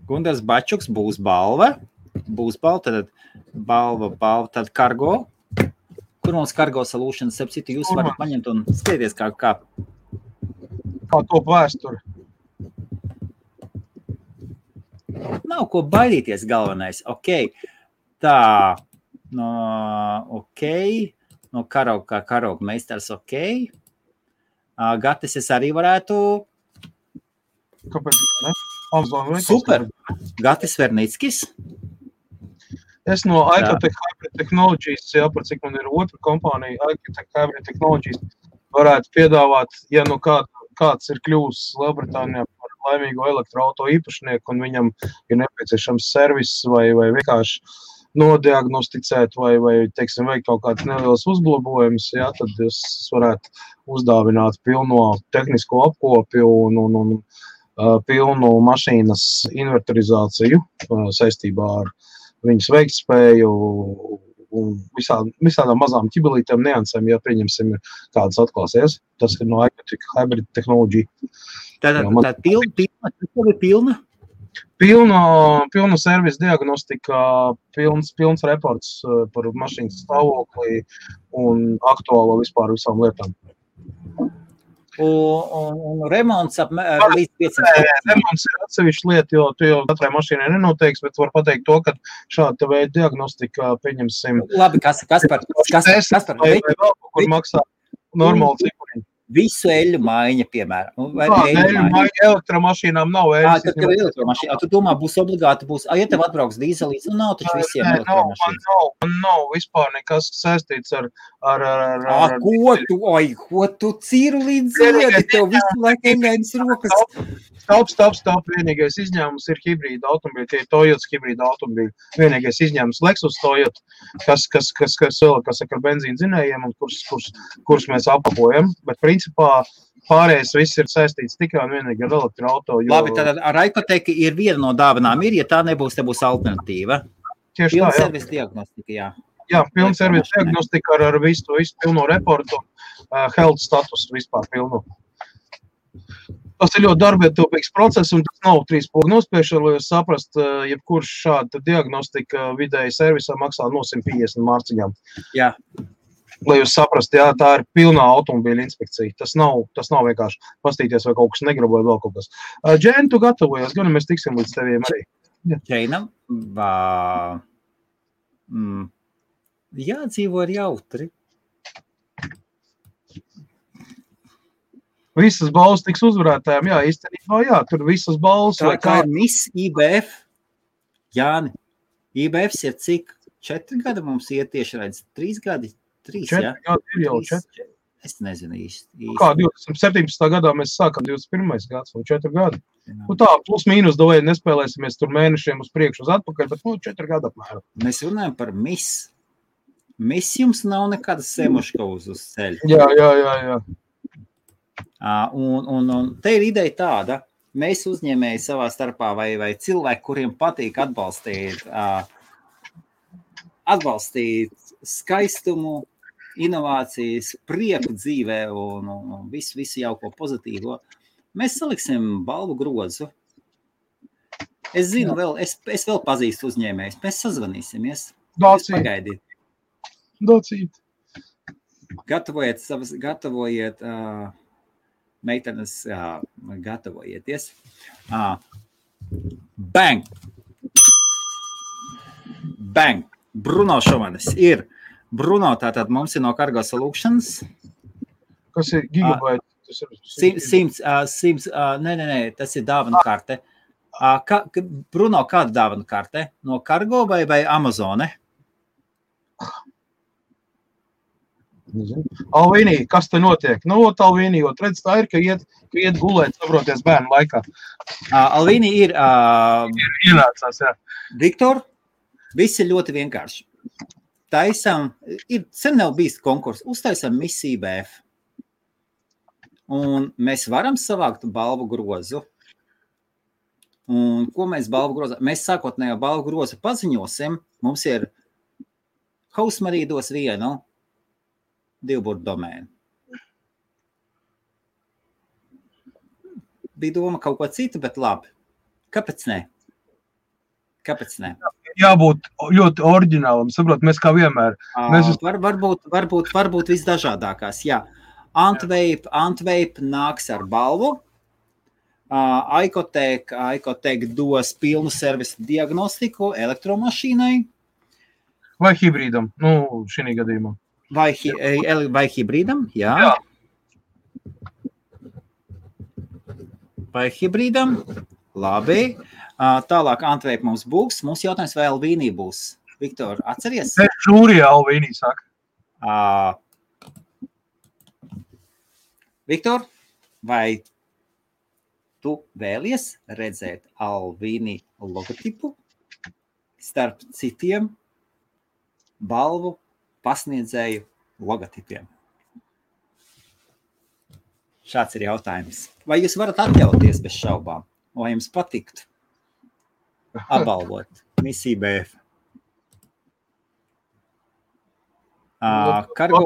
Gundars Bačuks būs balva, tad balva, tad kargo. Kur mums Cargo Solutions, starp citu, jūs varat paņemt un skaties kā top vēsturi. Nav ko baidīties galvenais. Ok. Tā. Ok. No Karog meistars ok. Gatis es arī varētu. Kāpēc, ne? Amazon Super. Gatis Vernickis. Es no Icotech Hybrid Technologies, par cik man ir otra kompānija, Icotech Hybrid Technologies, varētu piedāvāt, ja nu kāds ir kļūs Lielbritānijā par laimīgo elektroauto īpašnieku un viņam ir nepieciešams servis vai vienkārši nodiagnosticēt vai teiksim, veikt kaut kāds neliels uzlabojums, tad es varētu uzdāvināt pilno tehnisko apkopi un pilnu mašīnas inverterizāciju saistībā ar viņas veiktspēju un visādām mazām ķibelītēm niansēm, ja pieņemsim kādas atklāsies. Tas ir no Icotech Hybrid Technology. Tātad pilna? Pilna servisa diagnostika, pilns reports par mašīnas stāvokli un aktuālo vispār visām lietām. Un remonts līdz 500. Remonts ir atsevišķa lieta, jo tu jau katrai mašīnai nenoteiks, bet var pateikt to, ka šāda veida diagnostika pieņemsim. Labi, kas par? Vai vēl kur maksā normāli cipuriņi. Visu eļu maiņa, piemēram. Eļu maiņa elektromašīnām nav eļas. Tad, kad elektromašīna, tu domā, būs obligāti, ja tev atbrauks dīzelīts, nav taču visiem elektromašīnas. Man nav vispār nekas saistīts ar Ko tu cīru līdz ziedi, tev visu laiku engainas rokas. Stop. Vienīgais izņēmums ir hibrīda automobīļi, tie ir Toyotas hibrīda automobīļi. Vienīgais izņēmums Lexus Toyota, kas ar benzīnu dzinējiem un kurus mēs apkopojam, bet principā pārējais viss ir saistīts tikai un vienīgi ar elektroauto. Labi, tad ar Icotech ir viena no dāvanām ja tā nebūs, te būs alternatīva. Tieši tā, servisa diagnostika, jā. Jā, pilna servisa diagnostika ar visu pilno reportu, health status vispār pilnu. Tas ir ļoti darbietilpīgs process, un tas nav 3 pogu nospiešana, lai jūs saprast, jebkurš šāda diagnostika vidēji servisā maksā no 150 mārciņām. Jā. Lai jūs saprast, tā ir pilnā automobīļa inspekcija. Tas nav vienkārši pastīties, vai kaut kas negrib, vai vēl kaut kas. Džēn, tu gatavojies, gan mēs tiksim līdz teviem arī. Džēnam, jādzīvo ir jautri. Visas balvas tiks uzvarētājiem, īstenībā, tur visas balvas. Kā ir Miss IBF? Jāni, IBFs ir cik? 4 gadi mums iet tieši redz? 3 gadi? 3, 4 gadi ir jau 4. Es nezinu īsti. Kā 2017. gadā mēs sākam 21. gads, vai 4 gadi. Tā, plus mīnus davēji nespēlēsimies tur mēnešiem uz priekšu uz atpakaļ, bet 4 gadi apmēram. Mēs runājam par Miss. Miss jums nav nekāda semuška uz ceļa. Jā. Un te ir ideja tāda, mēs uzņēmēji savā starpā vai cilvēki, kuriem patīk atbalstīt skaistumu, inovācijas, prieku dzīvē un visu jauko pozitīvo, mēs saliksim balvu grozu. Es zinu, es vēl pazīstu uzņēmējus, mēs sazvanīsimies. Pagaidiet. Docīt. Gatavojiet meitenes, gatavojieties. Bang! Bruno Šomanis ir. Bruno, tātad mums ir no Cargo Solutions. Kas ir gigabaiti? 100, nē, tas ir dāvanu karte. Bruno, kāda dāvanu karte? No Cargo vai Amazone? Alvīnī, kas te notiek? Alvīnī, jo redz tā ir, ka iet gulēt, sabroties bērnu laikā. Alvīnī ir... Ienācās, jā. Viktor, viss ir ļoti vienkārši. taisam, sen nav bijis konkurss, uztaisam Miss IBF. Un mēs varam savākt balvu grozu. Un ko mēs balvu grozu? Mēs sākotnējo balvu grozu paziņosim. Mums ir Hausmarija dos vienu divburtu domēnu. Bija doma kaut ko citu, bet labi. Kāpēc ne? Jābūt ļoti oriģinālam, saprot, mēs kā vienmēr. Varbūt visdažādākās, jā. Antveip nāks ar balvu. Aikotek dos pilnu servisu diagnostiku elektromašīnai. Vai hibrīdam, šī gadījumā. Vai hibrīdam, jā. Vai hibrīdam, labi. Tālāk Antveip mums būs. Mums jautājums, vai Alvīnī būs. Viktor, atceries? Žūrijā Alvīnī saka. Viktor, vai tu vēlies redzēt Alvīnī logotipu starp citiem balvu pasniedzēju logotipiem? Šāds ir jautājums. Vai jūs varat atļauties bez šaubām? Vai jums patiktu apbalvot Miss IBF? Cargo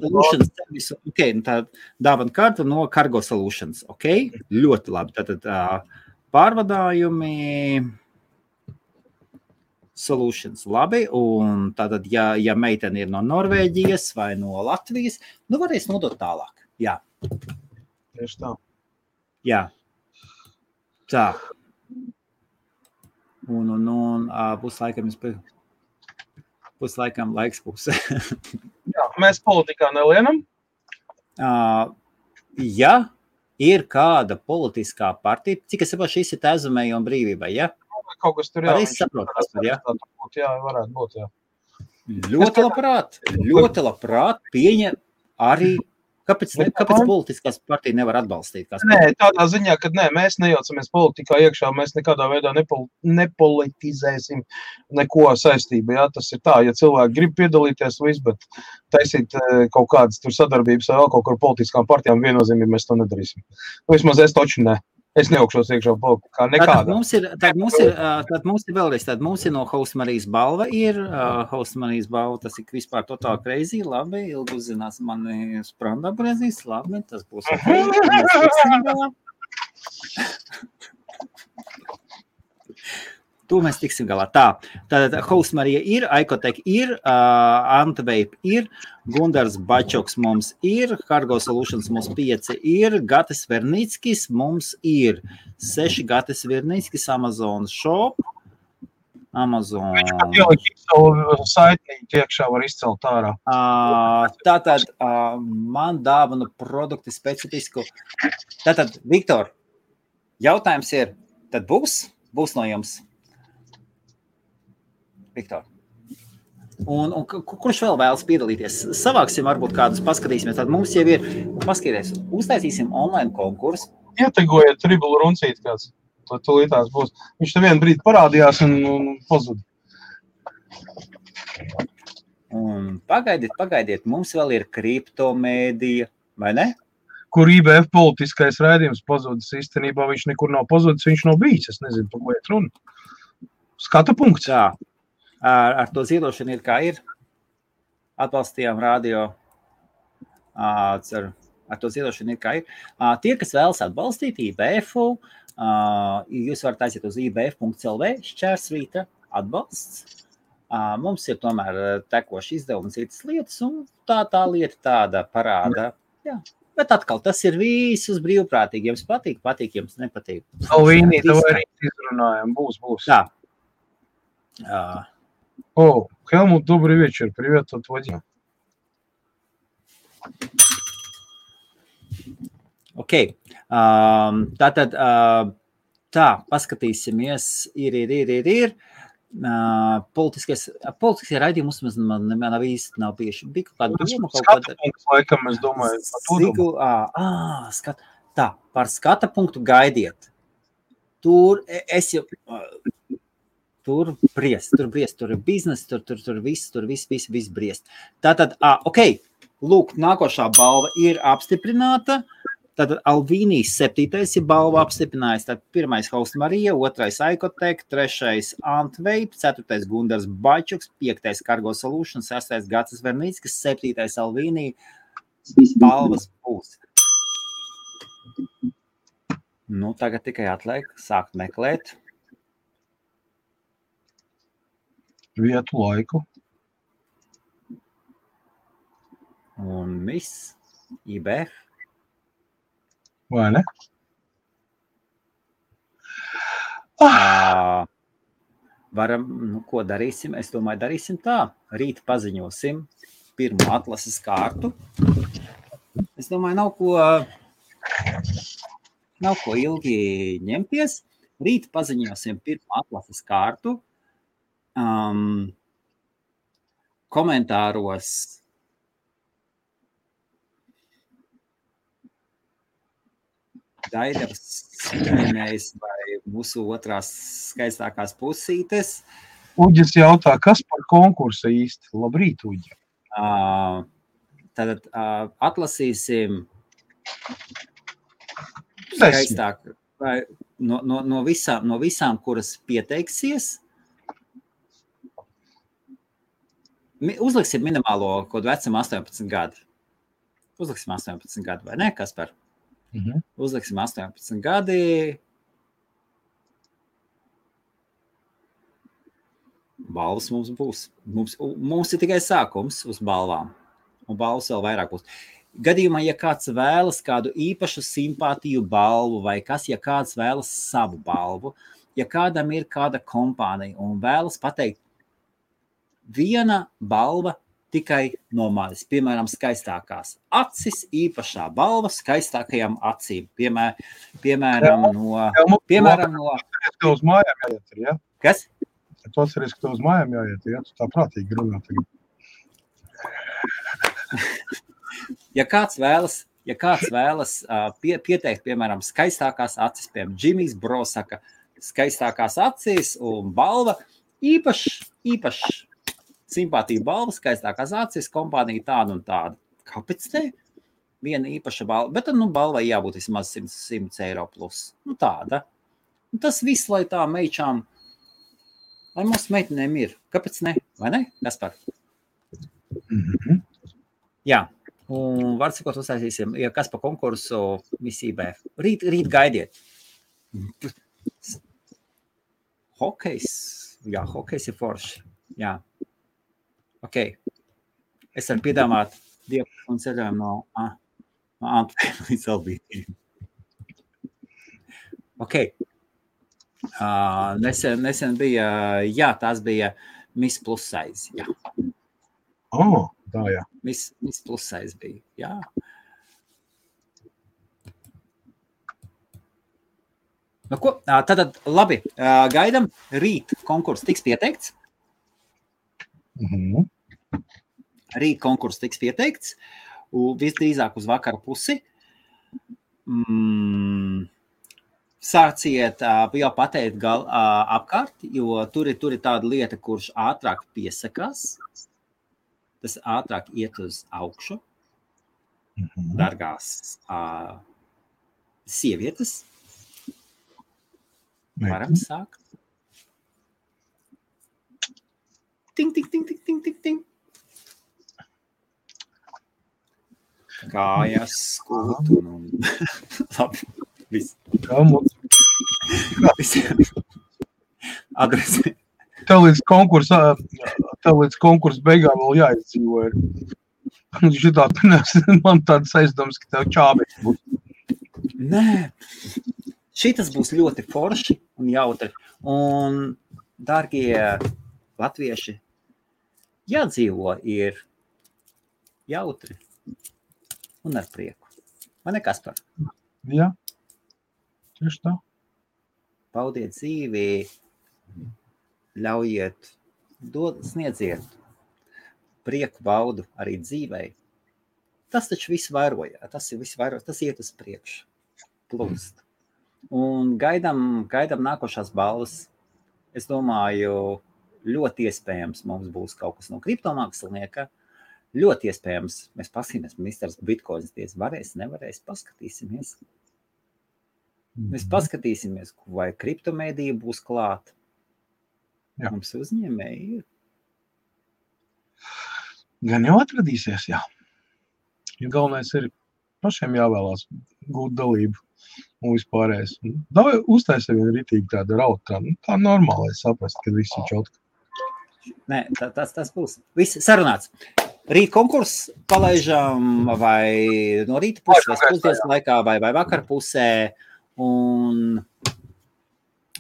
Solutions servisu, tā dāvana karta no Cargo Solutions, ļoti labi. Tātad pārvadājumi Solutions, labi, un tātad, ja meitene ir no Norvēģijas vai no Latvijas, varēs nodot tālāk, jā. Tieši tā. Jā. Tā. Un būs laikam laiks būs. Jā, mēs politikā nelienam. Ja ir kāda politiskā partija, cik es saprotu, šis ir Tēzumēji un brīvībai, ja? Kaut kas tur, jā. Arī saprot, kas tur, ja? Jā, varētu būt, jā. Ļoti labprāt pieņem arī. Kāpēc politiskās partija nevar atbalstīt? Nē, tādā ziņā, ka mēs nejaucamies politikā iekšā, mēs nekādā veidā nepolitizēsim neko saistību. Jā, tas ir tā, ja cilvēki grib piedalīties, bet taisīt kaut kādas tur sadarbības vai vēl kaut kur politiskām partijām viennozīmīgi mēs to nedarīsim. Vismaz es taču ne. Es neaugšos iekšā politikā nekādā. Tad mums ir vēlreiz, tad mums ir no Hausmarijas balva ir, Hausmarijas balva, tas ir vispār totāli crazy, labi, ilgi uzzinās mani spranda brezīs, labi, tas būs To mēs tiksim galā. Tātad Hausmarija ir, Aikotek ir, Antveip ir, Gundars Bačoks mums ir, Cargo Solutions mums 5 ir, Gatis Vernickis mums ir, 6 Gatis Vernickis, Amazon Shop, Amazon. Viņš ielikt savu saitnīti iekšā var izcelt ārā. Tātad man dāvanu produkti specifisku. Tātad, Viktor, jautājums ir, tad būs no jums? Viktor. Un kurš vēl vēlas piedalīties? Savāksim varbūt kādus, paskatīsimies. Tad mums jau ir, paskatīties, uztaisīsim online konkursu. Ietegojiet tribulu runcīt kāds. Tūlītās būs. Viņš te vienu brīdi parādījās un pazuda. Un pagaidiet, mums vēl ir kriptomēdija, vai ne? Kur IBF politiskais raidījums pazudis. Īstenībā viņš nekur nav pazudis, viņš nav bijis. Es nezinu, par ko iet runa. Skata punkts. Jā. Ar to ziedošanu ir kā ir. Atbalstījām radio. Ar to ziedošanu ir kā ir. Tie, kas vēlas atbalstīt IBF-u, jūs varat aiziet uz ibf.lv šķērsvīta atbalsts. Mums ir tomēr tekoši izdevumi un citas lietas, un tā lieta tāda parāda. Jā. Bet atkal, tas ir visus brīvprātīgi. Jums patīk, jums nepatīk. Alvīnī, tev arī izrunājam. Būs. Tā. Helmut, добрый вечер. Привет от Вадима. Tātad, paskatīsimies, ir. Politiskie raidījumi mums nav īsti nav bijuši. Bija kaut kāda doma, skata punkts, laikam, es domāju. Par skata punktu gaidiet. Tur es jau... tur briest, tur ir biznes, tur viss briest. Tātad, ok, lūk, nākošā balva ir apstiprināta. Tātad Alvīnijas 7. ir balva apstiprinājis. Tad 1. Hausta Marija, 2. Aikotek, 3. Antveip, 4. Gundars Bačuks, 5. Cargo Solutions, 6. Gacis Vernīckis, 7. Alvīnija balvas būs. Nu, tagad tikai atliek sākt meklēt. Vietu, laiku. Un viss, IB. Vai ne? Varam, ko darīsim? Es domāju, darīsim tā. Rīt paziņosim pirmo atlases kārtu. Es domāju, nav ko ilgi ņemties. Rīt paziņosim pirmo atlases kārtu. Komentāros Daidavs minējis vai mūsu otrās skaistākās pusītes. Uģis jautā, kas par konkursu īsti? Labrīt, Uģi. Tad atlasīsim skaistāk vai no visām, kuras pieteiksies. Uzliksim minimālo kodu vecam 18 gadu. Uzliksim 18 gadu, vai ne, Kaspar? Uzliksim 18 gadi. Balvas mums būs. Mums ir tikai sākums uz balvām. Un balvas vēl vairāk būs. Gadījumā, ja kāds vēlas kādu īpašu simpātiju balvu vai kas, ja kāds vēlas savu balvu, ja kādam ir kāda kompānija un vēlas pateikt viena balva tikai no manis, piemēram, skaistākās acis, īpašā balva skaistākajām acīm. Piemēram, no... Tu uz mājām jāiet, ja? Kas? Tu atceries, ka tu uz mājām jāiet, ja? Tu tā prātīgi runā tagad. Ja kāds vēlas pieteikt, piemēram, skaistākās acis, piemēram, Džimijs Bro saka, skaistākās acis un balva, īpaši simpātija balva, skaistākās acis, kompānija tāda un tāda. Kāpēc te? Viena īpaša balva, bet tad, balvai jābūt vismaz 100 eiro plus. Tāda. Un tas viss, lai tā meičām, lai mūsu meitenēm ir. Kāpēc ne? Vai ne? Kaspar? Jā. Un var sakot, uztaisīsim, ja kas pa konkursu misībā. Rīt gaidiet. Hokejs. Jā, hokejs ir forši. Jā. Ok. Es varu piedāvāt dievu un ceļojumu no Antveipes līdz Alvīnijai. Ok. Nesen bija, jā, tās bija Miss Plus size, jā. Tā, jā. Miss Plus size bija, jā. Nu ko, tad labi, gaidam, rīt konkurss tiks pieteikts. Rīt konkurss tiks pieteikts, visdrīzāk uz vakara pusi. Sāciet jau pateikt apkārt, jo tur ir tāda lieta, kurš ātrāk piesakās. Tas ātrāk iet uz augšu. Dargās sievietes. Varam sākt. Ting, ting, ting, ting, ting, ting, ting. Kājas, skūtu un... Labi, viss. Adresi. Tev līdz konkursa beigām vēl jāizdzīvo. Šitā man tādas aizdomas, ka tev čābeks būs. Nē, šitas būs ļoti forši un jautri. Un, dārgie latvieši, jādzīvo ir jautri un ar prieku. Vai ne, Kaspar? Jā, tieši tā. Baudiet dzīvi, ļaujiet, sniedziet prieku baudu arī dzīvei. Tas taču viss vairoja, tas iet uz priekšu, plūst. Un gaidam nākošās balvas es domāju, ļoti iespējams mums būs kaut kas no kriptomākslinieka. Ļoti iespējams, mēs paskatīsimies, misters Bitcoins varēs, nevarēs, paskatīsimies. Mēs paskatīsimies, vai kriptomēdija būs klāt. Jā. Mums uzņēmēji ir. Gan jau atradīsies, jā. Ja galvenais ir pašiem jāvēlās gūt dalību un vispārējais. Uztaisa vienu ritīgi tādu rautu, tā normāli saprast, ka viss ir čotka. Nē, tas būs. Viss sarunāts. Rīt konkurss palaižam vai no rīta puses, vai pusdienas laikā, vai vakar pusē, un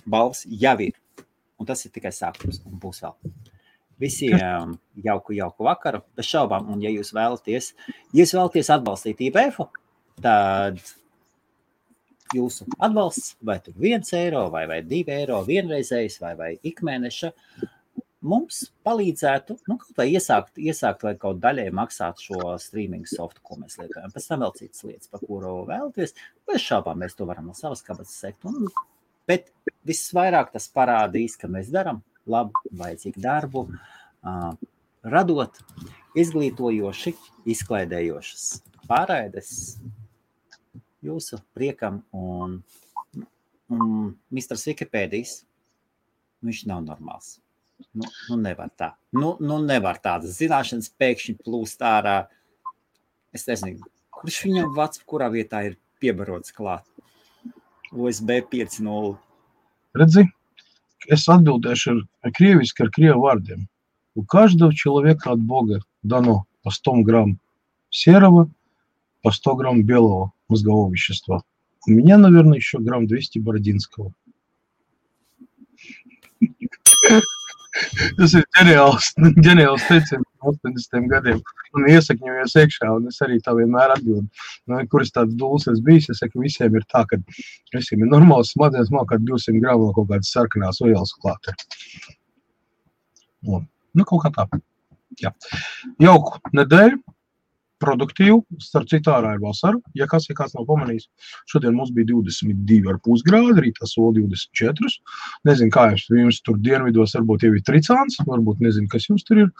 balvas jau ir. Un tas ir tikai sākums, un būs vēl. Visiem jauku vakaru, bez šaubām, un ja jūs vēlaties atbalstīt IBF-u, tad jūsu atbalsts, vai tur 1 eiro, vai 2 eiro vienreizējs, vai ikmēneša, mums palīdzētu, kaut vai iesākt vai kaut daļai maksāt šo streaming softu, ko mēs lietojam. Pēc tam vēl citas lietas, par kuru vēlaties. Bez šaubām mēs to varam no savas kabatas sekt. Bet visvairāk tas parādīs, ka mēs daram labu, vajadzīgu darbu, radot izglītojoši, izklaidējošas pārraides jūsu priekam un misters Wikipēdijas, viņš nav normāls. Nevar tā. Nevar tādas zināšanas pēkšņi plūst ārā. Es nezinu, kurš viņam vats, kurā vietā ir piebarots klāt. USB 5.0. Redzi, es atbildēšu ar крieviски, ar крievu вардiem. У каждого человека от Бога дано по 100 грамм серого, по 100 грамм белого мозгового вещества. У меня, наверное, еще грамм 200 бородинского. Tas ir ģeniāls teiciens 80 gadiem. Un iesakņojies iekšā, un es arī tā vienmēr atbildu. Kuras tāds dūls es bijis, es saku, visiem ir tā, ka visiem ir normāls smadzenes, man kā 200 gramu kaut kādas sarkanās vielas klāte. Kaut kā tā. Jā. Jauku nedēļu, produktīvu, starp citu ārā ir vasara. Ja kāds nav pamanījis, šodien mums bija 22,5 grādi, rītā sola 24. Nezinu, kā jums tur dienvidos varbūt jau ir tricāns, varbūt nezinu, kas jums tur ir,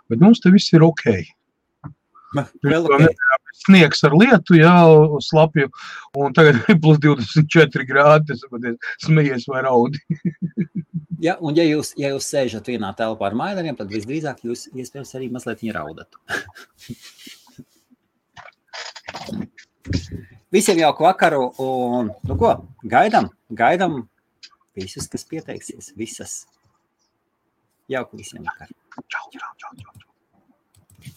bet mums te viss ir ok. Vēl ok. Sniegs ar lietu, jā, slapju, un tagad ir plus 24 grādi, tas smejies vai raudi. Ja, un ja jūs sēžat vienā telpā ar maileriem, tad visdrīzāk jūs iespējams arī mazliet viņa raudat. Visiem jauku vakaru un, gaidam visus, kas pieteiksies, visas. Jauku visiem vakaru. Čau.